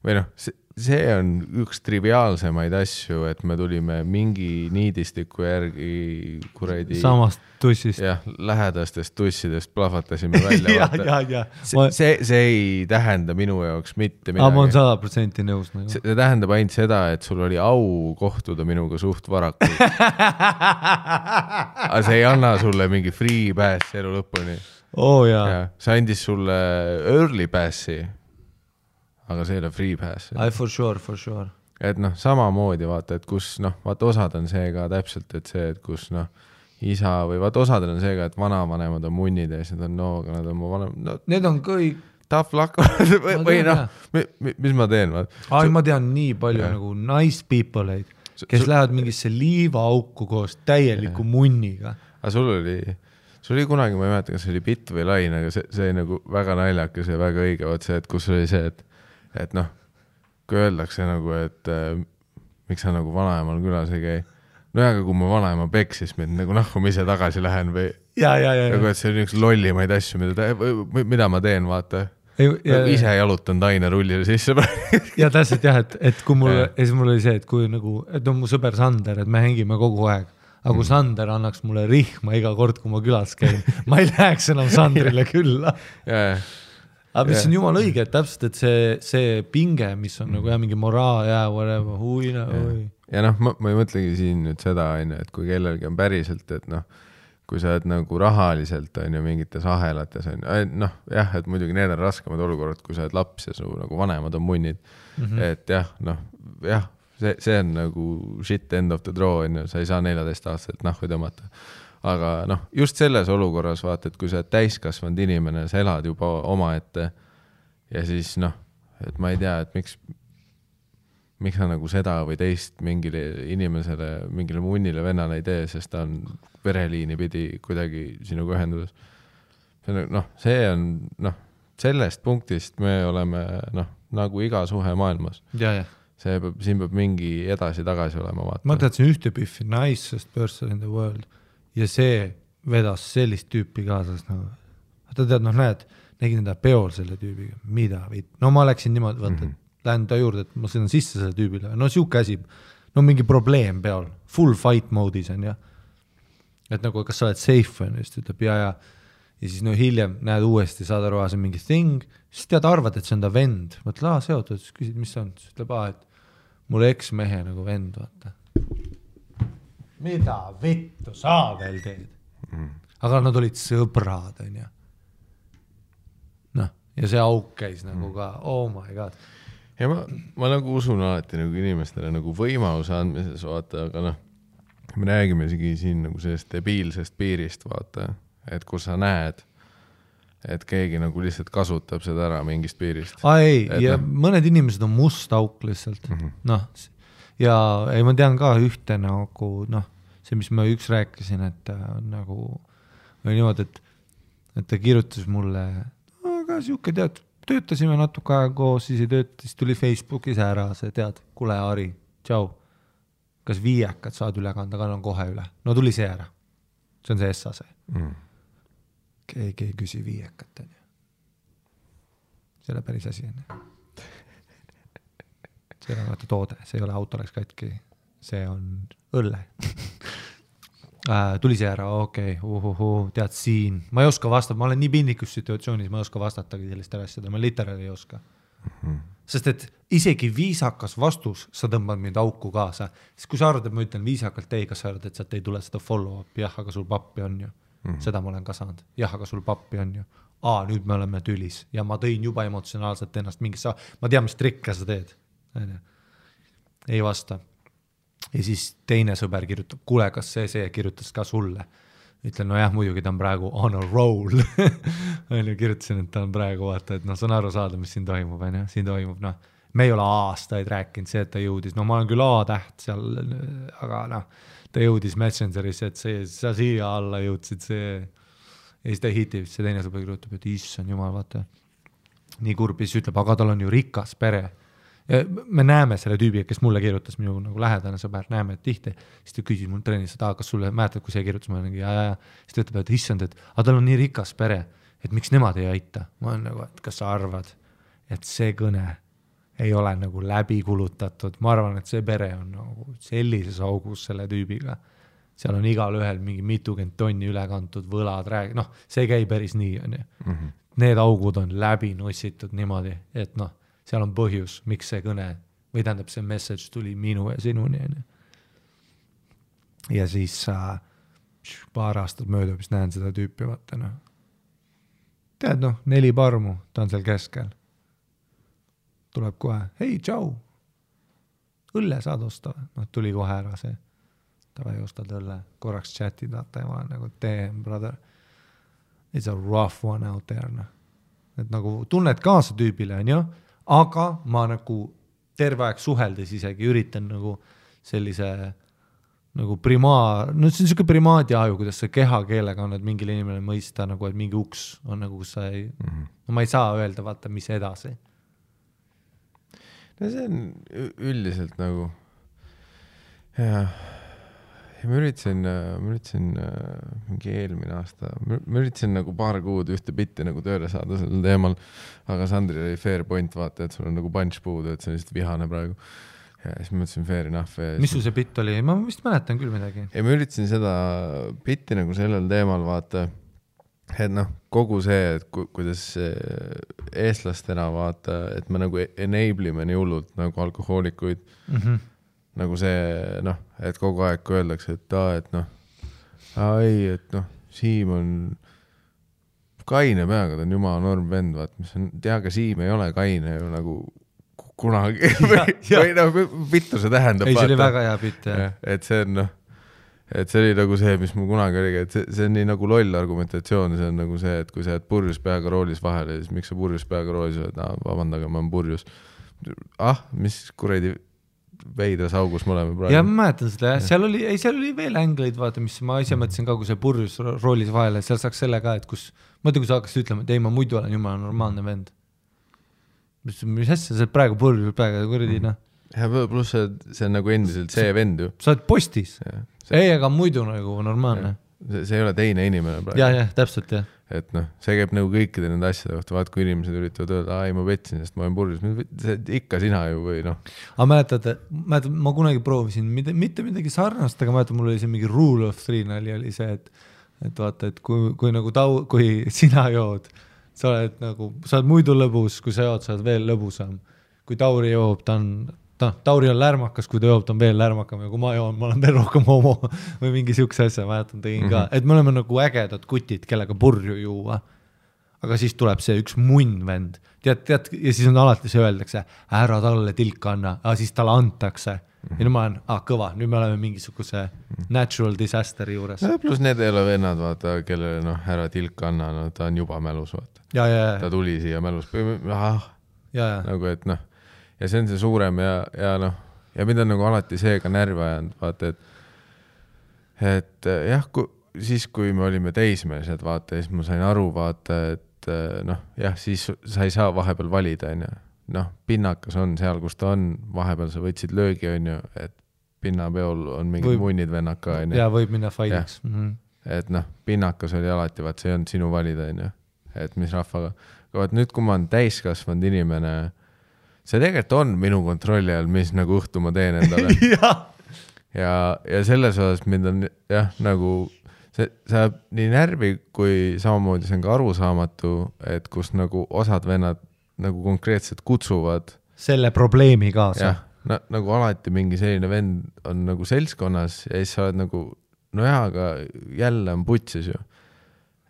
Või noh, see on üks triviaalsemaid asju, et me tulime mingi niidistiku järgi kuradi samast tussist. Jah, lähedastest tussidest plahvatasime välja. See ei tähenda minu jaoks mitte midagi. Ma olen 100% nõus. See tähendab ainult seda, et sul oli au kohtuda minuga suht varakult. Aga see ei anna sulle mingi free pass elu lõpuni. See andis sulle early passi. Aga see ei ole free pass. For sure. Et samamoodi vaata, et kus vaata osad on see ka täpselt, et see, et kus isa või vaata osadel on see ka, et vanavanemad on munnid ja siis nad on aga nad on mu vanem. Need on kõik. Tough luck. Või mis ma teen? Ma tean nii palju nagu nice people, kes lähevad mingisse liivaauku koos täieliku munniga. Aga sul oli kunagi, ma ei mäleta, kas see oli bitt või lain, aga see nagu väga naljakas ja väga õige, vaat see, et kus oli see, et kui öeldakse nagu, et miks sa nagu vanaemal külas ei käi. Aga kui mu vanaema peksis mind, nagu kui ma ise tagasi lähen või nagu, et see on üks lollimaid asju, mida ma teen, vaata. Ise jalutan taine rullile sisse. Ja täpselt jah, et kui mul oli see, et kui nagu, et on mu sõber Sander, et me hängime kogu aeg. Aga kui Sander annaks mulle rihma iga kord, kui ma külas käin, ma ei läheks enam Sandrile külla. Aga mis on jumal õige, et täpselt, et see pinge, mis on nagu mingi moraal ja whatever, Ja ma ei mõtlegi siin nüüd seda, et kui kellelgi on päriselt, et kui sa oled nagu rahaliselt on ju mingites ahelates on jah, et muidugi need on raskemad olukorrad, kui sa oled laps ja su nagu vanemad on munnid. Et jah, see on nagu shit end of the draw, sa ei saa 14 aastaselt nahvi tõmmata. Aga just selles olukorras vaata, et kui sa oled täiskasvanud inimene, sa elad juba oma ette ja siis et ma ei tea, et miks sa nagu seda või teist mingile inimesele, mingile munnile vennale ei tee, sest ta on vereliini pidi kuidagi sinuga ühenduses. See on sellest punktist me oleme nagu iga suhe maailmas. Siin peab mingi edasi-tagasi olema vaata. Ma teadsin ühte püffi, nicest person in the world ja see vedas sellist tüüpi kaasas ta tead, näed, nägin enda peol selle tüübiga, mida viid. Ma läksin niimoodi, vaata, lähen ta juurde, et ma sõidan sisse selle tüübile. Siuke asi, mingi probleem peol, full fight mode'is on ja. Et nagu, kas sa oled safe on, just ütleb ja siis hiljem näed uuesti, saad aru, see on mingi thing, siis tead arvad, et see on ta vend. Mõtle, seotud, siis küsid, mis see on, siis ütleb, et mul eksmehe nagu vend, vaata. Mida vittu sa veel teed? Aga nad olid sõbrad, on ja. Ja see auk käis nagu ka, oh my god. Ja ma nagu usun alati nagu inimestele nagu võimaluse andmises, vaata, aga me räägime siin nagu sellest debiilsest piirist, vaata, et kus sa näed, et keegi nagu lihtsalt kasutab seda ära mingist piirist. Ja mõned inimesed on must auk lihtsalt. Ja ei, ma tean ka ühte nagu, see, mis ma üks rääkisin, et nagu või niimoodi, et ta kirjutas mulle, aga siuke tead, töötasime natuke aega koos, siis ei tööta, siis tuli Facebookis ära, see tead, kule Ari, tšau, kas viiekad saad üle kanda, kannan kohe üle. No tuli see ära, see on see essase. Keegi ei küsi viiekat, on ju. See ei ole päris asi, on ju. See ei ole vaata toode, see ei ole auto läks katki, see on õlle. Tuli see ära, okei, tead siin. Ma ei oska vastata, ma olen nii pindikus situatsioonis, ma ei oska vastatagi sellist asjada, ma literaali ei oska. Sest et isegi viisakas vastus, sa tõmbad mind auku kaasa. Siis kui sa arvad, et ma ütlen viisakalt ei, kas sa arvad, et sealt ei tule seda follow-up, jah, aga sul pappi on ju. Seda ma olen ka saanud, jah, aga sul pappi on ju. Nüüd me oleme tülis ja ma tõin juba emotsionaalselt ennast mingisse, ma tean, mis trikke sa teed. Ei vasta. Ja siis teine sõber kirjutab, kuule, kas see kirjutas ka sulle? Ütlen, no jah, muidugi ta on praegu on a roll. Kirjutasin, et ta on praegu vaata, et see on aru saada, mis siin toimub. Siin toimub, me ei ole aastaid rääkinud see, et ta jõudis. Ma olen küll A-täht seal, aga ta jõudis Messengerisse, et sa siia alla jõudsid see. Ja siis ta hitib, see teine sõber kirjutab, et issand jumal, vaata. Nii kurb, siis ütleb, aga tal on ju rikas pere. Ja me näeme selle tüübi, kes mulle kirjutas, minu nagu lähedane sõber, näeme, et tihti. Siis ta küsis mul treenis, et kas sulle mäletad, kui see kirjutas, ma olen ja. Siis ta ütleb, et issand, et tal on nii rikas pere, et miks nemad ei aita. Ma olen nagu, et kas sa arvad, et see kõne ei ole nagu läbi kulutatud, ma arvan, et see pere on nagu sellises augus selle tüübiga, seal on igal ühel mingi 20 tonni üle kantud võlad, noh, see käi päris nii, on ju. Need augud on läbi nussitud niimoodi, et noh, seal on põhjus, miks see kõne, või tähendab see message tuli minu ja sinuni, on ju. Ja siis paar aastat möödub, siis näen seda tüüpi, vaata, noh. Tead, noh, 4 parmu, ta on seal keskel. Tuleb kohe, hei, tšau, õlle saad osta. Noh, tuli kohe ära see. Ta vai ostad õlle, korraks chati data ja ma olen nagu, damn, brother, it's a rough one out there. No. Et nagu tunned kaasa tüübile, on ju, aga ma nagu terve aeg suheldes isegi üritan nagu sellise nagu no see on siuke primaadi aju, kuidas sa kehakeelega on, et mingil inimene mõista nagu, et mingi uks on nagu, kus sa ei, no ma ei saa öelda, vaata, mis edasi. No see on üldiselt nagu ja ma üritasin mingi eelmine aasta, ma üritasin nagu paar kuud ühte bitti nagu tööle saada sellel teemal, aga Sandri oli fair point, vaata, et sul on nagu punch puudu, et see on lihtsalt vihane praegu. Ja siis ma mõtlesin fair enough. Mis sul see bitt oli? Ma vist mäletan küll midagi. Ja ma üritasin seda bitti nagu sellel teemal, vaata, et noh, kogu see, et kuidas eestlastena vaata, et me nagu enable'ime nii hullult nagu alkohoolikuid, nagu see, noh, et kogu aeg kui öeldakse, et noh, ei, et noh, Siim on kaine peaga, ta on jumala norm vend, vaat, mis on, aga Siim ei ole kaine ju nagu kunagi või noh, vittu see tähendab. Ei, see oli väga hea bitt, jah. Et see on, noh, et see oli nagu see, mis mul kunagi oligi, et see on nii nagu loll argumentatsioon, see on nagu see, et kui sa jääd purjus peaga roolis vahele, siis miks sa purjus peaga roolis oled, vabandage, ma olen purjus. Mis kuradi veidras augus me oleme praegu. Ja ma mäletan seda, seal oli veel ängleid, vaata, mis ma ise mõtlesin ka, kui see purjus roolis vahele, seal saaks selle ka, et kus kui sa hakkasid ütlema, et ei, ma muidu olen jumala normaalne vend. Mis asja, sa praegu purjus praegu kuradi, noh. Ja pluss see on nagu endiselt see vend ju. Sa oled postis. Ei, aga muidu nagu normaalne. See ei ole teine inimene praegu. Ja, täpselt, jah. Et noh, see käib nagu kõikide nende asjade kohta, vaat kui inimesed üritavad öelda, ei, ma petsin, sest ma olen purjus. Ikka sina ju või noh. Aga mäletad, ma kunagi proovisin mitte midagi sarnast, aga mäletad, mul oli see mingi rule of 3 nali oli see, et vaata, et kui sina jood, sa oled nagu, sa oled muidu lõbus, kui sa jood, sa oled veel lõbusam. Kui Tauri joob, Tauri on lärmakas, kui ta joob, ta on veel lärmakam ja kui ma joon, ma olen veel rohkem homo või mingi siukse asja, mäletan tegin ka, et me oleme nagu ägedad kutid, kellega purju juua. Aga siis tuleb see üks munn vend, tead, ja siis on alati see öeldakse, ära talle tilka anna, aga siis talle antakse. Ja nüüd ma olen, kõva, nüüd me oleme mingisuguse natural disaster juures. Ja, plus need ei ole vennad, vaata, kellele noh, ära tilka anna, no, ta on juba mälus, vaata. Ja. Ta tuli siia mälus. Nagu, et noh, ja see on see suurem ja noh, ja mida on nagu alati seega närvi ajanud, vaata, et jah, siis kui me olime teismelised, vaata, siis ma sain aru, vaata, et noh, jah, siis sa ei saa vahepeal valida, on ju. Noh, pinnakas on seal, kus ta on, vahepeal sa võtsid löögi, on ju, et pinnapeol on mingid munnid vennaka, on ju. Ja võib minna faidiks. Et noh, pinnakas oli alati, vaat see ei olnud sinu valida, on ju, et mis rahvaga. Vaat nüüd, kui ma olen täiskasvanud inimene, see tegelikult on minu kontrolli all, mis nagu õhtu ma teen endale. ja selles osas mind on jah, nagu see saab nii närvi, kui samamoodi see on ka arusaamatu, et kus nagu osad vennad nagu konkreetselt kutsuvad selle probleemi kaasa. Ja, nagu alati mingi selline vend on nagu seltskonnas ja siis sa oled nagu, no jah, aga jälle on putsis ju.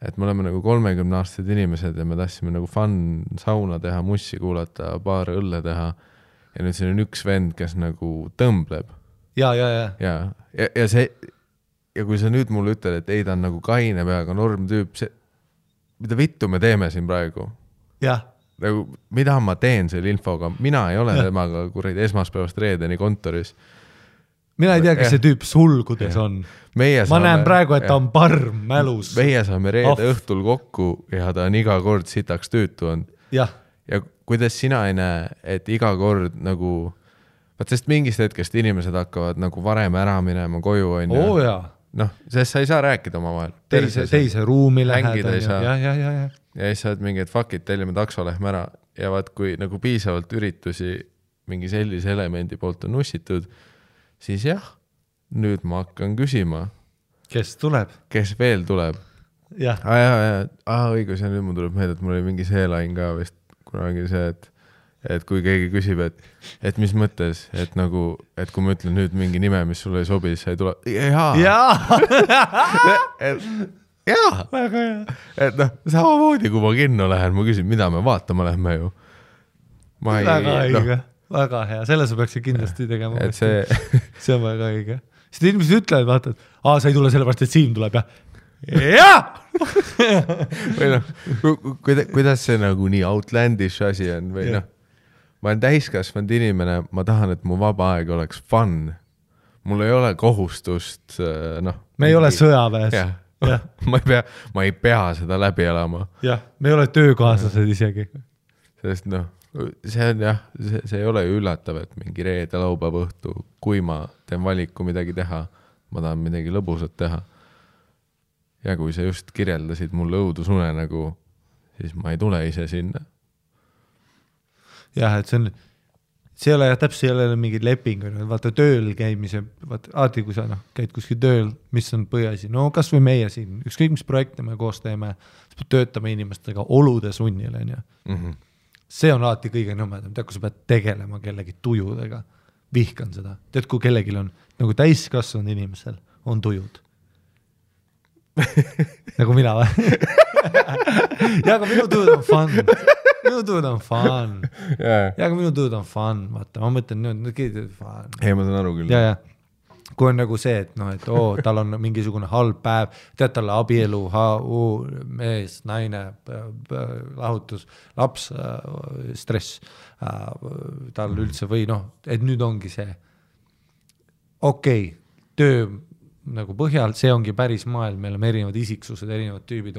Et me oleme nagu 30-aastased inimesed ja me tahtsime nagu fun sauna teha, mussi kuulata, paar õlle teha ja nüüd see on üks vend, kes nagu tõmbleb. Ja see, ja kui sa nüüd mulle ütled, et ei, ta on nagu kaine peaga norm tüüp, see, mida vittu me teeme siin praegu? Jah. Nagu, mida ma teen selle infoga? Mina ei ole temaga kuradi esmaspäevast reedeni kontoris. Mina ei tea, kes see tüüp sulgudes on. Ma näen praegu, et ta on parm mälus. Meie saame reede õhtul kokku ja ta on iga kord sitaks tüütu on. Ja kuidas sina ei näe, et iga kord nagu, sest mingist hetkest inimesed hakkavad nagu varem ära minema koju on ju. Noh, sest sa ei saa rääkida oma vahel. Teise ruumi läheda. Ja siis sa oled mingi, et fuck it, tellime takso lähme ära. Ja vaat kui nagu piisavalt üritusi mingi sellise elemendi poolt on nussitud, siis jah, nüüd ma hakkan küsima. Kes tuleb? Kes veel tuleb? Jah. Õigus, ja nüüd mul tuleb meelde, et mul oli mingi see lain ka vist kunagi see, et kui keegi küsib, et mis mõttes, et nagu, et kui ma ütlen nüüd mingi nime, mis sulle ei sobi, siis ei tule, jaa. Jaa. Väga hea. Et noh, samamoodi, kui ma kinno lähen, ma küsin, mida me vaatama lähme ju. Väga õige, väga hea, selle sa peaksid kindlasti tegema. Et see on väga õige. Sest inimesed ütlevad, vaata, et sa ei tule sellepärast, et Siim tuleb, jah. Või noh, kuidas see nagu nii outlandish asi on või noh, ma olen täiskasvanud inimene, ma tahan, et mu vaba aeg oleks fun. Mul ei ole kohustust, noh. Me ei ole sõjaväes. Ma ei pea seda läbi elama. Jah, me ei ole töökaaslased isegi. Sest noh, see on jah, see ei ole ju üllatav, et mingi reede laupäeva õhtu, kui ma teen valiku midagi teha, ma tahan midagi lõbusat teha. Ja kui sa just kirjeldasid mulle õudusune nagu, siis ma ei tule ise sinna. Jah, et see ei ole täpselt ei ole mingi leping, vaata tööl käimise, vaata kui sa käid kuskil tööl, mis on põhiasi, no kas või meie siin, ükskõik mis projekte me koos teeme, töötame inimestega olude sunnil, See on alati kõige nõmedam, tead, kui sa pead tegelema kellegi tujudega, vihkan seda, tead, kui kellegil on, nagu täiskasvanud inimesel on tujud. Nagu mina või? Ja, aga minu tujud on fun. Minu tujud on fun. Ja, aga minu tujud on fun. Vaata, ma mõtlen, fun. Ei, ma saan aru küll. Ja. Kui on nagu see, et tal on mingisugune halb päev, tead talle abielu, mees, naine, lahutus, laps, stress, tal üldse või et nüüd ongi see töö nagu põhjal, see ongi päris maailm, meil on erinevad isiksused, erinevad tüübid,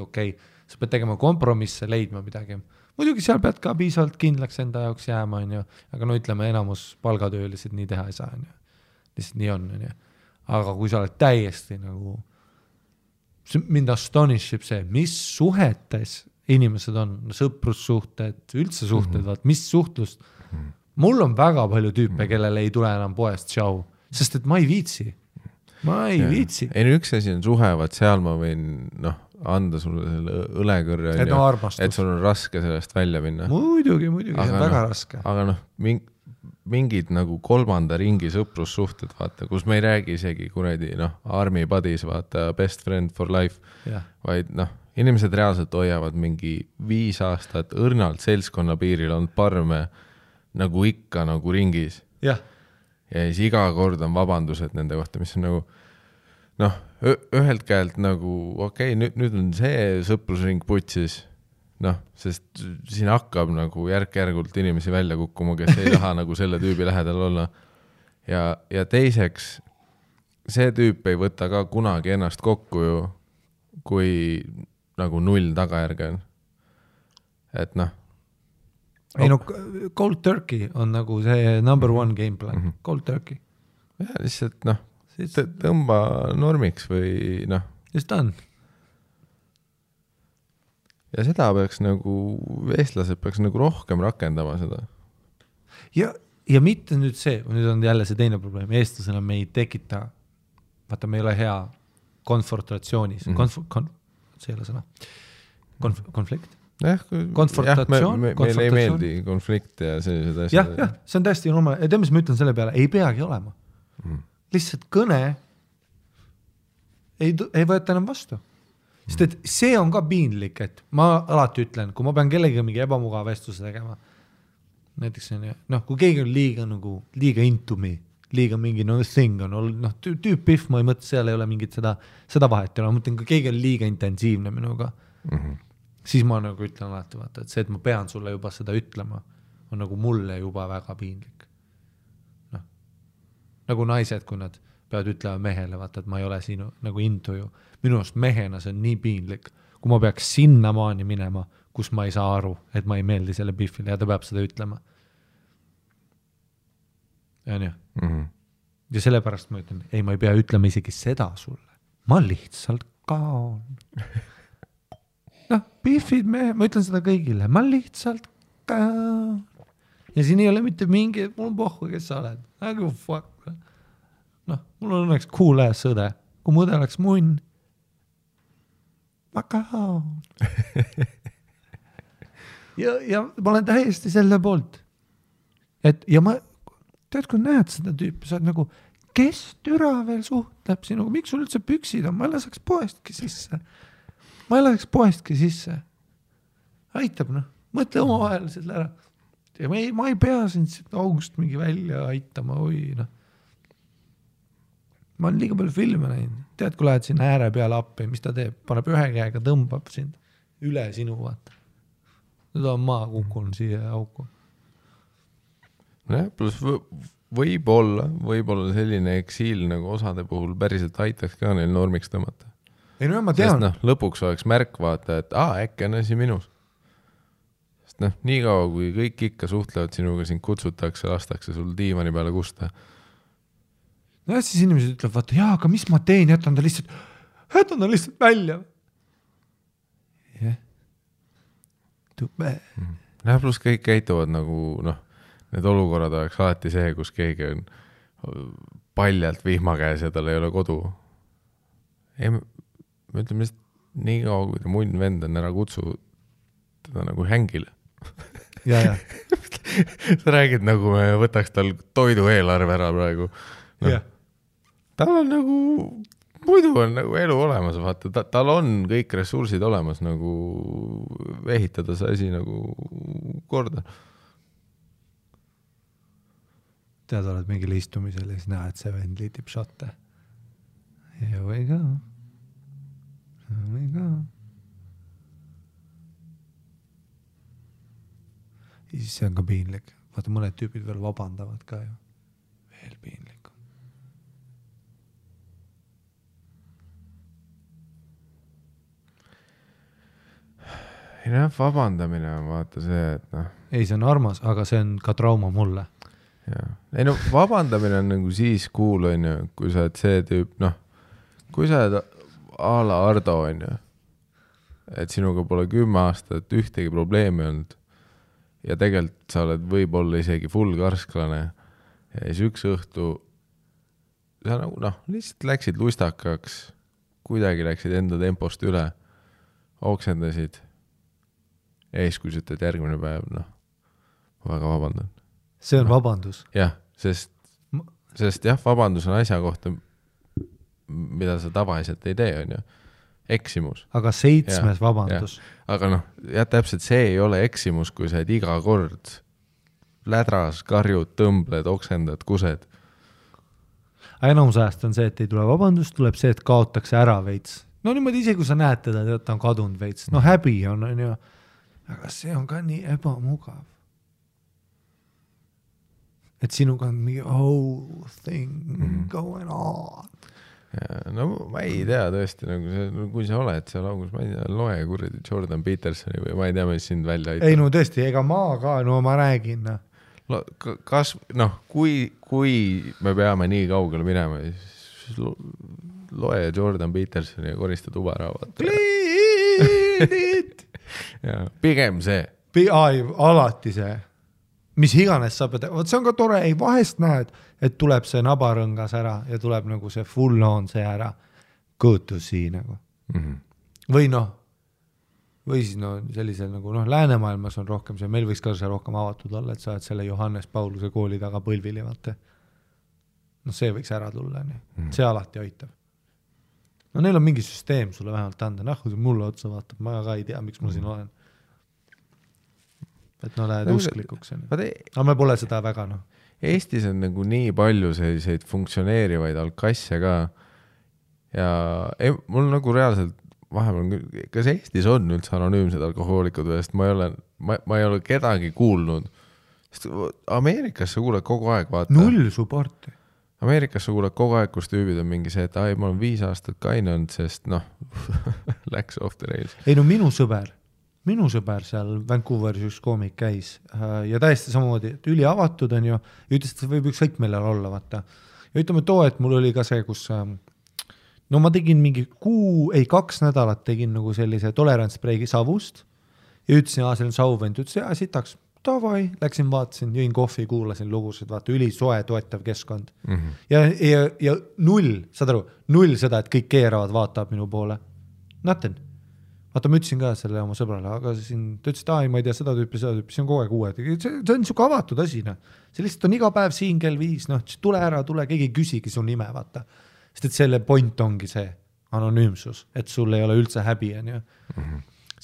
sa pead tegema kompromisse, leidma midagi. Muidugi seal pead ka piisavalt kindlaks enda jaoks jääma, aga ütleme, enamus palgatöölised nii teha ei saa, lihtsalt nii on, aga kui sa oled täiesti nagu, mind astonishib see, mis suhetes inimesed on, sõprussuhted, üldse suhted, mis suhtlust, mul on väga palju tüüpe, kellele ei tule enam poest tšau, sest et ma ei viitsi. Ei, üks asi on suhevad, seal ma võin anda sulle selle õlekõrre, et sul on raske sellest välja minna. Muidugi, väga raske. Aga mingid nagu kolmanda ringi sõprussuhted, vaata, kus me ei räägi isegi kuradi, army buddies, vaata, best friend for life, vaid inimesed reaalselt hoiavad mingi 5 aastat õrnalt seltskonna piiril on parme nagu ikka nagu ringis. Ja siis iga kord on vabandused nende kohta, mis on nagu, ühelt käelt nagu, nüüd on see sõprusring putsis, sest siin hakkab nagu järk-järgult inimesi välja kukkuma, kes ei taha nagu selle tüübi lähedal olla. Ja teiseks, see tüüp ei võta ka kunagi ennast kokku ju, kui nagu 0 tagajärge on. Et ei cold turkey on nagu see number 1 game plan, cold turkey. Ja lihtsalt tõmba normiks või Just on. Ja seda peaks nagu, eestlased peaks nagu rohkem rakendama seda. Ja mitte nüüd see, nüüd on jälle see teine probleem, eestlasena me ei tekita, vaata me ei ole hea konfrontatsioonis, see ei ole sõna, konflikt. Konfrontatsioon, meil ei meeldi konflikt ja sellised asjad. Jah, see on täiesti normaal. Ja mis ma ütlen selle peale, ei peagi olema. Lihtsalt kõne ei võeta enam vastu. Sest et see on ka piinlik, et ma alati ütlen, kui ma pean kellegi mingi ebamugav vestluse tegema, näiteks kui keegi on liiga into me, liiga mingi thing on, tüüp-pihv, ma ei mõtle, seal ei ole mingit seda vahet, ma mõtlen, kui keegi on liiga intensiivne minuga, siis ma nagu ütlen alati, vaata, et see, et ma pean sulle juba seda ütlema, on nagu mulle juba väga piinlik. Nagu naised, kui nad peavad ütlema mehele, vaata, et ma ei ole sinu nagu into ju. Minu arust mehena see on nii piinlik, kui ma peaks sinna maani minema, kus ma ei saa aru, et ma ei meeldi selle pihvile ja ta peab seda ütlema. Ja nii. Ja sellepärast ma ütlen, ei, ma ei pea ütlema isegi seda sulle. Ma lihtsalt kaon. Pihvid ma ütlen seda kõigile, ma lihtsalt kaon. ja siin ei ole mitte mingi, mul on pohhu, kes sa oled. Nagu fuck. Noh, mul on õnneks cool ass õde. Kui mu õde oleks munn. Makaon. ja ma olen täiesti selle poolt. Ja ma, tead, kui näed seda tüüpi, sa oled nagu, kes türa veel suhtleb sinuga, miks sul üldse püksid on, ma ei laseks poestki sisse. Aitab, noh, mõtle oma vahel selle ära. Ja ma ei pea sind august mingi välja aitama, noh. Ma olen liiga palju filme näinud. Tead, kui lähed sinna ääre peale appi, mis ta teeb? Paneb ühe käega, tõmbab sind üle sinu, vaata. Nüüd on maa kukkunud siia auku. Plus võib-olla selline eksiil nagu osade puhul päriselt aitaks ka neil normiks tõmmata. Ei no ma tean. Sest lõpuks oleks märk vaata, et äkki on asi minus. Sest nii kaua, kui kõik ikka suhtlevad sinuga, sind kutsutakse, lastakse sul diivani peale kusta. No siis inimesed ütlevad, vaata, jaa, aga mis ma teen, jätan ta lihtsalt välja. Jah. Tube. Plus kõik käituvad nagu, need olukorrad oleks alati see, kus keegi on paljalt vihma käes ja tal ei ole kodu. Ei, me ütleme lihtsalt nii kaua, kui ta munn vend on ära kutsu teda nagu hängile. Ja. Sa räägid nagu me võtaks tal toidu eelarve ära praegu. Jah. Tal on nagu, muidu on nagu elu olemas, vaata, tal on kõik ressursid olemas nagu ehitada see asi nagu korda. Tead, oled mingil istumisel ja siis näed, et see vend liitib šotte. Here we go. Ja siis see on ka piinlik. Vaata, mõned tüübid veel vabandavad ka ju. Veel piinlik. Ei vabandamine on vaata see, et Ei, see on armas, aga see on ka trauma mulle. Ja. Ei vabandamine on nagu siis cool, on ju, kui sa oled see tüüp, kui sa oled a la Ardo, on ju, et sinuga pole 10 aastat ühtegi probleemi olnud ja tegelikult sa oled võib-olla isegi full karsklane ja siis üks õhtu sa nagu, lihtsalt läksid lustakaks, kuidagi läksid enda tempost üle, oksendasid ja siis kui sa ütled järgmine päev, ma väga vabandan. See on vabandus. Jah, sest jah, vabandus on asja kohta, mida sa tavaliselt ei tee, on ju. Eksimus. Aga 7. vabandus. Ja. Aga täpselt see ei ole eksimus, kui sa iga kord lädras, karjud, tõmbled, oksendad, kused. Enamus ajast on see, et ei tule vabandus, tuleb see, et kaotakse ära veits. No niimoodi ise, kui sa näed teda, ta on kadunud veits. No häbi on ju. Aga see on ka nii ebamugav. Et sinuga on mingi whole thing going on. Ja, ma ei tea tõesti, kui sa oled seal augus, ma ei tea, loe kuradi Jordan Petersoni või ma ei tea, mis sind välja aitab. Ei, no tõesti, ega ma ka, ma räägin. Kas, kui me peame nii kaugele minema, siis loe Jordan Petersoni ja korista tuba ära. Ja, pigem see. Alati see. Mis iganes sa pead, see on ka tore, ei vahest näed, et tuleb see nabarõngas ära ja tuleb nagu see full on see ära kõõtusi nagu. Või või siis sellisel nagu läänemaailmas on rohkem see, meil võiks ka see rohkem avatud olla, et sa oled selle Johannes Pauluse kooli taga põlvili, vaata. See võiks ära tulla, see alati aitab. Neil on mingi süsteem sulle vähemalt anda, kui see mulle otsa vaatab, ma ka ei tea, miks ma siin olen. Et lähed usklikuks. Aga me pole seda väga, Eestis on nagu nii palju selliseid funktsioneerivaid alkasse ka ja mul nagu reaalselt vahepeal, kas Eestis on üldse anonüümsed alkohoolikud või, sest ma ei ole kedagi kuulnud. Sest Ameerikas sa kuuled kogu aeg, vaata. Null supporti. Ameerikas sa kuuled kogu aeg, kus tüübid on mingi see, et ma olen 5 aastat kaine olnud, sest läks off the rails. Ei minu sõber seal Vancouveris üks koomik käis ja täiesti samamoodi, et üli avatud on ju, ja ütles, et see võib ükskõik millal olla, vaata. Ja ütleme et mul oli ka see, kus ma tegin mingi 2 nädalat tegin nagu sellise tolerantspreigi savust ja ütlesin, see on sauvend, ütles, sitaks, davai, läksin, vaatasin, jõin kohvi, kuulasin lugusid, vaata, ülisoe toetav keskkond. Ja null, saad aru, null seda, et kõik keeravad, vaatab minu poole. Nothing. Vaata, ma ütlesin ka selle oma sõbrale, aga siin, ta ütles, et ma ei tea, seda tüüpi, see on kogu aeg uued. See on niisugune avatud asi, noh. See lihtsalt on iga päev siin kell 5, noh, tule ära, keegi küsigi su nime, vaata. Sest et selle point ongi see anonüümsus, et sul ei ole üldse häbi, on ju.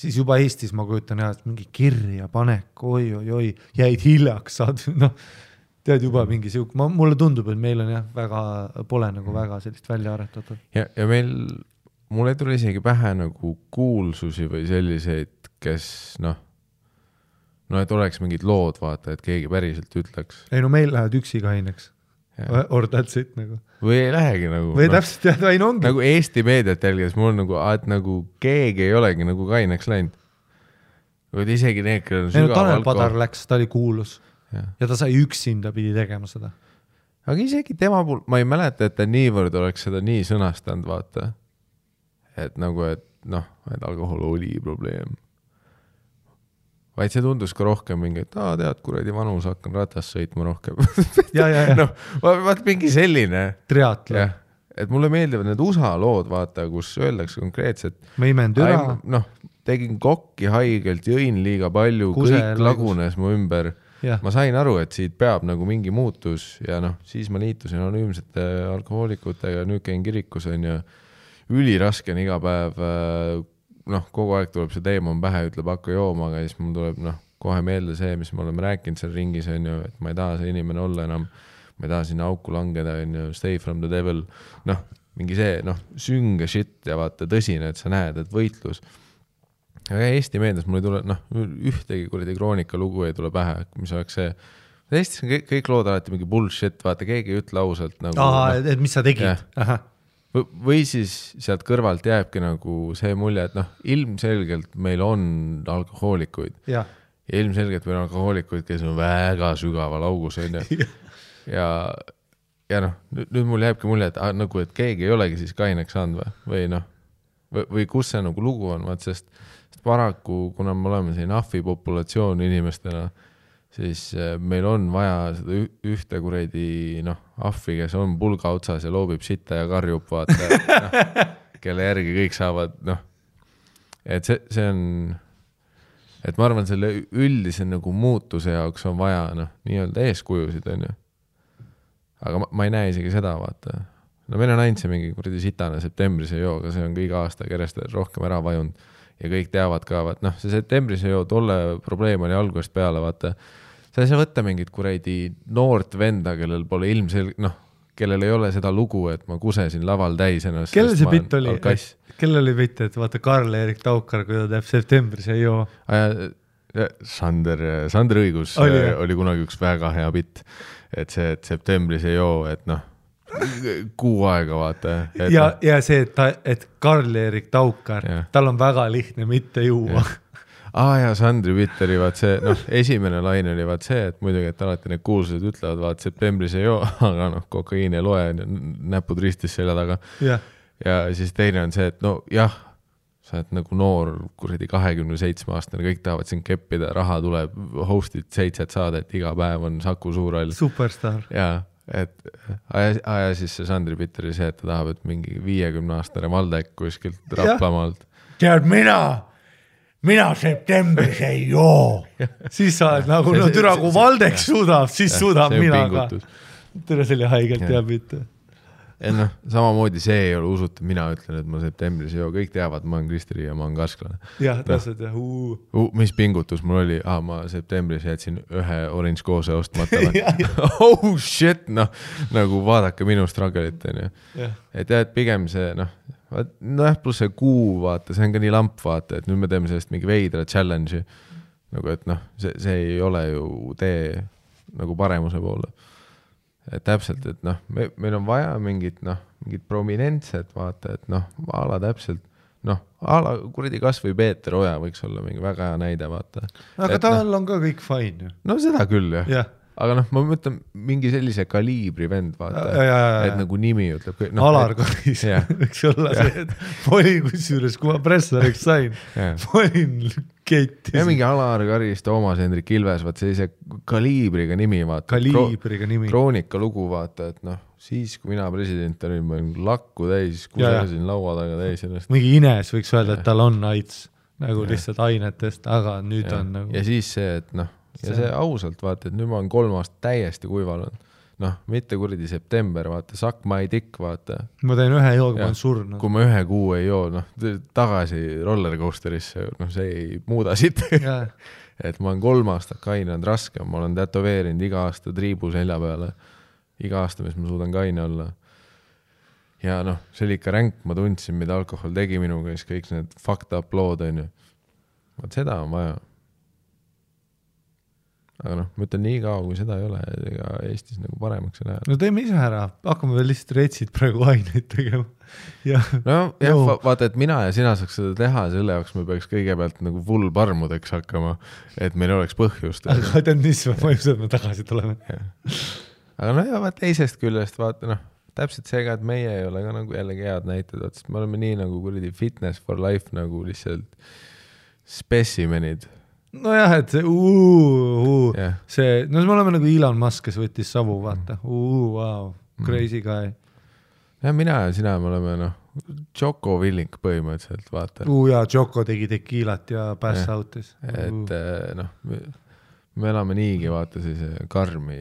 Siis juba Eestis ma kujutan jah, et mingi kirja panek, oi, jäid hiljaks, saad, noh, tead juba mingi siuk, mulle tundub, et meil on jah, pole nagu väga sellist välja aretatud. Ja mul ei tule isegi pähe nagu kuulsusi või selliseid, kes et oleks mingid lood, vaata, et keegi päriselt ütleks. Ei, meil lähevad üksi kaineks. Or that's it nagu. Või ei lähegi nagu. Või täpselt jah, aina ongi. Nagu Eesti meediat jälgides mul on nagu, et nagu keegi ei olegi nagu kaineks läinud. Või isegi need, kellel on sügav Tanel Padar läks, ta oli kuulus. Ja ta sai üksinda pidi tegema seda. Aga isegi tema puhul, ma ei mäleta, et ta niivõrd oleks seda nii sõnastanud, vaata. Et nagu, et alkohol oli probleem. Vaid see tundus ka rohkem mingi, et tead, kuradi vanus, hakkan ratast sõitma rohkem. Ja. Vaat mingi selline. Triatlo. Et mulle meeldivad need USA lood, vaata, kus öeldakse konkreetselt. Ma imen türa. Tegin kokki haigelt, jõin liiga palju, kõik lagunes mu ümber. Ja. Ma sain aru, et siit peab nagu mingi muutus ja siis ma liitusin anonüümsete alkohoolikutega, nüüd käin kirikus on ja üliraske on iga päev, kogu aeg tuleb see teema pähe, ütleb hakka jooma, aga siis mul tuleb kohe meelde see, mis me oleme rääkinud seal ringis on ju, et ma ei taha see inimene olla enam, ma ei taha sinna auku langeda on ju, stay from the devil, mingi see sünge shit ja vaata tõsine, et sa näed, et võitlus. Aga Eesti meedias mul ei tule, ühtegi kuradi kroonika lugu ei tule pähe, mis oleks see. Eestis on kõik lood alati mingi bullshit, vaata, keegi ei ütle ausalt. Et mis sa tegid? Või siis sealt kõrvalt jääbki nagu see mulje, et ilmselgelt meil on alkohoolikuid. Ja ilmselgelt meil on alkohoolikuid, kes on väga sügaval augus. Ja nüüd mul jääbki mulje, et keegi ei olegi siis kaineks saanud või kus see nagu lugu on, sest paraku, kuna me oleme siin ahvi populatsioon inimestena, siis meil on vaja seda ühte kuradi ahvi, kes on pulga otsas ja loobib sitta ja karjub, vaata, kelle järgi kõik saavad, et see on, et ma arvan, selle üldise nagu muutuse jaoks on vaja nii-öelda eeskujusid, on ju. Aga ma ei näe isegi seda, vaata. Meil on ainult see mingi kuradi sitane septembris ei joo, aga see on ka iga aasta kerest rohkem ära vajunud ja kõik teavad ka, vaat see septembris ei joo, tolle probleem oli algusest peale, vaata. Sa ei saa võtta mingit kuradi noort venda, kellel pole kellel ei ole seda lugu, et ma kusesin laval täis ennast. Kellel see bitt oli? Kellel oli bitt, et vaata Karl-Erik Taukar, kui ta teeb septembris ei joo? Sander Õigus oli kunagi üks väga hea bitt, et see, et septembris ei joo, et kuu aega, vaata. Ja see, et Karl-Erik Taukar, tal on väga lihtne mitte juua. Ja Sandri bitt oli vaat see, esimene laine oli vaat see, et muidugi, et alati need kuulsused ütlevad, vaat septembris ei joo, aga kokaiin ei loe, näpud ristis selja taga. Ja siis teine on see, et sa oled nagu noor, kuradi 27-aastane, kõik tahavad siin keppida, raha tuleb, hostid 7 saadet, iga päev on Saku Suurhall. Superstar. Ja siis see Sandri bitt oli see, et ta tahab, et mingi 50-aastane Valdek kuskilt Raplamaalt. Tead, mina septembris ei joo. Siis sa oled nagu, türa, kui Valdek suudab, siis suudab mina ka. Türa selle haigelt teab mitte. Samamoodi see ei ole usutav, mina ütlen, et ma septembris ei joo, kõik teavad, ma olen Kristeri ja ma olen kasklane. Jah, täpselt, jah. Mis pingutus mul oli? Ma septembris jätsin ühe orange koose ostmata. Oh shit, nagu vaadake minu struggle'it. Et pigem see, pluss see kuu, vaata, see on ka nii lamp, vaata, et nüüd me teeme sellest mingi veidra challenge'i. Nagu, et see ei ole ju tee nagu paremuse poole. Et täpselt, et meil on vaja mingit prominentset, vaata, et ala täpselt, ala kuradi kas või Peeter Oja võiks olla mingi väga hea näide, vaata. Aga tal on ka kõik fine. Seda küll, jah. Aga ma mõtlen mingi sellise kaliibri vend, vaata, et nagu nimi ütleb. Alar Karis, võiks olla see, et olin kusjuures, kui ma pressariks sain, olin Keiti. Ja mingi Alar Karis, Toomas Hendrik Ilves, vaat sellise kaliibriga nimi, vaata. Kaliibriga nimi. Kroonika lugu, vaata, et noh, siis kui mina president olin, ma olin lakku täis, kusesin laua taga täis ennast. Mingi Ines võiks öelda, et tal on AIDS, nagu lihtsalt ainetest, aga nüüd on nagu... Ja siis see, et noh, ja see ausalt, vaata, et nüüd ma olen 3 aastat täiesti kuivanud. Noh, mitte kuradi september, vaata, suck my dick, vaata. Ma teen 1 jooga, ma olen surnud. Kui ma 1 kuu ei joo, noh, tagasi rollercoasterisse, noh, see ei muuda siit. Et ma olen 3 aastat kainanud raske, ma olen tätoveerinud iga aasta triibu selja peale. Iga aasta, mis ma suudan kaine olla. Ja noh, see oli ikka ränk, ma tundsin, mida alkohol tegi minuga, siis kõik need fucked up lood, on ju. Vaat seda on vaja. Aga noh, ma ütlen nii kaua, kui seda ei ole, ega Eestis nagu paremaks ei lähe. No teeme ise ära, hakkame veel lihtsalt retsid praegu aineid tegema. No jah, vaata, et mina ja sina saaks seda teha, selle jaoks me peaks kõigepealt nagu full parmudeks hakkama, et meil oleks põhjust. Aga tead, mis ma mõjused, me tagasi tuleme. Aga no ja teisest küljest, vaata noh, täpselt seega, et meie ei ole ka nagu jällegi head näited, sest me oleme nii nagu kuradi fitness for life nagu lihtsalt specimenid. No jah, et see see, no me oleme nagu Elon Musk, kes võttis savu, vaata. Wow, crazy guy. Ja mina ja sina me oleme noh, Joko Willink põhimõtteliselt, vaata. Ja Joko tegi tekiilat ja pass outis. Et noh, me elame niigi, vaata siis karmi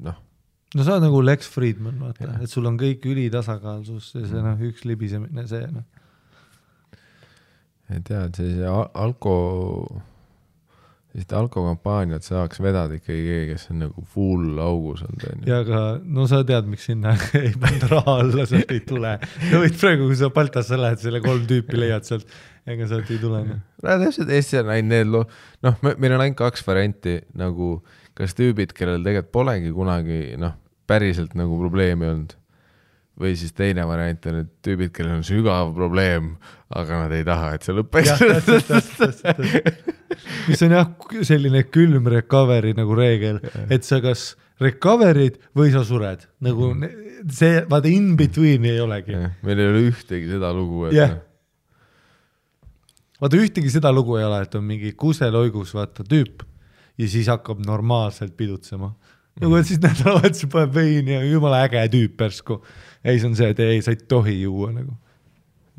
noh. No sa oled nagu Lex Friedman, vaata, et sul on kõik ülitasakaalsus ja see noh, üks libisemine, see noh. Et tead, see alkokampaaniat saaks vedada ikkagi keegi, kes on nagu full augus on teinud. Ja aga, no sa tead, miks sinna ei panda raha alla, sealt ei tule. Ja võid praegu, kui sa Baltasse lähed, selle 3 tüüpi leiad sealt, ega sealt ei tule. No täpselt Eesti on ainult need noh, meil on ainult 2 varianti, nagu kas tüübid, kellel tegelikult polegi kunagi noh, päriselt nagu probleemi olnud. Või siis teine variant on need tüübid, kellel on sügav probleem, aga nad ei taha, et see lõppeks. Mis on jah selline külm recovery nagu reegel, et sa kas recoverid või sa sured. Nagu see, vaata in between ei olegi. Meil ei ole ühtegi seda lugu. Vaata ühtegi seda lugu ei ole, et on mingi kuseloigus vaata tüüp ja siis hakkab normaalselt pidutsema. Nagu et siis nädalavahetuse paneb veini ja jumala äge tüüp persku. Ei, see on see, et ei, sa ei tohi juua nagu.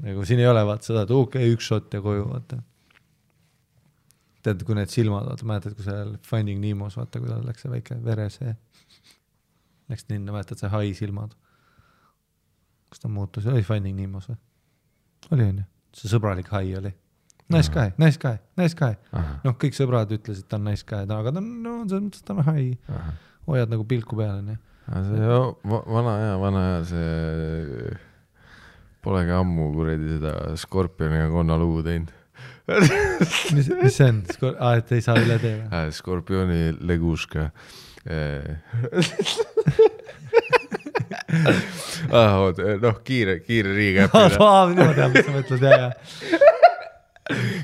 Nagu siin ei ole vaata seda, et okei, 1 shot ja koju vaata. Tead, kui need silmad, vaata, mäletad, kui seal Finding Nimos, vaata, kui tal läks see väike veresee. Läks ninna, mäletad, see hai silmad. Kas ta muutus? Oli Finding Nimos või? Oli on ju? See sõbralik hai oli. Nice guy. Noh, kõik sõbrad ütlesid, ta on nice guy, aga ta on hai. Hoiad nagu pilku peale, nii. Vana hea, see polegi ammu kuredi seda Skorpioni ja Konna lugu teinud. Mis see on? Et ei saa üle teha? Skorpioni leguška. Noh, kiire riigäppina. Ma tean, mis sa mõtled,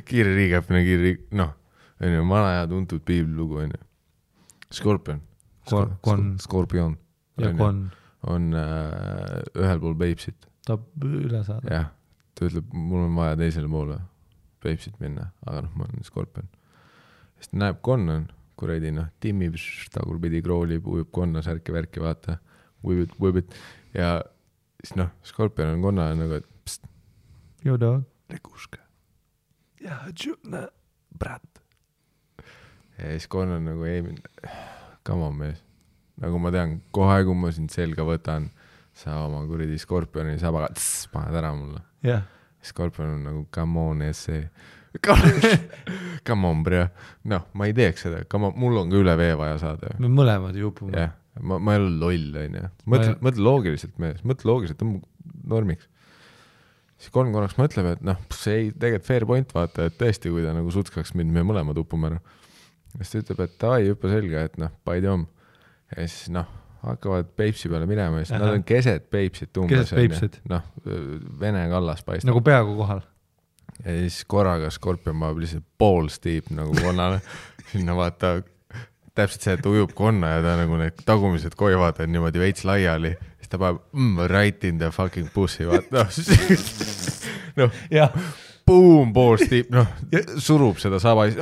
Kiire riigäppina, noh, vana hea tuntud piiblilugu, Skorpion. Skorpion. Ja Kon. On ühel pool Peipsit. Ta üle saada. Jah, ta ütleb, mul on vaja teisele poole Peipsit minna, aga noh, ma olen Skorpion. Sest näeb Kon on, kuredi, noh, timmib, tagurpidi kroolib, ujub Konna särki värki, vaata, ujubit. Ja siis noh, Skorpion on Konna nagu, et pst. Jo dog. Leguška. Ja, tšutna, brat. Ja siis Konna on nagu, ei, come on mees. Nagu ma tean, kohe kui ma sind selga võtan, sa oma kuridi Skorpioni sabaga, paned ära mulle. Yeah. Skorpion on nagu, come on, essee. Come on, bro. Noh, ma ei teeks seda. Mul on ka üle vee vaja saada. Me mõlemad jupume. Jah, ma ei ole loll, on ju. Mõtle loogiliselt mees. Mõtle loogiliselt, on normiks. Siis korraks mõtleb, et noh, see ei tegelikult fair point vaata, et tõesti, kui ta nagu sutskaks mind, me mõlemad upume ära. Siis ta ütleb, et ai, hüppa selga, et noh, paidi om. Ja siis noh, hakkavad Peipsi peale minema, siis nad on keset Peipsit umbes. Keset Peipsit. Noh, Vene kallas paistab. Nagu peaaegu kohal. Ja siis korraga Skorpion maab lihtsalt poolstiip nagu Konnale. Sinna vaata, täpselt see, et ujub Konna ja ta nagu need tagumised koivad on niimoodi veits laiali. Ta paneb right in the fucking pussy, vaata. No. Ja, boom, balls deep, noh, surub seda saba ja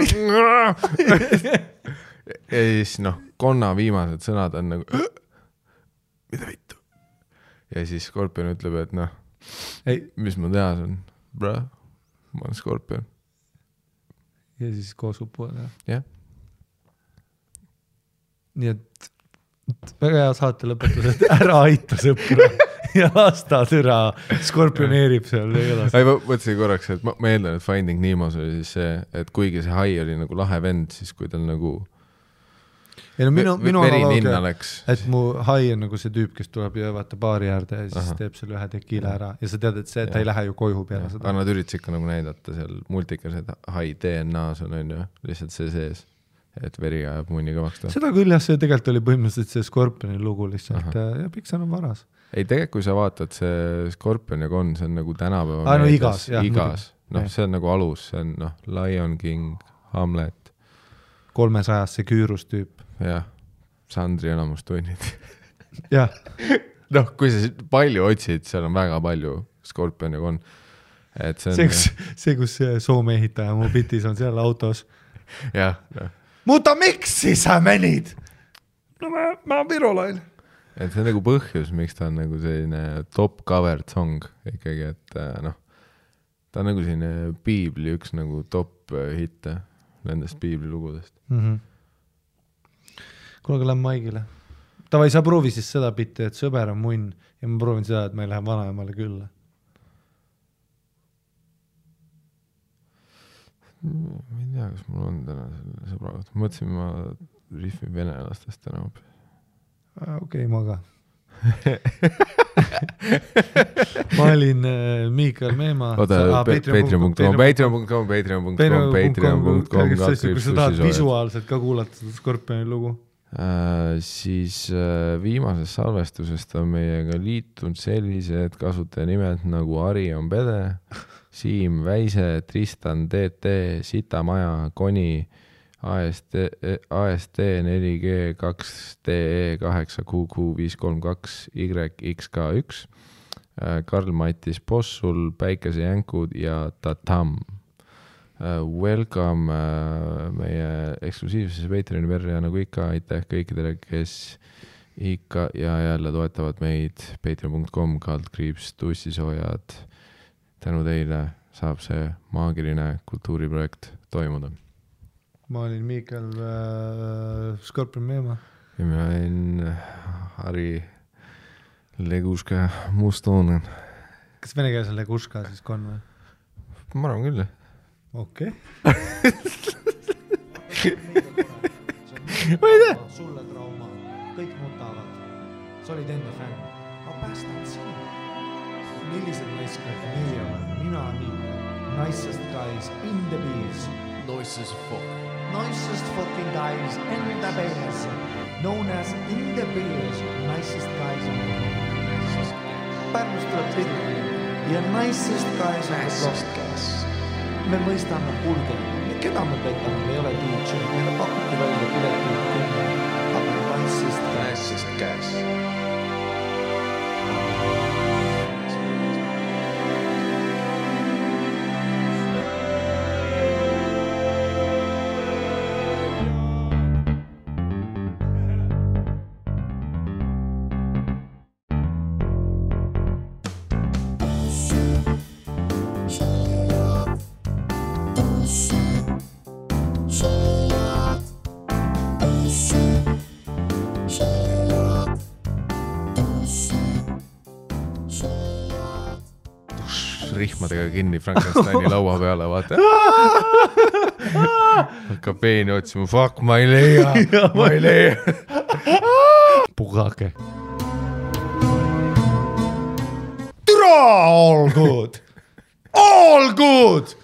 siis noh, konna viimased sõnad on nagu mida vittu ja siis Skorpion ütleb, et noh, mis ma teha on, bro, ma olen Skorpion ja siis koos upuvad jah. Nii et väga hea saate lõpetus, et ära aita sõpra ja lasta türa skorpioneerib seal. Ma mõtlesin korraks, et ma eeldan, et Finding Nemo's oli siis see, et kuigi see hai oli nagu lahe vend, siis kui tal nagu ja no minu analoogia, et mu hai on nagu see tüüp, kes tuleb ja vaata baari äärde ja siis teeb selle ühe tekiila ära ja sa tead, et see, ta ei lähe ju koju peale seda. Aga nad üritasid ikka nagu näidata seal multikas, et hai DNA-s on ju, lihtsalt see sees. Et veri ajab munni kõvaks ta. Seda küll jah, see tegelikult oli põhimõtteliselt see Skorpioni lugu lihtsalt ja Pixar on varas. Ei, tegelikult kui sa vaatad see Skorpion ja Gon, see on nagu tänapäeva no igas. Noh, see on nagu alus, see on noh, Lion King, Hamlet 300 see küürus tüüp. Jah, Sandri enamustunnid. Jah. Noh, kui sa palju otsid, seal on väga palju Skorpion ja Gon. Et see, kus Soome ehitaja mu bitis on seal autos. Jah, noh. Mutta miksi sa menid? No mä virolain. Et see on nagu põhjus, miks ta on nagu selline top covered song ikkagi, et noh, ta on nagu selline piibli üks nagu top hitte nendest piibli lugudest. Kuule, aga lähen Maigile. Tavai, sa proovi siis seda bitti, et sõber on munn ja ma proovin seda, et ma ei lähe vanaemale külla. Ma ei tea, kas mul on täna selle sõbraga. Mõtlesin, ma riffin venelastest täna. Okei, ma ka. Ma olin Miikal Meema. Patreon.com kui sa tahad visuaalselt ka kuulata seda Skorpioni lugu. Siis viimasest salvestusest on meiega liitunud sellised kasutaja nagu Ari on Pede, Siim Väise, Tristan DT, Sitamaja, Koni, AST 4G 2DE 8QQ532 YXK1, Karl-Mattis Possul, Päikese Jänkud ja Tatam. Welcome meie eksklusiivsesse Patreoni verja nagu ikka, aitäh kõikidele, kes ikka ja jälle toetavad meid. Patreon.com /tussisoojad. Tänu teile saab see maagiline kultuuriprojekt toimuda. Ma olin Miikal Skorpion Meema. Ja mina olin Harri Leguška Mustoonen. Kas venekeelse Leguška siis kon või? Ma arvan küll. Okei. Ma ei tea. Sulle trauma. Kõik nutavad. Sa olid enda fänn. Ma päästan sind. Millised naiskad meie oleme? Mina Miikal. Nicest guys in the bees. Nicest fuck. Nicest fucking guys in the bees. Known as in the bees. Nicest guys in the bees. Pärnust tuleb tihti. Ja nicest guys in the bees. Me mõistame hulge. Keda me petame? Me ei ole DJ. Meile pakuti välja pileti. Aga nicest guys. Rihmadega kinni Frankensteini laua peale, vaata. Hakkab peeni otsima, fuck, ma ei leia. Pugake. Türa, all good.